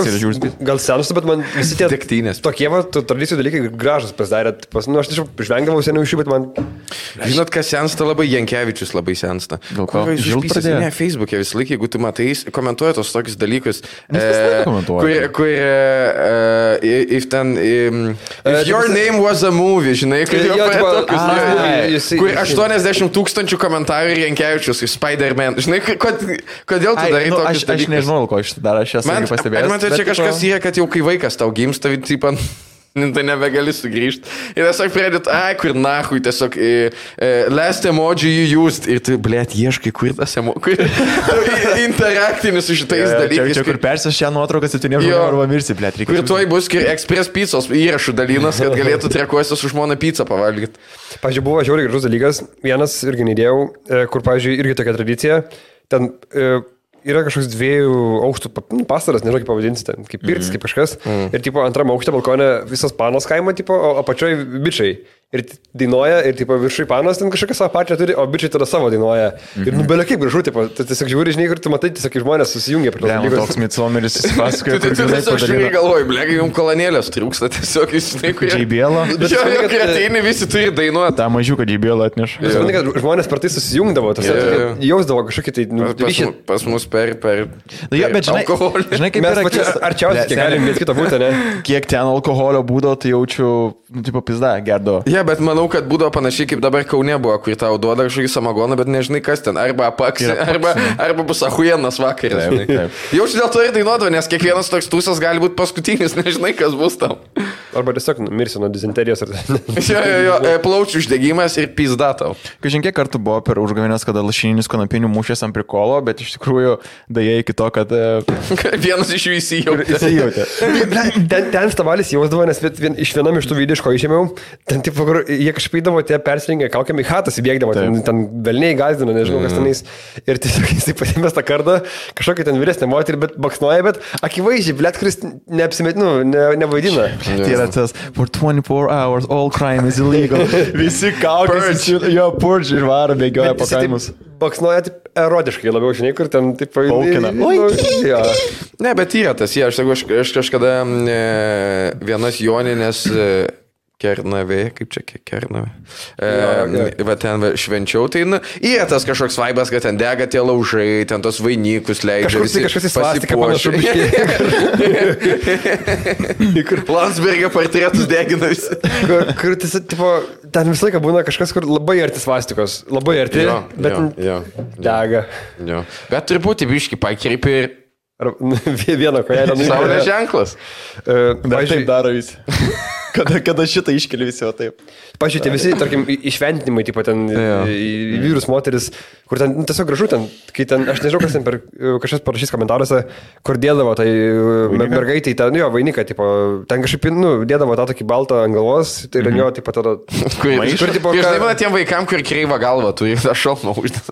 gal senus, bet man visi tie tokie tradicijų dalykai gražus pasidarė. Nu, aš tiesiog žvengdavau seniau iš jų, bet man... Žinot, kas sensta labai, Jankevičius labai sensta. Ne, Facebook'e visą laiką, jeigu tu matai, komentuoja tos tokius dalykus. Kur if your name was a movie, žinai, kur 80 000 komentarų ir Jankevičius, Spider-Man. Žinai, kodėl tu darai tokius dalykus? Aš nežinau, ko aš darau, aš esu pastabėjęs. Man tai čia kažkas yra, kad jau kai vaikas tau gimsta, tai nebegali sugrįžti. Ir tiesiog pradėt, kur nahui, tiesiog last emoji you used. Ir tu, blėt, ieškai, kur tas emoji. Interaktinis su šitais dalykais. Čia kur persios šią nuotrauką 7 žmonių arba mirsi, blėt. Kur tuoj bus Express pizzos įrašų dalinas, kad galėtų trekuosi su žmona pizzą pavalgyti. Pavyzdžiui, buvo žiauriai gražus dalykas. Vienas irgi neįdėjau, kur, pavyzdžiui, irgi tokia tradicija. Ten yra kažkoks 2 aukštų pastaras, nežinau kaip pavadinsi ten, kaip pirtis, kaip kažkas. Ir tipo antrame aukšte balkone visas panos kaimo, tipo, o apačioje bičiai. Ir dainuoja, ir tipo viršui panos ten kažkokią savo pačią turi, o bičiai tada savo dainuoja. Ir nubelė kaip gražu, tipo, tu tiesiog žiūri, žinai, kur tu matai, tiesiog žmonės susijungia prie to. Toks Midsomeris įsipasakoja, kur žinai galvoju, blegi, jums kolonėlės trūksta tiesiog, žinai, kurie... JBL-o. Kai ateini, visi turi dainuoti. Ta mažiuką JBL atneša. Aš manau, kad žmonės per tai susijungdavo, jausdavo kažkokį tai ryšį. Pas mus per alkoholį. Žinai, kaip yra... Arčiausiai, kiek galim viens kitą būti, ne? Kiek ten alkoholio būdavo, tai jaučiu, tipo, pizda, gerdo. Bet manau, kad būdavo panašiai kaip dabar Kaune buvo, kur tau duoda kažkokį samagoną, bet nežinai kas ten, arba apaksi, arba bus ahujienas vakaras. Jaučiu dėl to ir dainuodavo, nes kiekvienas toks tūsas gali būti paskutinis, nežinai kas bus tam. Arba tiesiog mirsi nuo dizenterijos. Plaučių uždegimas ir pizda tau. Kažin kiek kartų buvo per užgavėnės, kada lašininis kanapinių mušės ant prikolo, bet iš tikrųjų daja iki to, kad... Vienas iš jų įsijautė. Ten stavalis jausdavo, nes iš vienam iš tų video, iš ko išėmiau, ten tipo, kur jie kažkaip įdavo, tie persirengė kaukiam į hatas įbėgdavo, ten velniai gazdino, nežinau kas tenais. Ir tiesiog jisai pasimės tą kardą, kažkokia ten vyresnė moterį, bet baksnuoja, bet akivaizdžiai, blėt, kuris neapsimetinu, nevaidina. Tai yra tas, for 24 hours all crime is illegal. Visi kaukės, jo purge ir varo bėgioja po kaimus. Baksnuoja taip erotiškai labiau, žinai, kur ten taip paukina. Ne, bet yra tas, aš kažkada vienas Joninės Kernavė, kaip čia Kernavė. Va ten švenčiau, tai yra tas kažkoks vaibas, kad ten dega tie laužai, ten tos vainikus leidžia. Kažkas į svastiką panašu. Landsbergio portretus degina visi. Kur ten visą laiką būna kažkas, kur labai arti svastikos. Labai arti, bet dega. Bet turbūt biški pakreipi ir... Vieną kojelę. Saulės ženklas. Bet taip daro visi. Kada šitą iškeli visi, o taip. Pažiūrėjau, visi, tarkim, išventinimai, tipo ten vyrus, moteris, kur ten tiesiog gražu ten, kai ten, aš nežinau, kas ten per kažkas parašys komentaruose, kur dėdavo tai mergaitai, ten, jo, vainiką, tipo, ten kažkaip, dėdavo tą tokį baltą ant galvos, tai ir jo, tipo, tada... Kur, tipo, žinai, man tiem vaikam, kur kreiva galva, tu tą šalmą uždės.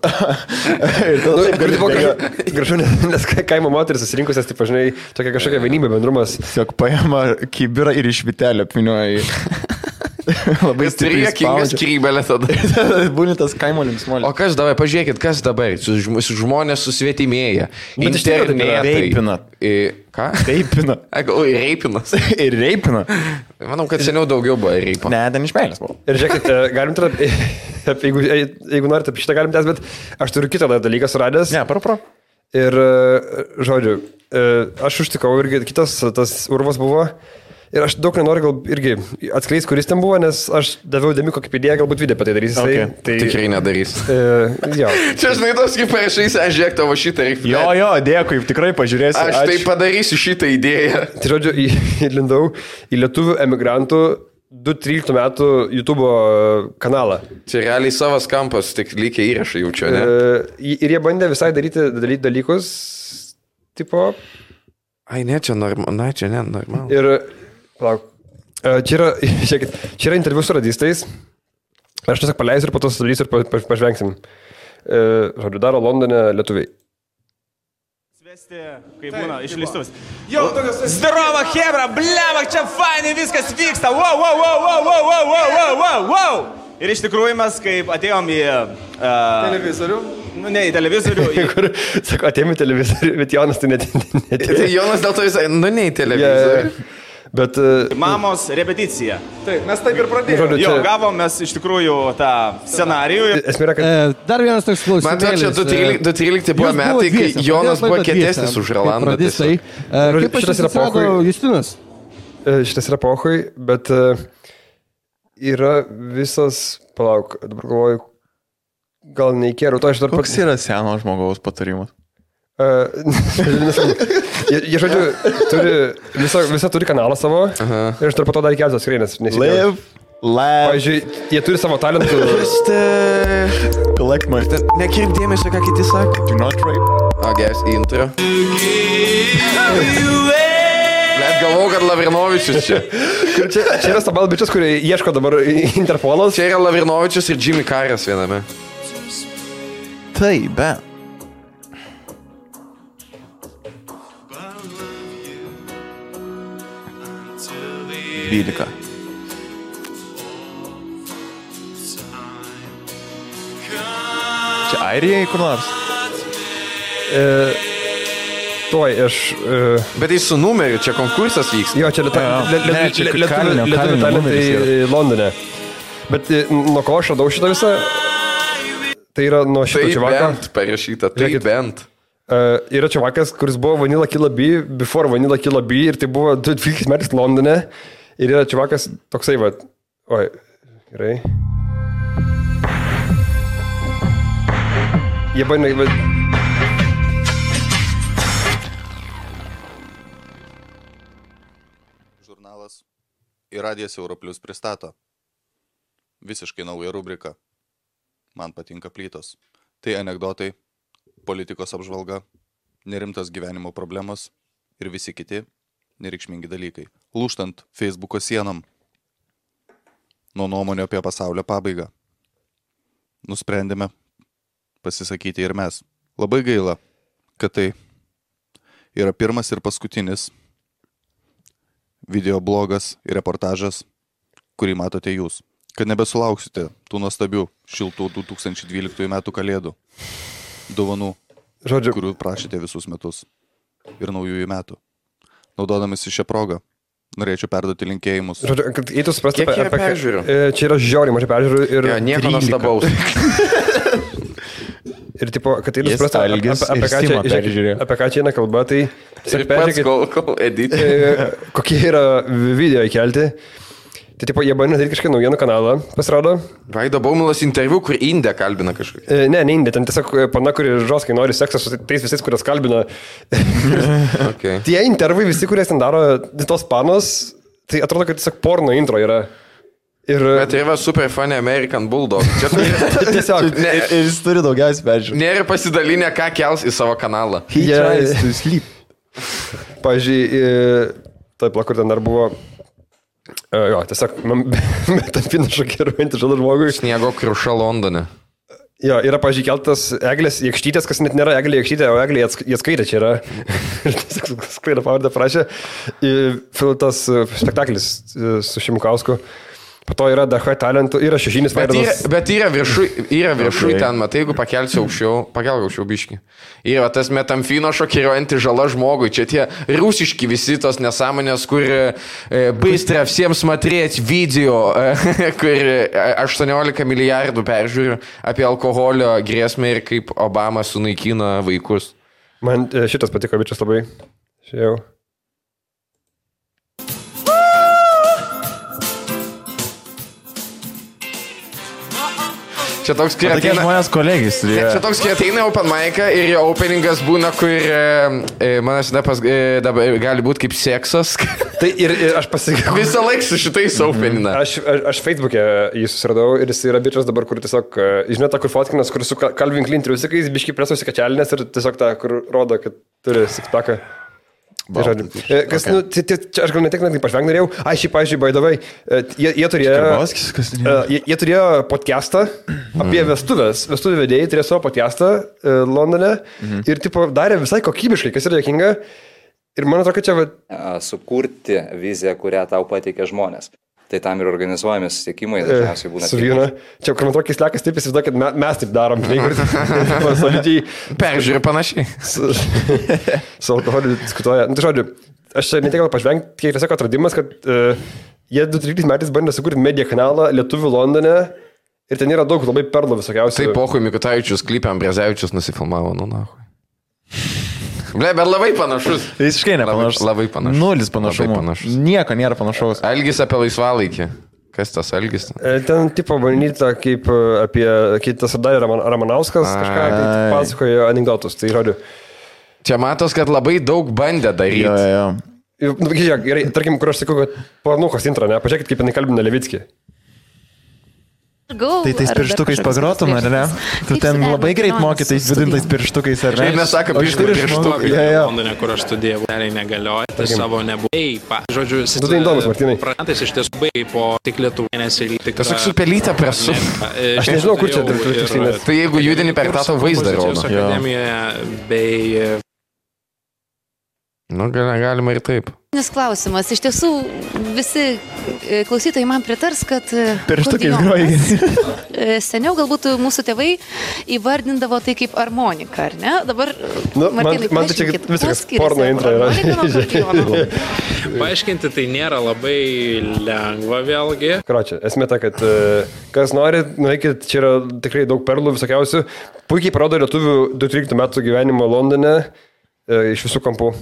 Kur, tipo, gražu, nes kaimo moteris susirinkusias, tipo, žinai, tokia kažkokia vienybė, bendrumas. Tiesiog paima kibirą ir iš vitelio apvinioja. Labai stipriai skrybelė tada. Būni tas kaimo linksmolis. O kas dabar, pažiūrėkit, kas dabar, žmonės susvetimėja. Internetai. Reipina. Ką? Reipina. Reipinas. Ir reipina. Manau, kad seniau daugiau buvo reipina. Ne, ten iš meilės buvo. Ir žiūrėkit, galim tada, jeigu norite apie šitą galim tęs, bet aš turiu kitą dalyką suradęs. Ne, pro. Ir, žodžiu, aš užtikau irgi kitas tas urvas buvo. Ir aš daug nenoriu gal irgi atskleis, kuris ten buvo, nes aš daviau dėmį kokį idėją, galbūt video apie tai darys. Okay. Tai tikrai nedarys. Čia žinai, tos kaip parašys, aš žiūrėk tavo šitą reikia. Jo, dėkui, tikrai pažiūrėsiu. Aš tai padarysiu šitą idėją. Tai žodžiu, įlindau į lietuvių emigrantų 2013 metų YouTube kanalą. Čia realiai savas kampas, tik lygiai įrašai jaučio, ne? Ir jie bandė visai daryti dalykus, tipo... Ai, ne, čia normalu. Ir... Palauk. Čia yra interviu su radistais. Aš tiesiog paleisiu ir po to sudarysiu ir pažvengsim. Žodžiu, daro Londone lietuviai. Svesti, kai būna išleistuvas. Jau, zdarova hebra, bleva, čia fainai viskas vyksta. Wow. Ir iš tikrųjų mes, kaip atėjom į... Televizorių? Ne, į televizorių. Kur, sako, atėjom į televizorių, bet Jonas tai netėjo. Tai Jonas dėl to visai, ne į televizorių. Bet... Mamos repeticija. Taip, mes taip ir pradėjome. Jo, gavom mes iš tikrųjų tą scenarijų. Esmė yra, kad... Dar vienas toks klausimėlis. Man čia 2013 buvo metai, kai Jonas buvo kietesnis už Rolandą. Kaip šitas yra pohui? Justinas? Šitas yra pohui, bet yra visas... Palauk, dabar galvoju, gal neįkėriau. Koks yra seno žmogaus patarimas? Jie, žodžiu, visą turi kanalą savo. Ir aš dar po to dar keltos skreinės. Live. Pavyzdžiui, jie turi savo talentų. Collect my... Nekirp dėmesio, ką kiti sako. Do not rape. Geras intro. Net galvau, kad Lavrinovičius čia. Čia yra stabalbičius, kurie ieško dabar Interpolas. Čia yra Lavrinovičius ir Jimmy Carras viename. Tai, be. 12. Čia Airijai kur nors? Tuoj, aš... Bet tai su numeriu, čia konkursas vyks. Jo, čia lietuvių talentai Londone. Bet nuo ko aš radau šitą visą? Tai yra nuo šito čivako. Tai bent parašyta, tai bent. Yra čivakas, kuris buvo Vanilla Killa B, before Vanilla Killa B, ir tai buvo 12 metais Londone. Ir yra čivakas toksai, va. Oi, gerai. Jie bandė... Žurnalas ir Radijas Europlius pristato visiškai naują rubriką. Man patinka plytos. Tai anekdotai, politikos apžvalga, nerimtas gyvenimo problemos ir visi kiti nereikšmingi dalykai. Lūžtant Facebooko sienom nuo nuomonio apie pasaulio pabaigą. Nusprendėme pasisakyti ir mes. Labai gaila, kad tai yra pirmas ir paskutinis videoblogas ir reportažas, kurį matote jūs. Kad nebesulauksite tų nuostabių šiltų 2012 metų kalėdų dovanų, kurių prašėte visus metus ir naujųjų metų. Naudodamasi šią progą, norėčiau perduoti linkėjimus. Žodžiu, kad eitų suprasti Kiek peržiūrių? Čia yra žiauriai mažai peržiūrių ir... Ja, nieko nuostabaus. Ir tipo, kad eitų suprasti, apie ką čia eina kalba, tai... Ir pats kol edit. Kokie yra video įkelti. Tai tipo, jie bandė daryti kažkokį naujienų kanalą, pasirodo. Vaido Baumilas interviu, kur Indė kalbina kažkokį. Ne Indė, ten tiesiog pana, kuri žoskai nori seksą su tais visais, kurias kalbina. Okay. Tie intervai visi, kurie ten daro tos panos, tai atrodo, kad tiesiog porno intro yra. Ir... Bet tai yra super funny American Bulldog. Čia tiesiog. Jis turi daugiausiai peržiūrų. Nėra pasidalinę, ką kels į savo kanalą. He tries to sleep. Pavyzdžiui, taip, kur ten dar buvo... Jo, tiesiog, metampina šokiruojantį žalą žmogui. Sniego kruša Londone. Jo, yra, pavyzdžiui, keltas Eglės Jekštytės, kas net nėra Eglė Jekštytė, o Eglė Jeckaitė čia yra. Ir tiesiog sklaidą pavardę prašė. Tas spektaklis su Šimkausku. Po to yra DH talentų, yra šešinis veidas. Bet yra viršui ten, matai, jeigu pakelsi aukščiau, pakelk aukščiau biškį. Yra tas metamfino šokiruojanti žala žmogui. Čia tie rusiški visi tos nesąmonės, kur bystra visiems matrėti video, kur 18 milijardų peržiūrių apie alkoholio grėsmę ir kaip Obama sunaikino vaikus. Man šitas patiko, bičias labai. Šiau. Čia toks, kai ateina... žmonės kolegis. Čia toks, kai ateina open mic'ą ir jo openingas būna, kur manas gali būti kaip seksas. Tai ir aš pasakiau. Visą laiką su šitais openina. Aš Facebook'e jį susiradau ir jis yra bičias dabar, kur tiesiog, žinot, tą, kur fotkinas, kur su Calvin Klein triusikais, biškai presusi kačelinės ir tiesiog tą, kur rodo, kad turi sixpacką. Kas, nu, aš gal ne tik pažveng norėjau. Šį, pavyzdžiui, baidavai, jie turėjo podcastą apie vestuvių vedėjai, turėjo savo podcastą Londone ir tipo, darė visai kokybiškai, kas yra dėkinga. Ir man atrodo, kad čia... Sukurti viziją, kurią tau pateikia žmonės. Tai tam ir organizuojami susitikimai, dažniausiai būna. Su vynu. Čia, kur man atrodo, keislekas taip įsivaizduoja, kad mes taip darom. Solidžiai. Peržiūrė panašiai. Su alkoholiu diskutuoja. Nu, tai žodžiu, aš ne tik gal pažvengti, kiek tiesiog atradimas, kad jie 2013 metais bandė sukurti media kanalą Lietuvių Londone ir ten yra daug labai perlų visokiausių. Tai pohui Mikutavičius klipė Ambrezevičius nusifilmavo, nu nahui. Ble, bet labai panašus. Visiškai nepanašus. Labai panašus. Nulis panašumo. Nieko nėra panašaus. Algis apie laisvalaikį. Kas tas Algis? Ten tipo bandyta kaip apie kitas Darė Ramanauskas kažką pasakojo anekdotus. Tai žodžiu. Čia matos, kad labai daug bandė daryti. Jo. Gerai, tarkim, kur aš sakau, kad pornuchos intro, ne? Pažiūrėkit, kaip jinai kalbina Levickį. Tai tais pirštukais pagrotum, ar ne? Tu ten labai greit mokytais vidintais pirštukais, ar ne? Šiaip nesako, pirštukai. Londone, kur aš studijavau, negalioja, tai savo nebuvo. Žodžiu, tu tai įdomus, Martynai. Pranetais iš tiesų baigai po tik Lietuvų mėnesį. Tiesiog su pelytę presu. Aš nežinau, kur čia tiksliai. Tai jeigu judini per tą vaizdą rodo. Akademijoje bei... Nu, galima ir taip. Klausimas. Iš tiesų, visi klausytojai man pritars, kad pirštukais groji. Seniau galbūt mūsų tėvai įvardindavo tai kaip armonika, ar ne? Dabar, Martynai, man tai čia viskas porno intro yra. Paaiškinti tai nėra labai lengva vėlgi. Kročia, esmė ta, kad kas nori, nueikit, čia yra tikrai daug perlų visokiausių. Puikiai parodo lietuvių 2-13 metų gyvenimo Londone. Iš visų kampų.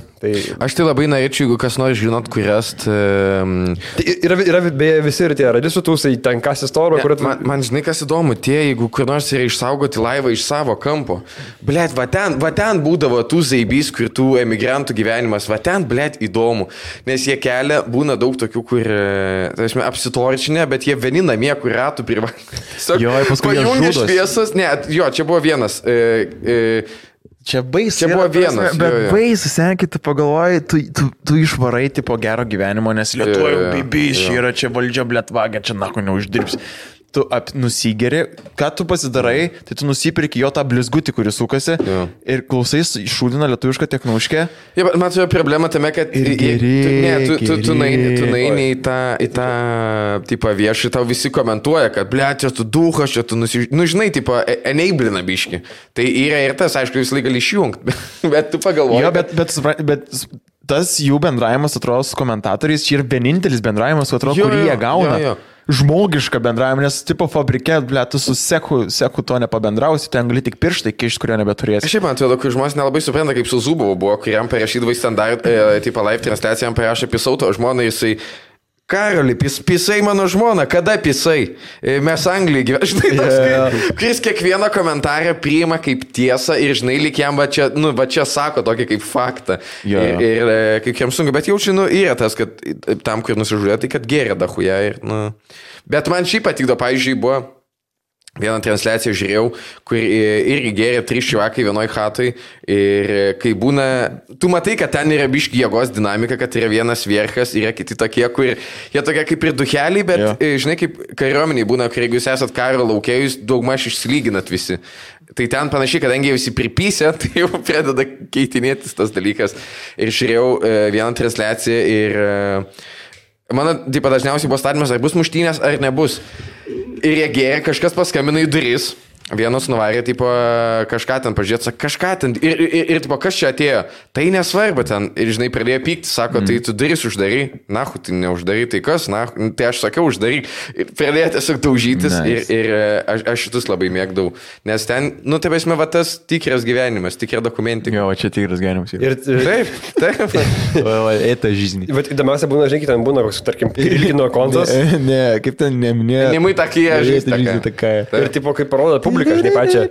Aš tai labai norėčiau, jeigu kas nori žinot, kurias... Yra beje visi ir tie radisų tūsai, ten kas istorija, kur... Man žinai, kas įdomu, jeigu kur nors yra išsaugoti laivą iš savo kampo. Blet, va ten būdavo tų zaibys, kur tų emigrantų gyvenimas, va ten, blet, įdomu. Nes jie kelia, būna daug tokių, kur, apsitorčinė, bet jie vieni namie, kur ratų privalė. Jo, paskui jie žudos. Šviesas, ne, jo, čia buvo vienas... Čia baisu. Čia buvo vienas. Bet baisu, senkit, tu pagalvoji, tu išvarai tipo gero gyvenimo, nes Lietuvoje bibys, yra čia valdžia blėtvagia, čia nako neuždirbsi. Tu nusigeri, ką tu pasidarai, tai tu nusipirki jo tą blizgutį, kuris sukasi ir klausais šūdina lietuvišką teknauškę. Ja, man atrodo problema tame, kad tu naini į tą tipą viešą, tau visi komentuoja, kad blėt, čia tu duhas, čia tu žinai, tipo, eneiblina biški. Tai yra ir tas, aišku, visą laiką gali išjungti, bet tu pagalvoji. Jo, bet tas jų bendravimas, atrodo, su komentatoriais, čia yra vienintelis bendravimas, atrodo, kurį jie gauna. Jo. Žmogišką bendravimą, nes tipo fabrike, tu su seku to nepabendrausi, ten gali tik pirštai kišti, kurio nebeturėsi. Šiaip man atrodo, kai žmonės nelabai supranta, kaip su Zubovu buvo, kuriam parašydavo į standart, tipo live transliaciją, jam parašė pisauto žmoną, jisai Karoli, pisai mano žmona, kada pisai? Mes Anglijai gyvename. Žinai, toks, kuris kiekvieną komentarą priima kaip tiesą ir žinai, lyg jam va čia sako tokį kaip faktą. Ir kaip jam sunku, bet jaučiu, yra tas, kad tam, kur nusižudė, tai kad geria dahuja. Bet man šiaip patikdo, pavyzdžiui, buvo vieną transliaciją žiūrėjau, kur irgi geria 3 čiuvakai vienoj chatoj ir kai būna, tu matai, kad ten yra biški jėgos dinamika, kad yra vienas vierchas, yra kiti tokie, kur jie tokie kaip ir duheliai, bet žinai, kaip kariuomeniai būna, kur jeigu jūs esat karo laukėjus, daugmaž išsilyginat visi. Tai ten panašiai, kadangi jie visi pripysė, tai jau pradeda keitinėtis tas dalykas. Ir žiūrėjau vieną transliaciją ir mano, taip dažniausiai buvo statymas, ar bus muštynės, ar nebus. Ir jie gėrė, kažkas paskambino į duris, vienas nuvarė, tipo, kažką ten pažiūrėti, kažką ten, ir tipo, kas čia atėjo, tai nesvarbu ten, ir žinai, pradėjo pykti, sako, tai tu duris uždary, nahu, tai neuždary, tai kas, nahu, tai aš sakiau uždary, pradėjo tiesiog daužytis, ir aš šitus labai mėgdavau, nes ten, taip esmė, va tas tikras gyvenimas, tikra dokumentika. Jo, čia tikras gyvenimas. Taip. Eita žyzni. Bet įdomiausia būna, žinai, ten būna, tarkim, ilgino kontas. Ne, kaip ten neminėjo. Nemai takai, ir tipo, kaip parodo publika, žinai, pačią.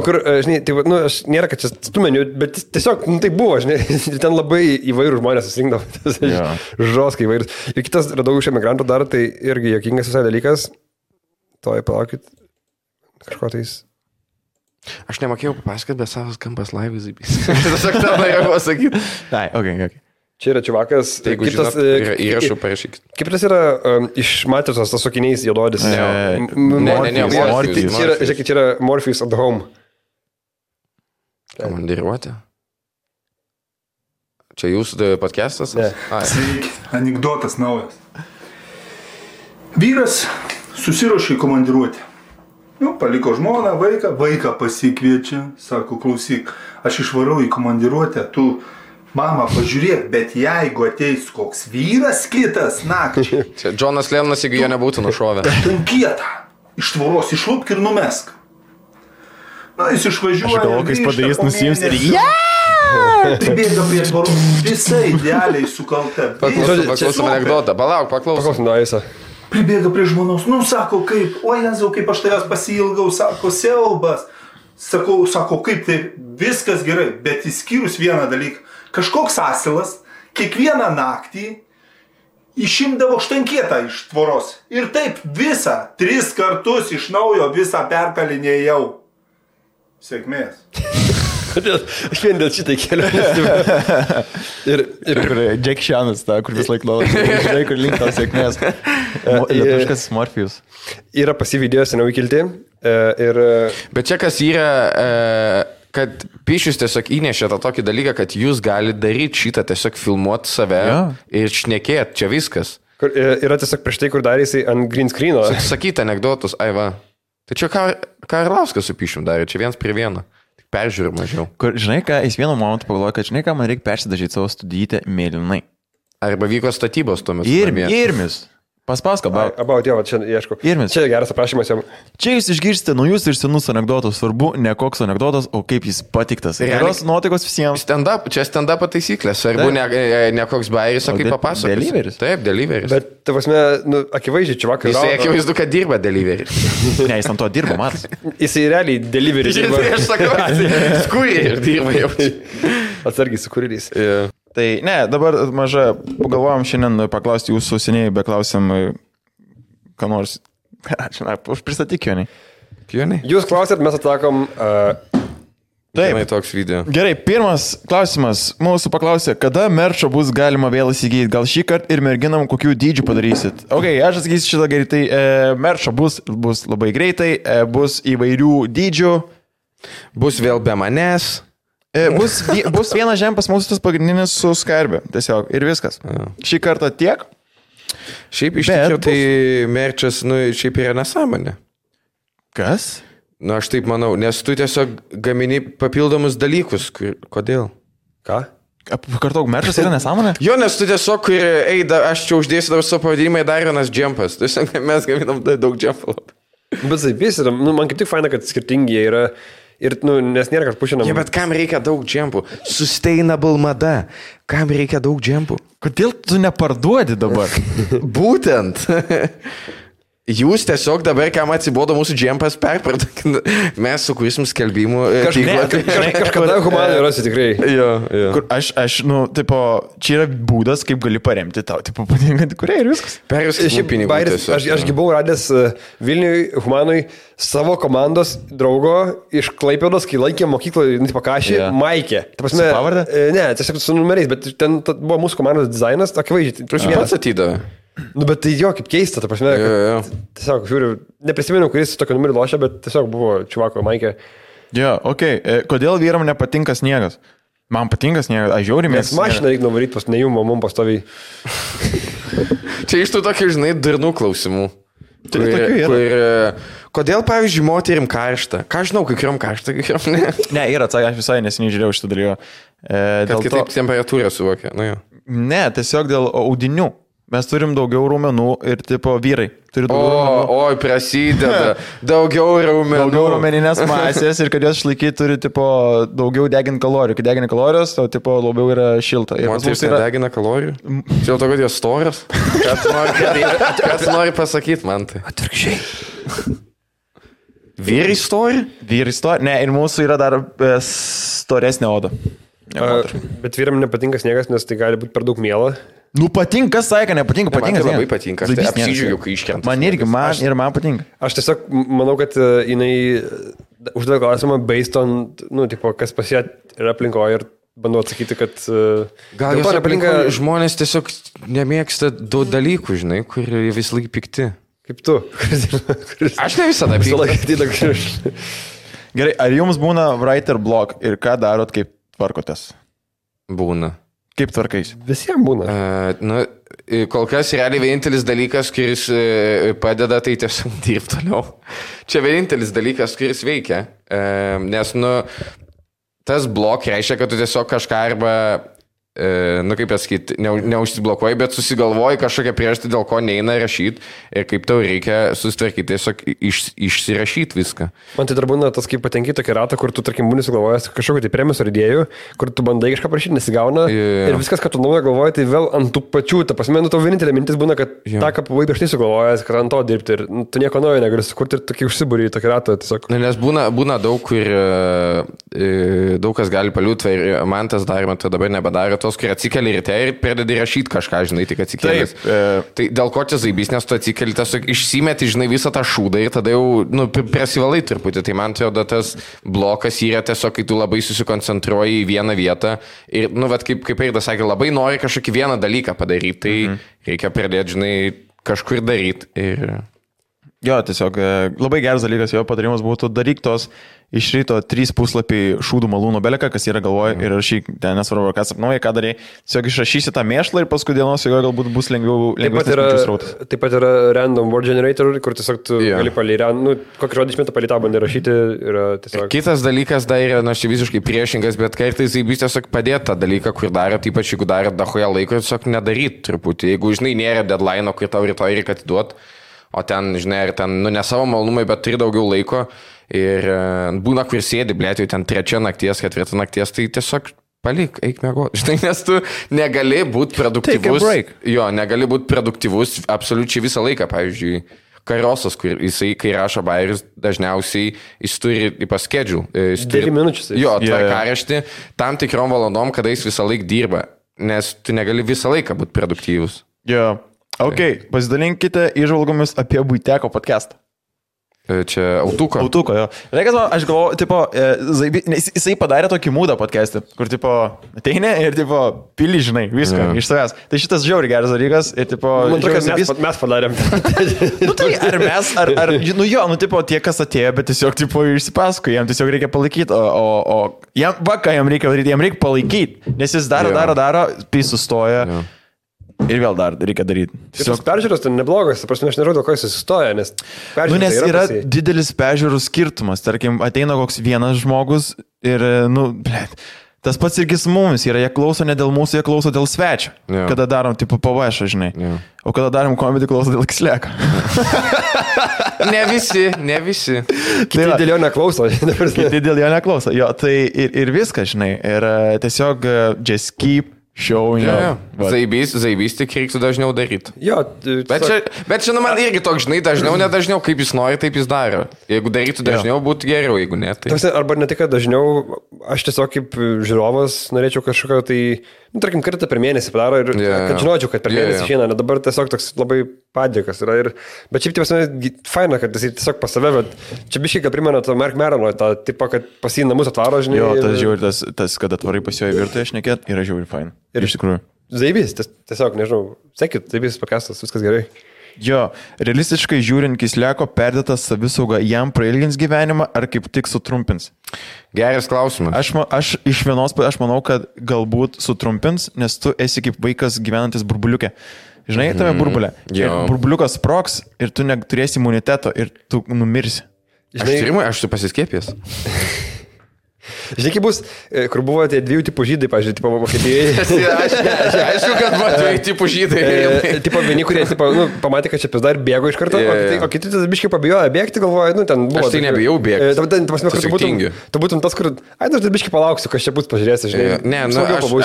Kur, žinai, tai, aš nėra, kad čia stumeniu, bet tiesiog, tai buvo, žinai, ten labai įvairių žmonės susirinkdavo, žoskai įvairius. Ir kitas radau iš emigrantų dar, tai irgi jokingas visai dalykas. Toj, palaukit, kažko tais. Aš nemokėjau papasakoti, bet savas kampas laivai zaibys. Tiesiog tą norėjau pasakyti. Tai, ok. Čia yra čiuvakas. Tai jeigu žinot, įrašų parašykit. Kaip tas yra iš Matricos, tas sukiniais juododis? Ne, Morpheus. Žiūrėkit, čia yra Morpheus at home. Komandiruotė? Čia jūsų podcastas? Ne. Anekdotas naujas. Vyras susiruošė į komandiruotę. Paliko žmoną, vaiką pasikviečia, sako, klausyk, aš išvarau į komandiruotę, tu mama, pažiūrėk, bet jeigu ateis koks vyras kitas nakčiai. Čia Džonas Lennonas, jeigu jo nebūtų nušovę. Ten kietą, iš tvoros išlupk ir numesk. Jis išvažiuoja. Aš galvoju, kai jis padarys, nusiims ir Tai bėga prie tvoros, visai idealiai sukalta. Paklausom anekdotą, paklausom. Pribėga prie žmonos, sako, kaip, o Jėzau, kaip aš tavęs pasiilgau, sako, siaubas. Sako, kaip tai viskas gerai, bet įskyrus vieną dalyką. Kažkoks asilas kiekvieną naktį išimdavo štankietą iš tvoros. Ir taip visą, 3 kartus iš naujo visą perkalinėjau. Sėkmės. Aš vien dėl šitai keliu. Ir Jack Shanas, kur vis laik laukia. Žinai, kur link tau sėkmės. Lietuviškas Morpheus. Yra pasi video seniau įkilti. Bet čia kas yra... kad Pišius tiesiog įnešė tą tokį dalyką, kad jūs galite daryti šitą, tiesiog filmuoti save ir šnekėti, čia viskas. Kur, yra tiesiog prieš tai, kur darė jisai ant green screeno. Sakyti anekdotus, va. Tai čia ką Arlauskas su Pišium darė, čia 1:1. Tik peržiūrė mažiau. Kur, žinai ką, jis vienu momentu pagalvoja, kad žinai ką, man reikia persidažyti savo studijietę mėlynai. Arba vyko statybos tuo metu. Irmis. Paspausk about, jo, čia ieškau. Irmis. Čia geras aprašymas jam. Čia jūs išgirsite naujus ir senus anekdotus. Svarbu, ne koks anekdotas, o kaip jis patiktas. Geros nuotaikos visiems. Čia stand-up taisyklės. Svarbu, ne koks bairis, o kaip papasakos. Deliveris. Taip, deliveris. Bet, prasme, akivaizdžiai, čia vakar. Jisai akivaizdu, kad dirba deliveris. Ne, jis ant to dirba, matas. Jisai realiai deliveris dirba. Aš sakau, skūriai dirba jau. Atsargiai su kuririais. Tai ne, dabar maža, pagalvojom šiandien paklausti jūsų seniai, beklausim, ką nors, žinai, pristatyk Jonai. Jūs klausėt, mes atsakom. Taip, toks video. Gerai, pirmas klausimas, mūsų paklausė, kada merčą bus galima vėl įsigyti, gal šį kartą ir merginam kokių dydžių padarysit. Ok, aš atsakysiu šitą greitai, merčą bus labai greitai, bus įvairių dydžių. Bus vėl be manęs. Bus vienas žempas mūsų tas pagrindinis su skarbė, tiesiog, ir viskas. Šį kartą tiek. Šiaip iš tikrųjų tai merčas, šiaip yra nesąmonė. Kas? Aš taip manau, nes tu tiesiog gamini papildomus dalykus. Kodėl? Ką? Kartok, merčas yra nesąmonė? Jo, nes tu tiesiog, aš čia uždėsiu dabar savo pavadinimą, dar vienas džempas. Tiesiog mes gaminam daug džempų. Bet taip, yra, man kaip tik faina, kad skirtingi jie yra. Ir, nes nėra, kad pušinam. Bet kam reikia daug džempų? Sustainable mada. Kam reikia daug džempų? Kodėl tu neparduodi dabar? Būtent. Jūs tiesiog dabar, kam atsibodo mūsų džempas, perparduokit. Mes sukursim skelbimų. Kažkada humanai rasi tikrai. Jo. Kur aš, tipo, čia yra būdas, kaip gali paremti tau, tipo, patinkantį kuriai ir viskas. Perviskit pinigų. Aš buvau radęs Vilniui humanui savo komandos draugo iš Klaipėdos, kai laikė mokykloje, pakašį, Maikė. Su pavarde? Ne, tiesiog su numeriais, bet ten buvo mūsų komandos dizainas, akivaizdžiai. Tu pats atidavai. Bet tai jo, kaip keista, ta prasme, tiesiog, žiūriu, neprisimenu, kuris tokio numerį lošia, bet tiesiog buvo čivako Maikė. Jo, okei. Kodėl vyram nepatinka sniegas? Man patinka sniegas, aš žiauriai mėgstu. Nes mašiną reikia nuvaryti pas nejų mamum pastoviai. Čia iš tų tokių, žinai, durnų klausimų. Kodėl, pavyzdžiui, moterim karšta? Ką žinau, kai kuriam karšta, kai kuriam ne? Ne, yra atsakė, aš visai neseniai žiūrėjau šitą dalyką. Kad kitaip temperatūrą suvokia. Ne, tiesiog dėl audinių. Mes turim daugiau raumenų ir, tipo, vyrai turi daugiau raumenų. Oi, prasideda. Daugiau raumenų. Daugiau raumeninės masės ir kad jos išlaikyti turi, tipo, daugiau deginti kalorijų. Kai degina kalorijos, to, tipo, labiau yra šilta. Moteris nedegina kalorijų? Čia jau to, kad jos storas? Ką tu nori pasakyti man tai? Atvirkščiai. Vyrai stori? Vyrai stori. Ne, ir mūsų yra dar storesnė oda. Bet vyram nepatinka sniegas, nes tai gali būti per daug miela. Patinka, sakė, nepatinka, patinka. Man tai labai patinka, aš tai apsidžiaugiu, kai iškrenta. Man irgi, man patinka. Aš tiesiog manau, kad jinai uždavė klausimą based on, tipo, kas pas ją yra aplinkoje ir bandau atsakyti, kad... Gal jos aplinkoje žmonės tiesiog nemėgsta daug dalykų, žinai, kur vis laik pikti. Kaip tu. Aš ne visada pikti. Gerai, ar jums būna writer block ir ką darot, kaip tvarkotės? Būna. Kaip tvarkais? Visiems būna. Kol kas realiai vienintelis dalykas, kuris padeda, tai tiesiog dirbti toliau. Čia vienintelis dalykas, kuris veikia. Nes, tas blok reiškia, kad tu tiesiog kažką arba, kaip pasakyti, neužsiblokuoji, bet susigalvoji kažkokią priežastį, dėl ko neina rašyti ir kaip tau reikia susitvarkyti, tiesiog išsirašyti viską. Man tai dar būna tas, kaip patenki tokį ratą, kur tu, tarkim, būni sugalvojęs kažkokį tai premijos ar idėjų, kur tu bandai kažką prašyti, nesigauna ir viskas, ką tu naujo galvoji, tai vėl ant tų pačių, ta prasme, tau vienintelė mintis būna, kad tą, ką buvai prieš tai sugalvojęs, kad ant to dirbti ir tu nieko naujo negali sukurti ir tokį užsibūrį tokį ratą tiesiog. Nes būna daug, kur daug kas gali paliūti ir man tas daroma, tai dabar nebedaro. Tos, kur atsikeli ryte ir pradedi rašyti kažką, žinai, tik atsikėlęs. Tai dėl ko čia zaibys, nes tu atsikeli, tiesiog išsimeti, žinai, visą tą šūdą ir tada jau prasivalai truputį. Tai man atrodo, tas blokas yra tiesiog, kai tu labai susikoncentruoji į vieną vietą ir, kaip Eidas sakė, labai nori kažkokį vieną dalyką padaryti, tai reikia pradėti, žinai, kažkur daryti. Ir... Jo, tiesiog labai geras dalykas, jo patarimas būtų daryk tos iš ryto 3 puslapiai šūdų malūno beleką, kas yra galvoje ir rašyk, ten nesvarbu, ką sapnuoji, ką darai. Tiesiog išrašysi tą mėšlą ir paskui dienos jo galbūt bus lengvesnis srautas. Taip pat yra random word generator, kur tiesiog tu gali kokį žodį išmėtą palį tą bandai rašyti. Kitas dalykas dar yra, aš visiškai priešingas, bet kartais jis tiesiog padėti tą dalyką, kur darot, ypač jeigu darot dahoje laiko, tiesiog nedaryt truputį. Jeigu, žinai, nėra deadline, kur tau rytoj reikia atiduoti. O ten, žinai, ir ten, ne savo malonumai, bet turi daugiau laiko ir būna, kur sėdi, blėt, jau ten 3 nakties, 4 nakties, tai tiesiog palik, eik mėgoti. Žinai, nes tu negali būti produktyvus. Jo, negali būti produktyvus absoliučiai visą laiką, pavyzdžiui, Karosas, kur jisai, kai rašo bairius, dažniausiai jis turi schedule. 9 minučių. Jo, tvarkaraštį tam tikrom valandom, kada jis visą laiką dirba, nes tu negali visą laiką būti produktyvus. Jo. Ok, pasidalinkite įžvalgomis apie Buiteko podcastą. Čia Autuko. Autuko, jo. Reikas man, aš galvoju, tipo, jisai padarė tokį mūdą podcastą, kur, tipo, ateini ir, tipo, pili, žinai, viską iš savęs. Tai šitas žiauriai geras dalykas ir, tipo... Man atrodo, kad mes padarėm. Tai ar mes, tipo, tie, kas atėjo, bet tiesiog, tipo, išsipasako, jam tiesiog reikia palaikyti, o jam, ką jam reikia daryti, jam reikia palaikyti, nes jis daro, tai sustoja. Ir vėl dar reikia daryti. Tiesiog peržiūros tai neblogas, prasme, aš nežinau, dėl ko jis sustoja, nes nes yra didelis peržiūrų skirtumas. Tarkim, ateina koks vienas žmogus ir, tas pats irgi su mumis yra, jie klauso ne dėl mūsų, jie klauso dėl svečio. Kada darom, tipo, pavašą, žinai. O kada darom komedį, klauso dėl Xleko. Ne visi. Kiti dėl jo neklauso. Kiti dėl jo neklauso. Jo, tai ir viskas, žinai. Ir tiesiog just keep showing up. Zaibys tik reiktų dažniau daryti. Jo, bet čia man irgi toks, žinai, dažniau, nedažniau, kaip jis nori, taip jis daro. Jeigu darytų dažniau, būtų geriau, jeigu ne. Tai... Arba ne tik, kad dažniau, aš tiesiog kaip žiūrovas norėčiau kažkokio tai, tarkim, kartą per mėnesį padaro ir kad žinočiau, kad per mėnesį išeina, nes dabar tiesiog toks labai padėkas yra. Bet šiaip tiesiog faina, kad jis tiesiog pas save, bet čia biškai, kad primena to Mark Merono, tą tipą, kad pas jį namus atvaro, žinai. Jo, tas žiūri, tas, kad atvarai pas jo į virtuvę šnekėt, yra žiūri faina. Ir iš tikrųjų. Zaibys, tiesiog, nežinau, sekit, Zaibys podcastas, viskas gerai. Jo, realistiškai žiūrint, Kisleko perdėtas savisauga jam prailgins gyvenimą ar kaip tik sutrumpins? Geras klausimas. Aš iš vienos, aš manau, kad galbūt sutrumpins, nes tu esi kaip vaikas gyvenantis burbuliuke. Žinai, tame burbulė. Burbuliukas sprogs ir tu neturėsi imuniteto ir tu numirsi. Aš tu pasiskiepęs. Žinai, kaip bus, kur buvo tie 2 tipų žydai, pažiūrėjau, tipo Vokietijoje. Aišku, kad buvo 2 tipų žydai. Tipo vieni, kurie pamatė, kad čia dar bėgo iš karto, o kiti tas biškai pabijojo bėgti, galvoja, ten buvo. Aš tai nebijau bėgti. Tu būtum tas, kur, aš dar biškai palauksiu, kas čia bus, pažiūrėsi, žinai. Ne,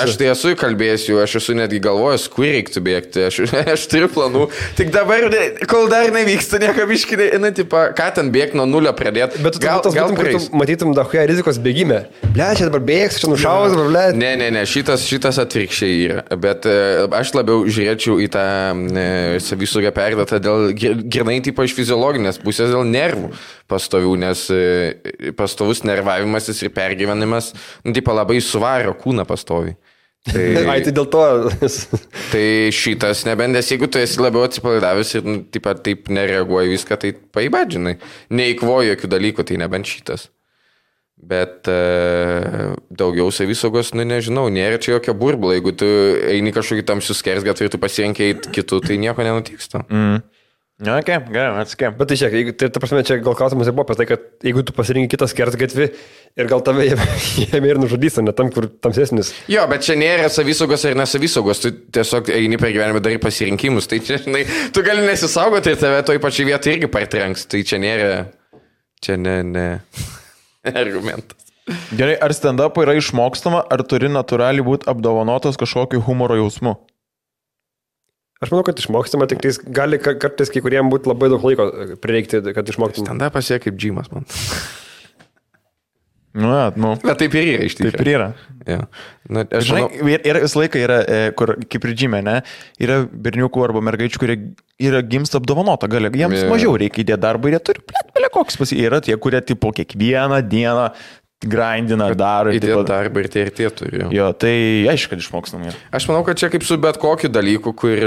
aš tai esu įkalbėsiu, aš esu netgi galvojęs, kur reiktų bėgti, aš turiu planų. Tik dabar, kol dar nevyksta, nieko biškai, ką ten bėgti nuo nulio pradėti. Bet tu matytum dahoje rizikos bėgimą. Ble, čia dabar bėgs, čia nušaus, ble. Ne, šitas atvirkščiai yra. Bet aš labiau žiūrėčiau į tą savisaugą perdėtą dėl grinai tipo iš fiziologinės pusės, dėl nervų pastovių, nes pastovus nervavimasis ir pergyvenimas, tipo labai suvaro kūną pastoviai. Tai dėl to. Tai šitas nebendės, jeigu tu esi labiau atsipalaidavęs ir taip nereaguoji viską, tai paibadžinai. Neįkvoji jokių dalykų, tai nebent šitas. Bet daugiau savisaugos, nežinau, nėra čia jokio burbulo. Jeigu tu eini kažkokį tamsius skersgatvį ir tu pasirenkai kitų, tai nieko nenutiks. Ok, gerai, atskėm. Bet tai šiek, ta prasme, čia gal klausimas buvo apie tai, kad jeigu tu pasirinkai kitą skersgatvį ir gal tave jame ir nužudys, ne tam, kur tamsesnis. Jo, bet čia nėra savisaugos ar nesavisaugos, tu tiesiog eini per gyvenimą darai pasirinkimus, tai čia, žinai, tu gali nesisaugoti ir tave toj pačiai vietai irgi partrenks, tai čia nėra, ne argumentas. Gerai, ar stand-up yra išmokstama, ar turi natūraliai būti apdovanotas kažkokiu humoro jausmu? Aš manau, kad išmokstama, tik gali kartais kai kuriem būti labai daug laiko prireikti, kad išmoktum. Stand-upas jie kaip džimas, man. Bet taip ir yra iš tikrųjų. Taip ir yra. Ja. Žinai, ir visą laiką yra, kur kaip ir džime, ne, yra berniukų arba mergaičių, kurie yra gimsta apdovanota, jiems mažiau reikia įdėti darbą ir jie turi, koks yra tie, kurie tipo kiekvieną dieną grindina, daro. Įdėti darbą ir tie turi. Jo, tai aišku, kad išmokstam. Aš manau, kad čia kaip su bet kokiu dalyku, kur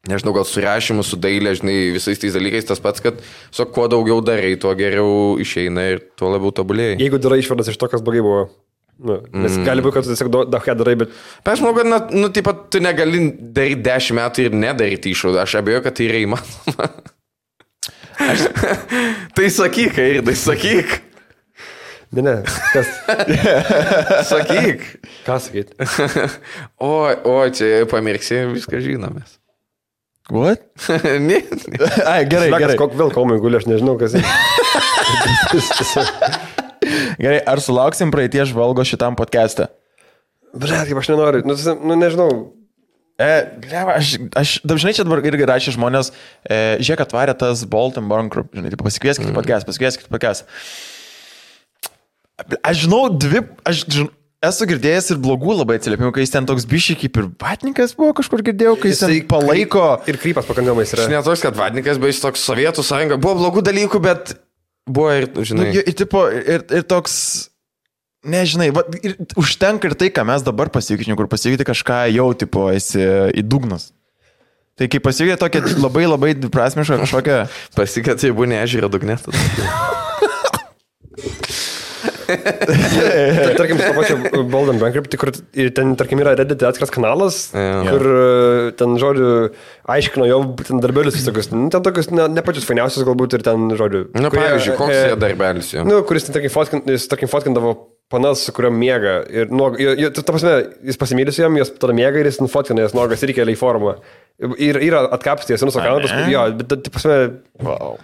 nežinau, gal su rašymu, su dailė, žinai, visais tais dalykais tas pats, kad kuo daugiau darai, tuo geriau išeina ir tuo labiau tobulėjai. Jeigu darai išvadas iš to, kas blogai buvo. Nes gali būti, kad tu tiesiog daug darai, bet... Aš manau, kad, taip pat tu negali daryti 10 metų ir nedaryti išvadą. Aš abejoju, kad tai yra įmanoma. Tai sakyk, Airdai, sakyk. Ne, kas? Sakyk. Ką sakyt? O, čia pamirksi, viską žinomės. What? Ne. Ai, gerai. Vėl komai guli, aš nežinau, kas. Gerai, ar sulauksim praeities žvalgo šitam podcast'e? Blet, kaip aš nenoriu, nežinau. Aš dažnai čia dabar irgi rašė žmonės, žiūrėk, atvarė tas Bolt & Burn Group, žinai, pasikvieskit podcast. Aš žinau, esu girdėjęs ir blogų labai atsiliepimų, kai jis ten toks bišį kaip ir vatnikas buvo, kažkur girdėjau, kai jis ten palaiko. Ir krypas pakankamai yra. Aš netoks, kad vatnikas, bet jis toks Sovietų sąjunga. Buvo blogų dalykų, bet buvo ir, žinai. Ir toks, nežinai, ir užtenka ir tai, ką mes dabar pasikeitėm, kur pasikeitė kažką jau, tipo, esi į dugnas. Tai kai pasikeitė tokia labai labai dviprasmiška kažkokia... Pasikeitė, tai buvo neežyra dugnė. Tarkim, su to pačiu Bold & Burn Group, kur ten, tarkim, yra Reddit atskiras kanalas, kur ten, žodžiu, aiškino jo darbelius visokius, ten tokius ne pačius fainiausius galbūt ir ten, žodžiu. Na, pavyzdžiui, koks jie darbelis jo? Kuris, tarkim, fotkindavo panas, su kuriuo miega. Ir, ta prasme, jis pasimylė su jam, jos tada miega ir jis nufotkina jas nuogas ir įkelia į formą. Ir yra atkapstės, ir nusakalna, paskui, jo, bet, ta prasme, wow.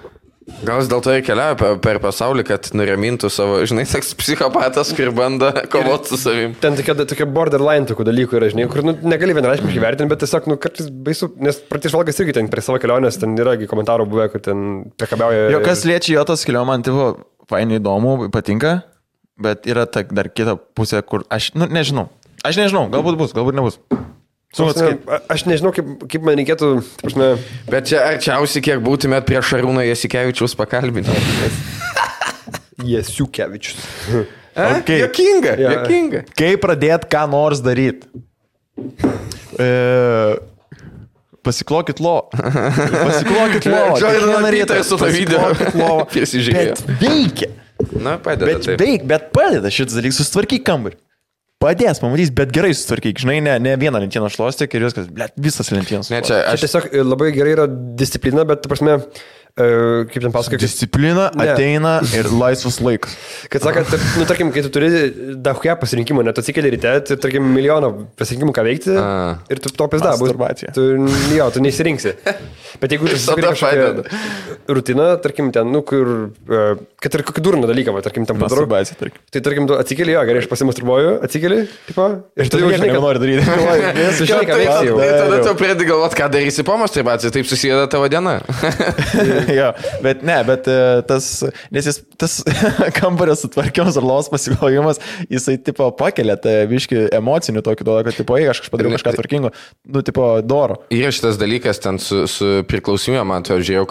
Gal jis dėl to ir keliauja per pasaulį, kad nuramintų savo, žinai, toks psichopatas, kur bando kovoti su savim. Ten tokie borderline tokių dalykų yra, žinai, kur negali vienareiškiškai vertinti, bet tiesiog, kartais baisu, nes praeitis žvalgas irgi ten prie savo kelionės, ten yra komentarų buvę, kur ten priekabiauja. Jo, kas liečia jo tas kelionė, man tipo, fainai įdomu, patinka, bet yra dar kita pusė, kur aš, nežinau, galbūt bus, galbūt nebus. Aš nežinau, kaip man reikėtų... Prasme... Bet čia arčiausiai, kiek būtumėt prie Šarūno Jasikevičiaus pakalbinti. Jasikevičius. Okay. Jokinga. Kaip pradėt ką nors daryti? Pasiklokit lo. Kiekvieną rytą su to video. Bet veikia. Na, padeda. Bet padeda šitas dalykas, susitvarkyk kambarį. Padės, pamatys, bet gerai sutvarkyk, žinai, ne vieną lentieną šluostyk ir viskas, visas lentienas. Čia tiesiog labai gerai yra disciplina, bet, ta prasme, kaip ten pasakai... Disciplina ateina ir laisvas laikas. Kad sakant, tarkim, kai tu turi daugą pasirinkimų, net atsikeli ryte, tai, tarkim, milijoną pasirinkimų ką veikti ir tu to pizda bus. Tu neįsirinksi. Bet jeigu tu susipiri kažkokią rutiną, tarkim, ten, kur, kad ir kokį durną dalyką, tarkim, ten padarau. Tai, tarkim, tu atsikeli, gerai, aš pasimasturbuoju, atsikeli, tipo, ir tu jau žinai, ką nori daryti. Tada tu pradedi galvoti, ką darysi po masturbacijos, taip susideda tavo diena. Jo, bet tas kambario sutvarkymas ar lovos pasiklojimas, jisai, tipo, pakelia tą biškį emocinių tokį duoda, kad, tipo, aš padariau kažką tvarkingo, tipo, doro. Yra šitas dalykas ten su priklausymė, man to žiūrėjau,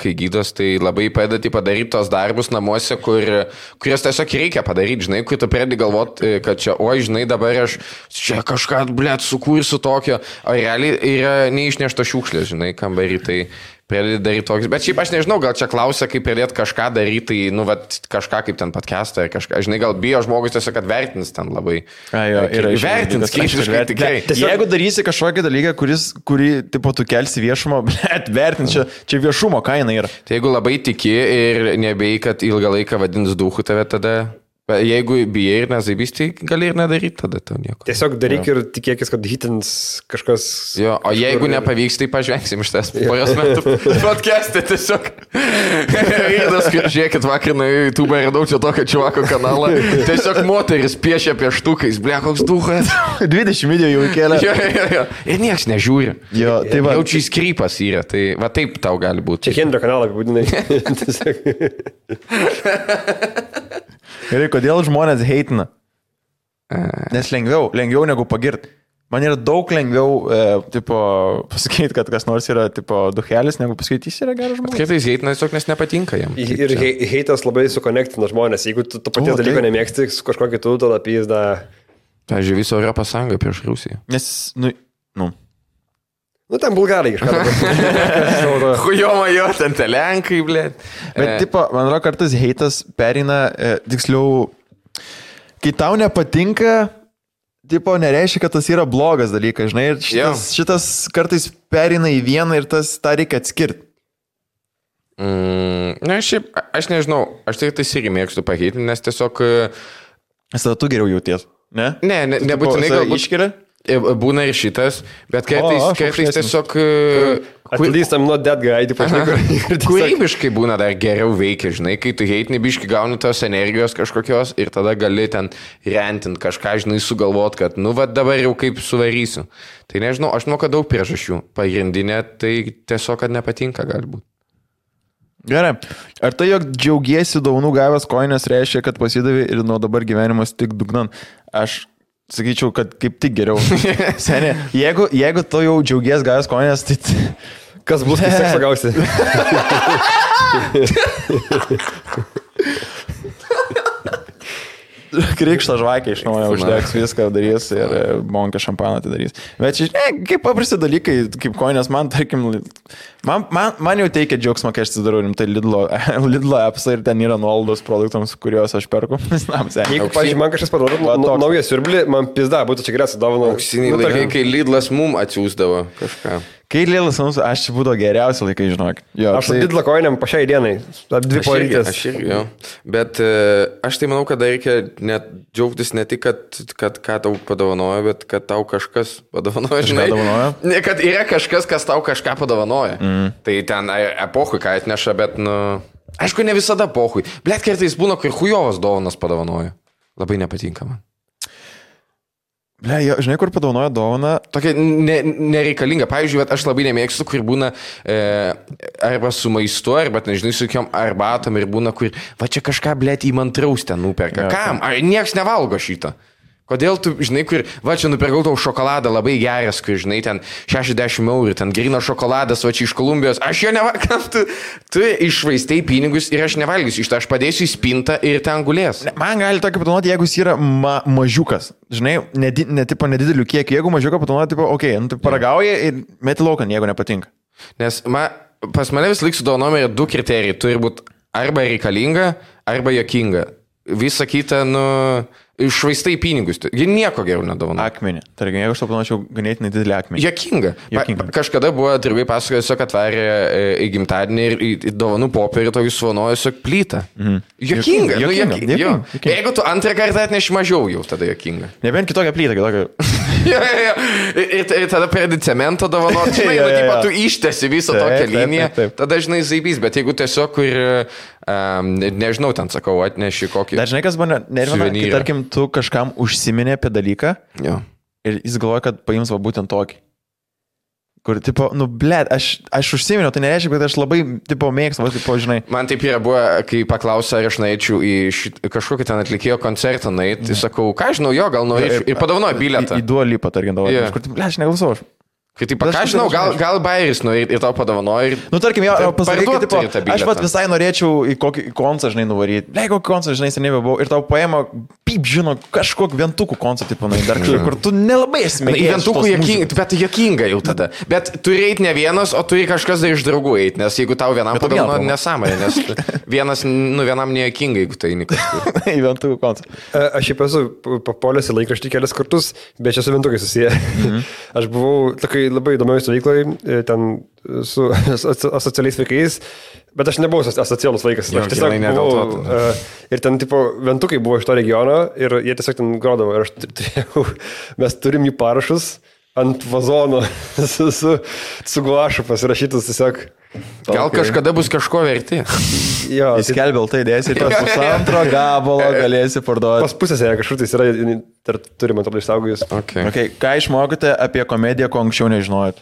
kai gydos, tai labai padeda, tipo, daryti tos darbus namuose, kurias tiesiog reikia padaryti, žinai, kur tu pradedi galvoti, kad čia, žinai, dabar aš čia kažką, blėt, sukursiu tokio, o realiai yra neišnešta šiukšlė, žinai, kambarį, tai pradėti daryti toks. Bet šiaip aš nežinau, gal čia klausia, kaip pradėti kažką daryti, tai, kažką kaip ten podcastą ar kažką. Žinai, gal bijo žmogus tiesiog, kad vertins ten labai. Vertins, kritiškai tikrai. Jeigu darysi kažkokį dalyką, kurį, tipo, tu kelsi viešumą, bet vertins, čia viešumo kaina yra. Tai jeigu labai tiki ir nebėjai, kad ilgą laiką vadins duchu tave tada... Jeigu bijai ir nezaibysti, gali ir nedaryti tada to nieko. Tiesiog daryk ir tikėkis, kad hitins kažkas... Jo, o jeigu nepavyks, tai pažvengsim iš tas poros metų podcast'e tiesiog. Irdas, žiūrėkit, vakar na YouTube radau čia tokio čuvako kanalą. Tiesiog moteris piešia pieštukais, ble, koks duchas. 20 video jau įkėlė. Jo. Ir nieks nežiūri. Jo, tai va. Jaučiai skrypas yra, tai va taip tau gali būti. Čia Hendrio kanalą apibūdinai. Gerai, kodėl žmonės heitina? Nes lengviau negu pagirti. Man yra daug lengviau, pasakyti, kad kas nors yra, duhelis, negu pasakyti, jis yra geras žmogus. Kartais heitina tiesiog, nes nepatinka jam. Ir heitas labai sukonektina žmonės. Jeigu tu paties dalyko nemėgsti su kažkuo kitu, tada pizda. Pavyzdžiui, viso Europos Sąjunga prieš Rusiją. Nes, Nu, ten bulgarai kažką. Hujoma jo, ten telenkai, blė. Bet, tipo, man atrodo, kartais heitas perina, tiksliau, kai tau nepatinka, tipo, nereiškia, kad tas yra blogas dalykas, žinai, ir šitas kartais perina į vieną ir tą reikia atskirti. Na, šiaip, aš nežinau, aš tai irgi mėgstu pakeitinti, nes tiesiog... Tada tu geriau jauties, ne? Ne, nebūtinai galbūt iškiria. Būna ir šitas, bet kartais tiesiog... At least I'm not that guy, tipo, kūrybiškai būna dar geriau veikia, žinai, kai tu heitini biški gauni tos energijos kažkokios ir tada gali ten rentinti kažką, žinai, sugalvot, kad, nu, va dabar jau kaip suvarysiu. Tai nežinau, aš manau, kad daug priežasčių. Pagrindinė, tai tiesiog, kad nepatinka galbūt. Gerai. Ar tai, jog džiaugiesi dovanų gavęs koinės, reiškia, kad pasidavė ir nuo dabar gyvenimas tik dugnan? Aš sakyčiau, kad kaip tik geriau. Senė, jeigu tu jau džiaugies gavęs koinės, tai... Kas bus, kai seksą gausi? Krikštą žvakę iš naujo uždegs, viską darys ir bonkę šampaną atidarys. Bet čia, kaip paprasti dalykai, kaip koinės, man, tarkim, man jau teikia džiaugsmą, kai aš atsidarau rimtai Lidlo appsą ir ten yra nuolaidos produktams, kuriuos aš perku. Jeigu, pavyzdžiui, man kažkas paduoda naują siurblį, man pizda, būtų čia geriausia dovana. Auksiniai laikai, kai Lidlas mum atsiųsdavo kažką. Kai Lidlas mums, aš čia būdavo geriausi laikai, žinok. Aš su Lidlo koinėm po šiai dienai, 2 porytės. Aš irgi, jo. Bet aš tai manau, kad reikia net džiaugtis ne tik, kad ką tau padovanoja, bet kad tau kažkas padovanoja, žinai. Ne, kad yra kažkas, kas tau kažką padovanoja. Tai ten epohui ką atneša, bet, nu... Aišku, ne visada epohui. Blet, kartais būna, kai hujovas dovanas padovanoja. Labai nepatinka man. Ble, žinai, kur padovanoja dovaną? Tokia nereikalinga. Pavyzdžiui, aš labai nemėgstu, kur būna arba su maistu, arba, nežinai, su kokiom arbatom ir būna, kur va čia kažką, blėt, įmantraus ten nuperka. Kam? Ar nieks nevalgo šitą? Kodėl tu, žinai, kur, va čia nupirkau tau šokoladą labai geras, kur, žinai, ten 60 eurų, ten grino šokoladas, va čia iš Kolumbijos, aš jo nevalgysiu, tu išvaistai pinigus ir aš nevalgysiu iš to, aš padėsiu į spintą ir ten gulės. Man gali tokį padovanoti, jeigu jis yra mažiukas, žinai, nedidelių kiekį, jeigu mažiuką padovanoti, tipo, okei, tu paragauji ir meti laukan, jeigu nepatinka. Nes pas mane vis laik su dovanom yra 2 kriterijai, turi būti arba reikalinga, arba jokinga. Visa kita, nu, išvaistai pinigus. Jie nieko geriau nedovanoja. Akmenį. Tarkim, jeigu aš to panašiau ganėtinai didelį akmenį. Jokinga. Kažkada buvo draugai pasakojo, tiesiog atvarė į gimtadienį ir į dovanų popierį to jūs svanojo tiesiog plytą. Jokinga. Jeigu tu antrą kartą atneši mažiau jau, tada jokinga. Nebent kitokią plytą, Ir tada pradedi cemento dovanot, žinai, tu ištesi visą tokią liniją, tada, žinai, zaibys, bet jeigu tiesiog, kur, nežinau, ten sakau, atneši kokį... Dar žinai, kas buvo nervina, kai, tarkim, tu kažkam užsiminė apie dalyką ir jis galvoja, kad paims va būtent tokį. Kur, tipo, nu, blėt, aš užsiminiau, tai nereiškia, kad aš labai, tipo, mėgstu, va, tipo, žinai. Man taip yra buvo, kai paklausė, ar aš norėčiau į kažkokį ten atlikėjo koncertą nueiti, tai sakau, ką žinau, jo, gal norėčiau, ir padovanoju bilietą. Į Dua Lipą, tarkim, davo. Kur, blėt, aš neklausau. Kai taip, ką žinau, gal bairis ir tau padovanoja ir... Nu, tarkim, jo, pasakyk, tipo, aš pat visai norėčiau į kokį koncą, žinai, nuvaryti. Blei, kokį koncą, žinai, seniai buvau. Ir tau paėmė, pyp, žino, kažkokį vientukų koncą, tipo, dar kur tu nelabai esi mėgėjęs. Vientukų jokinga, bet jokinga jau tada. Bet turi eiti ne vienas, o turi kažkas dar iš draugų eiti, nes jeigu tau vienam padovanoja nesąmonė, nes vienam nejokinga, jeigu tai kažkur. Į vientukų koncą. Aš šiaip esu papuolęs į laikraštį kelias kartus, bet čia su vientukai susiję. Aš buvau tokai labai įdomioj stovykloj, ten su asocialiais vaikais, bet aš nebuvau asocialus vaikas. Aš tiesiog buvau, ir ten, tipo, ventukai buvo iš to regiono ir jie tiesiog ten grodavo. Ir aš turėjau, mes turim jų parašus ant vazono su guašu pasirašytus tiesiog. Gal kažkada bus kažko verti. Jo, įskelbė tai dėsi, tas pusantro gabalo galėsi parduoti. Pas pusėse kažkur tai yra, turime atrodo išsaugojus. Okay. Ką išmokote apie komediją, ko anksčiau nežinojot?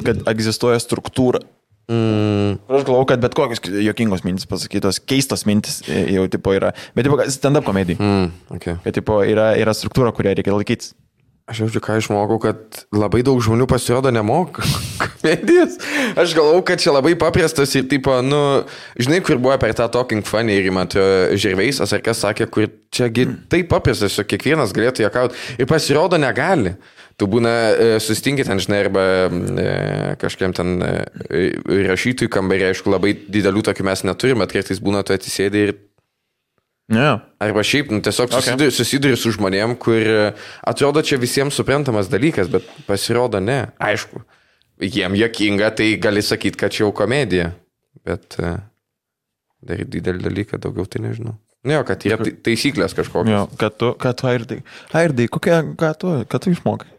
Kad egzistuoja struktūra. Aš galvoju, kad bet kokios jokingos mintis pasakytos, keistos mintis jau tipo yra. Bet tipo stand-up komedijai. Kad tipo yra struktūra, kurią reikia laikytis. Aš jaučiu, ką išmokau, kad labai daug žmonių pasirodo nemoka komedijas. Aš galvau, kad čia labai paprastas ir, tipo, nu, žinai, kur buvo per tą Talking Funny ir man Žirveisas ar kas sakė, kur čiagi taip paprastas, kiekvienas galėtų juokauti ir pasirodo negali. Tu būna susitinkit ten, žinai, arba kažkiam ten rašytojų kambarį, aišku, labai didelių tokių mes neturime, bet kartais būna tu atsisėdai ir... Yeah. Arba šiaip, tiesiog susiduri su žmonėm, kur atrodo čia visiems suprantamas dalykas, bet pasirodo ne. Aišku, jiem juokinga, tai gali sakyti, kad čia jau komedija, bet daryti didelį dalyką, daugiau tai nežinau. Jo, kad yra taisyklės kažkokios. Jo, kad tu Airdai, ką tu išmokai?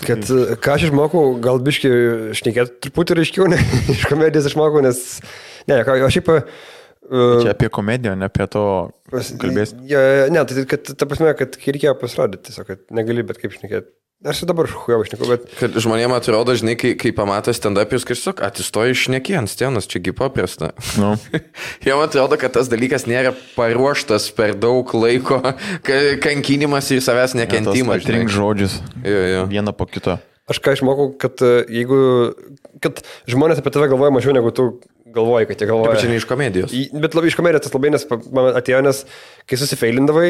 Ką aš išmokau, gal biškai šnekėti truputį reiškiau, ne, iš komedijos išmokau, nes... Ne, aš šiaip... Čia apie komediją, ne apie to kalbėsi. Ne, tai kad, ta prasme, kad reikėjo pasirodyti, tiesiog, kad negali bet kaip šnekėti. Aš dabar šujau šnekau, bet... Kad žmonėm atrodo, žinai, kai pamato stand-upius, kad tiesiog atsistoji šnekį ant scenos, čiagi paprasta. No. Jam atrodo, kad tas dalykas nėra paruoštas per daug laiko, kankinimas ir savęs nekentimas. Atrink žodžius. Jo. Vieną po kito. Aš ką išmokau, kad kad žmonės apie tave galvoja mažiau negu tu galvoji, kad jie galvoja. Taip, čia ne iš komedijos. Bet labai iš komedijos tas labai, nes man atėjo, nes kai susifeilindavai,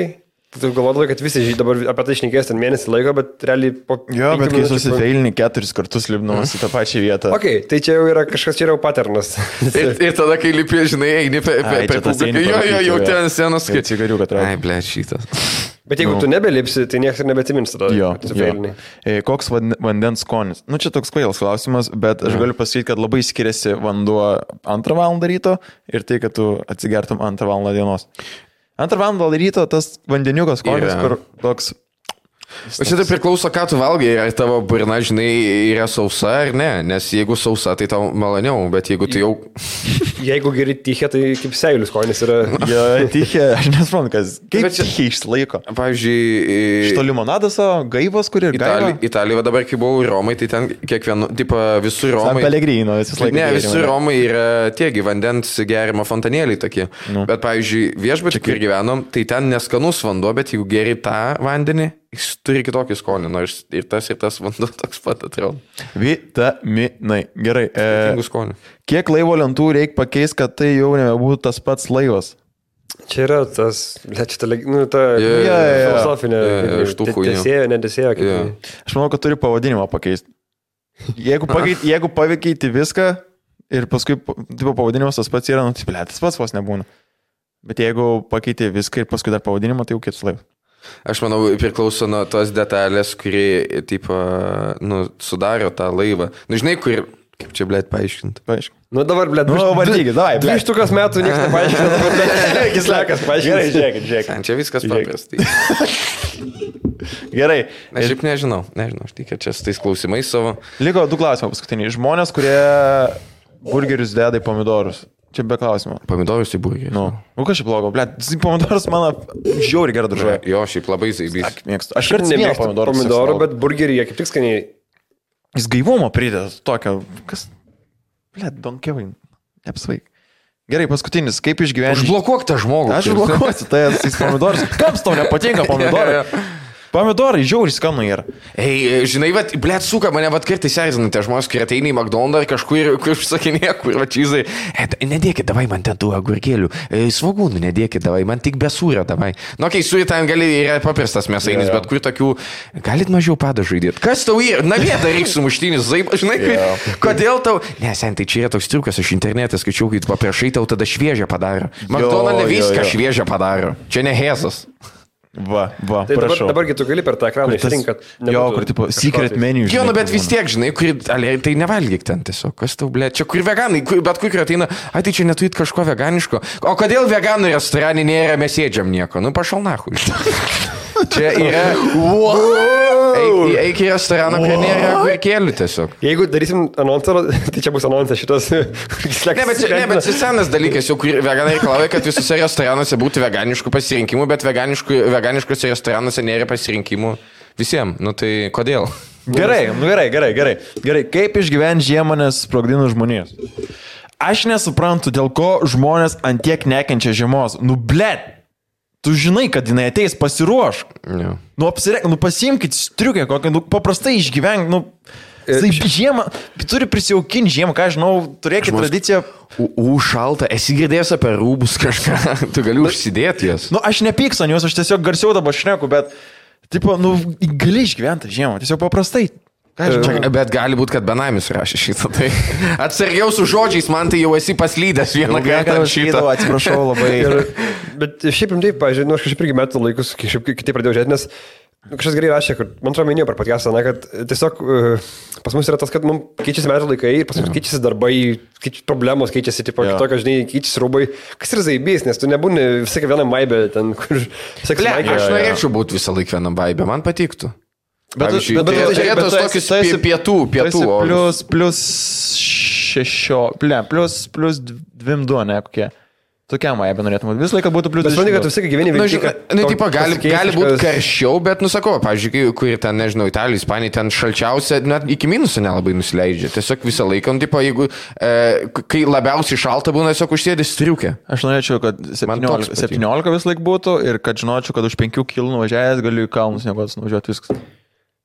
tu galvodavai, kad visi dabar apie tai šnekės ten mėnesį laiko, bet realiai po... Jo, bet kai susifeilini 4 kartus lipdamas į tą pačią vietą. Ok, tai čia jau yra kažkas, čia yra jau paternas. ir tada, kai lipi, žinai, eini per publiką. Jo, ten scenos, kad cigariuką traukia. Ai, blėt, šitas. Bet jeigu tu nebelipsi, tai niekas ir nebeatsimins tada. Jo. Koks vandens skonis? Nu, čia toks kvailas klausimas, bet aš galiu pasakyti, kad labai skiriasi vanduo 2 valandą ryto ir tai, kad tu atsigertum 2 valandą dienos. 2 valandą ryto tas vandeniukas skonis, kur toks... O čia tai priklauso, ką tu valgai, ar tavo burna, žinai, yra sausa ar ne, nes jeigu sausa, tai tau maloniau, bet jeigu tu jau... Jeigu geri tichė, tai kaip seilius skonis yra... Jo, tichė, aš nesuprantu, kas... Kaip tichė išlaiko? Pavyzdžiui... Šito limonadas, gaivos, kur ir gaiva? Italijoje dabar, kai buvau Romai, tai ten kiekvienu, tipo, visur Romai... San Pellegrino, visas laikas. Ne, visur Romai yra tiegi vandens gerimo fontanėliai tokie. Bet, pavyzdžiui, viešbutį, kur gyvenom, tai ten neskanus vanduo, bet jeigu geri tą vandenį, jis turi kitokį skonį, nors ir tas vanduo toks pat atrodo. Vitaminai. Gerai. Kiek laivo lentų reikia pakeisti, kad tai jau nebebūtų tas pats laivas? Čia yra tas, ta filosofinė nedesėjo. Aš manau, kad turi pavadinimą pakeisti. Jeigu paveikeiti viską ir paskui pavadinimas tas pats yra, tas pats vos nebūna. Bet jeigu pakeiti viską ir paskui dar pavadinimą, tai jau kitas laivas. Aš manau, priklauso nuo tos detalės, kuri, tipo, sudaro tą laivą. Nu, žinai, kur... Kaip čia, blėt, paaiškinti? Nu, dabar, blėt, vardykit, davai, blėt. 2 metų niekas nepaaiškina, dabar, blėt, kislekas paaiškina. Gerai, žiūrėkit. Čia viskas paprastai. Gerai. Aš šiaip nežinau, aš tikiu čia su tais klausimais savo. Liko 2 klausimai paskutiniai. Žmonės, kurie burgerius deda į pomidorus. Čia be klausimo. Pomidorus į burgerį. Nu, kas čia blogo, blėt, pomidorus mano žiauri gerai daržuoja. Jo, šiaip labai zaibys. Aš ir nemėgstu pomidorų, bet burgerį jie kaip tik skaniai. Jis gaivumo prideda tokio, kas, blėt, donkevai, neapsvaik. Gerai, paskutinis, kaip išgyventi. Užblokuok tą žmogų. Aš užblokuosiu, tai jis pomidorus. Kams tau nepatinka pomidorai? Pomidorai žiauriai skanu yra. Ei, žinai, blėt, suka, mane kartais erzina tie žmonės, kurie ateina į McDonald's ar kažkur, kur užsakinėja, kur čizai. Nedėkit, davai man ten tų agurkėlių. Svogūnų nedėkit, davai, man tik be sūrio, davai. Nu, kai sūri ten gali, yra paprastas mėsainis, bet kur tokių, galit mažiau padažų įdėti. Kas tau yra? Na, vieta reikia sumuštinis, žinai, kodėl tau... Ne, sen, tai čia yra toks triukas, aš internete skaičiau, kai tu paprašai, tau tada šviežią padaro. McDonald's viską šviežią padaro. Čia ne hezas. Va, tai prašau. Dabargi tu gali per tą ekraną išrinkti, kad... Jo, kur tipo secret menu. Jo, bet vis tiek, žinai, tai nevalgyk ten tiesiog. Kas tau, blė, čia kur veganai, bet kur ateina, tai čia neturit kažko veganiško. O kodėl veganų restorane nėra mesėdžiam nieko? Nu, pašal nahui. Čia yra... Eik į restoraną, kur nėra agurkėlių tiesiog. Jeigu darysim anonsą, tai čia bus anonsas šitas... Ne, bet senas dalykas, jau kur veganai reikalauja, kad visose restoranuose būtų veganiškų pasirinkimų, bet veganiškose restoranuose nėra pasirinkimų visiems. Nu tai kodėl? Gerai. Kaip išgyventi žiemą, nes sprogdina žmonės? Aš nesuprantu, dėl ko žmonės antiek nekenčia žiemos. Nu, blėt! Tu žinai, kad jinai ateis, pasiruošk. Yeah. Nu, pasiimkit striukę kokią, paprastai išgyvenk, žiemą, turi prisijaukinti žiemą, ką žinau, turėkit tradiciją. Šalta, esi girdėjęs apie rūbus kažką, tu gali užsidėti jas. Nu, aš nepykstu ant jūs, aš tiesiog garsiau dabar šneku, bet Tipo, gali išgyventi žiemą, tiesiog paprastai. Bet gali būti, kad benamis rašė šitą. Tai atsargiau su žodžiais, man tai jau esi paslydęs vieną kartą šitą. Atsiprašau labai. Bet šiaip rimtai, pažiūrėjau, aš kažkaip irgi metų laikus, kažkaip kitaip pradėjau žiūrėti, nes kažkas gerai rašė, kad man atrodo minėjau per podcastą, kad tiesiog pas mus yra tas, kad mums keičiasi metų laikai ir pas mus keičiasi darbai, problemos keičiasi, tipo, kitokio, žinai, keičiasi rūbai. Kas yra zaibys, nes tu nebūni visai vienam vaibė, ten, kur... Aš norėčiau būti visą laiką vienam vaibė, man patiktų. Bet turėtos tokius pietų. Plus 6, plus 2, ne, kokie. Tokiam vaibė norėtum. Visą laiką būtų plus 2. Bet manai, kad tu visą laiką gyveni vilti. Gali būti karščiau, bet, pavyzdžiui, kur ten, nežinau, Italija, Ispanija, ten šalčiausia, net iki minusų nelabai nusileidžia. Tiesiog visą laiką, jeigu, kai labiausiai šalta būna, tiesiog užsėdė striukę. Aš norėčiau, kad 17 vis laik būtų ir kad žinočiau, kad už 5 km nuvažiavęs galiu į kalnus nuvažiuoti viskas.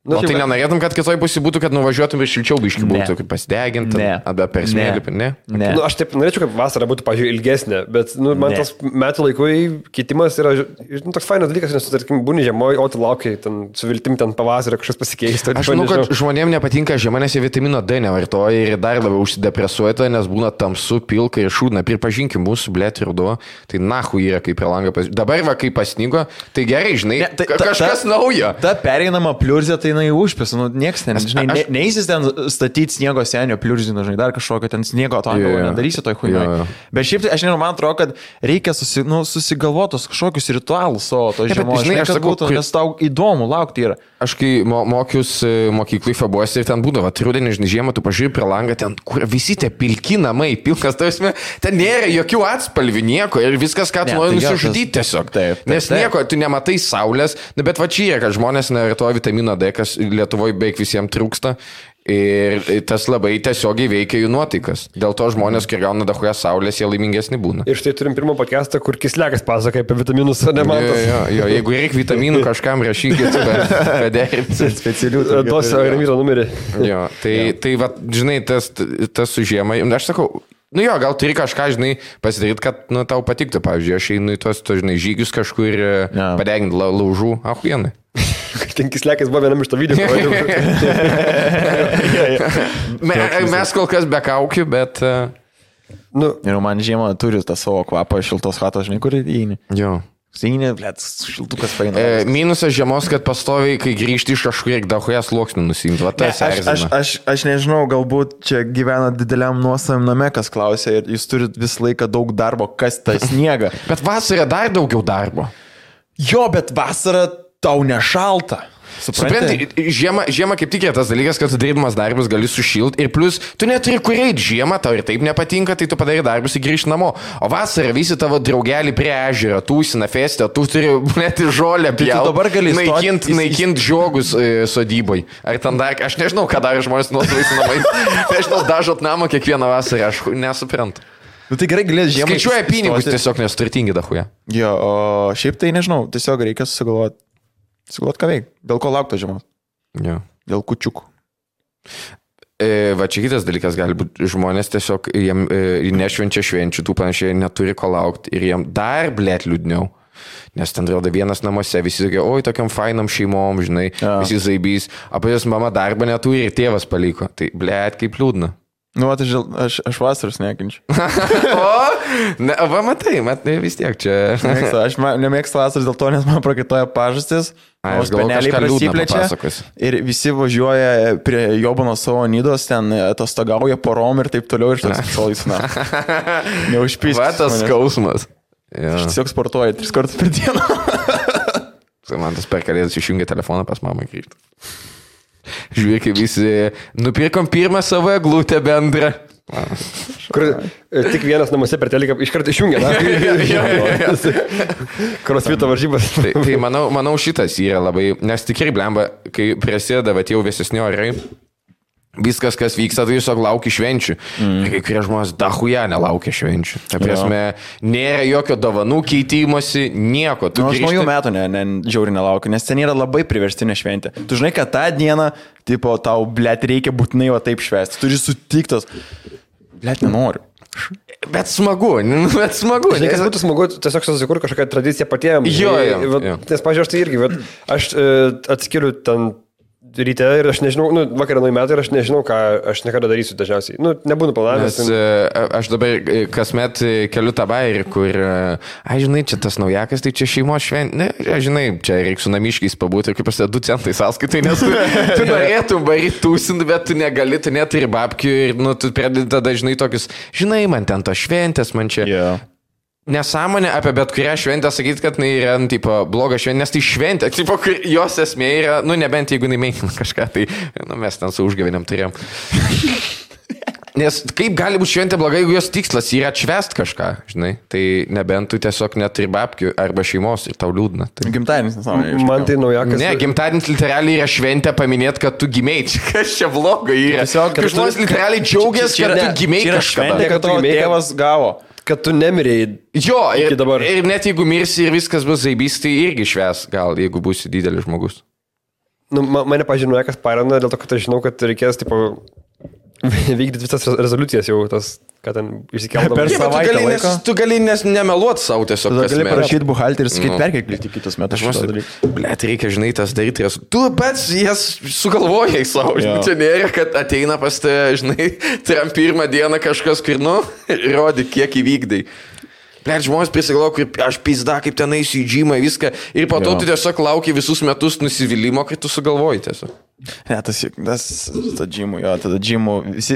O tai nenorėtum, kad kitoj pusė būtų, kad nuvažiuotum ir šilčiau biškių būtų, kaip pasideginti, arba per smėlį, ne? Aš taip norėčiau, kad vasara būtų, pažiūrėjau, ilgesnė, bet man tas metų laikui keitimas yra toks fainas dalykas, nes tu, tarkim, būni žiemoje, o tu laukiai, su viltim ten pavasarį kažkas pasikeisti. Aš manau, kad žmonėms nepatinka žiema, nes jie vitamino D nevartoja ir dar labiau užsidepresuoja, nes būna tamsu, pilka ir šūdna. Pripažinkim, mūsų blėt ruduo, tai nahu yra kaip per langą. Dabar va, kai pasnigo, tai gerai, žinai, kažkas naujo. Ta pereinama pliurzė, tai jinai užpės, nieks ten, žinai, neįsis ten statyti sniego senio pliurzino, žinai, dar kažkokio ten sniego atongo, nedarysi toj huinoj. Bet šiaip tai, aš nežinau, man atrodo, kad reikia susigalvotos kažkokius ritualus savo to žiemos, žinai, kad būtų, nes tau įdomu laukti yra. Aš kai mokiausi mokyklai Fabuose ir ten būdavo, rudenį, žinai, žiemą, tu pažiūrėjai prie langą, ten, kur visi tie pilki namai, pilkas, tausme, ten nėra jokių atspalvių, nieko ir viskas, ką tu nori nusižudyti tiesiog. Nes nieko, tu nematai saulės, bet va čia yra, kad žmonės nevartoja vitamino D, kas Lietuvoje beveik visiems trūksta ir tas labai tiesiogiai veikia jų nuotaikas. Dėl to žmonės, kai gauna dahuja saulės, jie laimingesni būna. Ir štai turim pirmą podcastą, kur Kislekas pasakoja apie vitaminus, o ne Mantas. Jo, jeigu reikia vitaminų, kažkam rašykit, padėkit. Specialių duosiu Ramiro numerį. Jo, tai va, žinai, tas su žiemai, aš sakau, jo, gal turi kažką, žinai, pasidaryti, kad tau patiktų. Pavyzdžiui, aš einu į tos, žinai, žygius kažkur padeginti laužų, ahuienai. Ten Kislekas buvo vienam iš to video. Mes kol kas be kaukių, bet... Ir man žiemą turi tą savo kvapą šiltos chatos, žinai, kur įeini. Jo. Seinė, blėt, šiltukas paina. Minusas žiemos, kad pastoviai, kai grįžti iš kažkur, reikia dahuja sluoksnių nusimti. Aš nežinau, galbūt čia gyvena dideliam nuosavim name, kas klausia ir jūs turit visą laiką daug darbo, kas tą sniegą. Bet vasarą dar daugiau darbo. Jo, bet vasarą tau nešalta. Supranti, žiemą kaip tik yra tas dalykas, kad tu darydamas darbus gali sušilti ir plus tu neturi kur eiti žiemą, tau ir taip nepatinka, tai tu padarai darbus ir grįžti namo. O vasarą visi tavo draugeliai prie ežero, tūsina festę, tu turi net žolę pjauti, naikint žiogus sodybai. Ar ten dar, aš nežinau, ką daro žmonės nuosavais namais. Nežinau, dažot namą kiekvieną vasarą, aš nesuprantu. Tai gerai galės žiemą. Skaičiuoja pinigus tiesiog, nes turtingi dahuja. Jo, o šiaip tai nežinau, tiesiog reikia susigalvoti. Sugalvot ką veik. Dėl ko laukto žiemos? Jo. Dėl kučiukų. Va čia kitas dalykas gali būti. Žmonės tiesiog jiem nešvenčia švenčių, tų panašiai neturi ko laukti ir jiem dar blėt liūdniau. Nes ten rodo vienas namuose, visi tokie, oi, tokiam fainam šeimom, žinai, visi zaibys. Apie jos mama darbą neturi ir tėvas paliko. Tai blėt kaip liūdna. Nu, aš vasaros nekinčiu. Va, matai, vis tiek čia. Aš nemėgstu vasaros dėl to, nes man prakaitoja pažastis. O speneliai prasiplečia. Ir visi važiuoja prie Jobano savo nidos, ten atostogauja porom ir taip toliau ir štas šalais. Neužpyskis. Va, tas skausmas. Aš tiesiog sportuoju 3 kartus per dieną. Man tas per kalėdas išjungia telefoną pas mamą grįžti. Žiūrėk, visi nupirkom pirmą savo eglutę bendrą. Kur tik vienas namuose per teliką iškart išjungia. Crossfito varžybas. Tai manau šitas yra labai, nes tikrai blemba, kai prasideda jau vėsesni orai, viskas, kas vyksta, tai tiesiog laukia švenčių. Ir kai kurie žmonės dahuja nelaukia švenčių. Ta prasme, nėra jokio dovanų keitimosi, nieko. Aš naujų metų žiauriai nelaukiu, nes ten yra labai priverstinė šventė. Tu žinai, kad tą dieną, tipo, tau, blėt, reikia būtinai va taip švęsti. Turi sutiktos. Blėt, nenoriu. Bet smagu. Žinai, kas būtų smagu, tiesiog susikurti kažkokią tradiciją patiems. Jo. Nes, pažiūrėjau, aš tai irgi, aš atskiriu ten ryte ir aš nežinau, vakarą nuo metų ir aš nežinau, ką aš niekada darysiu dažniausiai. Nebūnu planavęs. Aš dabar kasmet keliu tą bairį, kur, žinai, čia tas naujakas, tai čia šeimos šventė. Žinai, čia reikia su namiškiais pabūti ir kaip prasideda 2 centai sąskaitai, nes tu norėtum baryti tūsinti, bet tu negali, tu neturi babkių ir tu pradedi tada, žinai, tokius, žinai, man ten tos šventės, man čia. Yeah. Nesąmonė apie bet kurią šventę sakyti, kad jinai yra, tipo, bloga šventė, nes tai šventė, tipo, jos esmė yra, nebent jeigu jinai menkina kažką, tai, mes ten su užgavėniam turėjom. Nes kaip gali būti šventė bloga, jeigu jos tikslas yra atšvest kažką, žinai, tai nebent tu tiesiog neturi babkių arba šeimos ir tau liūdna. Tai... Gimtadienis, nesąmonė. Man tai naujakas. Ne, gimtadienis literaliai yra šventė paminėti, kad tu gimėjai, kas čia bloga yra. Tiesiog, kad žmonės literaliai džiaugiasi, kad tu gimėjai kažką. Šventė, kad tavo tėvas gavo. Kad tu nemirėjai. Jo, ir net jeigu mirsi ir viskas bus zaibys, tai irgi šves, gal, jeigu būsi didelis žmogus. Mane pažinoja, kas parana, dėl to, kad aš žinau, kad reikės, tipo, vykdyti visas rezoliucijas jau, tas, kad ten išsikeldavo. Per savaitę laiko. Tu gali nemeluoti savo tiesiog. Tu gali parašyti buhalterį ir sakyti, perkelti kitus metus. Blet, reikia, žinai, tas daryti. Tu pats jas sugalvojai savo. Čia nėra, kad ateina pas te, žinai, tam pirmą dieną kažkas, kur, rodi, kiek įvykdai. Blet, žmonės prisigalvo, kaip aš pizda, kaip ten eisiu į džymą, viską. Ir po to tu tiesiog lauki visus metus nusivylimą, kai tu sugalvoji tiesiog. Ne, tas džymų, jo, tada džymų,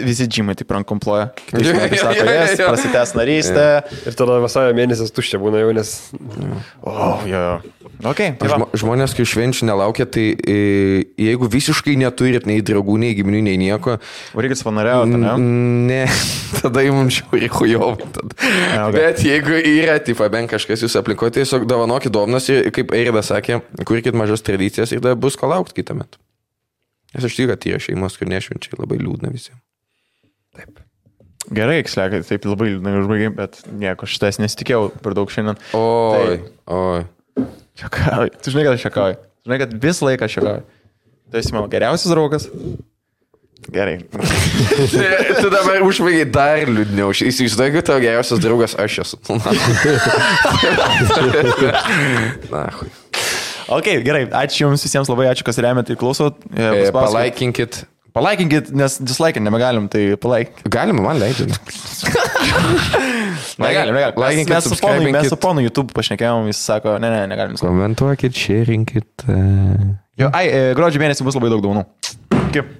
visi džymai taip rankomploja. Prasitęs narystę. Ir tada vasario mėnesis tuščia būna jau, nes... Jo. Okay, žmonės, kai švenčių nelaukia, tai jeigu visiškai neturit nei draugų, nei giminių, nei nieko... Reikia savanoriauti, ne? Ne, tada jums žiauriai chujovai. Bet jeigu yra, tipo, bent kažkas jūs aplikote, tiesiog dovanokit dovanas ir, kaip Eiridas sakė, kurkit mažas tradicijas ir tada bus ko laukti kitą metą. Nes aš tikiu, kad yra šeimos, kur nešvenčiai labai liūdna visiems. Taip. Gerai, Kslekai, taip labai liūdna užbaigiai, bet nieko, šitas nesitikėjau per daug šiandien. Oi. Šiakauju. Tu žinai, kad aš šiakauju. Žinai, kad visą laiką šiakauju. Tu esi mano geriausias draugas. Gerai. Tu dabar užbaigiai dar liūdniau. Įsivaizduoju, kad tavo geriausias draugas aš esu. Na, hui. Ok, gerai, ačiū Jums visiems labai, ačiū, kas remiat ir klausot. Palaikinkit, nes dislike nebegalim, tai palaik. Galim, man leidžiu. Negalim. Mes su ponu YouTube pašnekėjom, jis sako, negalim. Komentuokit, šerinkit. Jo, gruodžio mėnesį bus labai daug daunų. Kaip?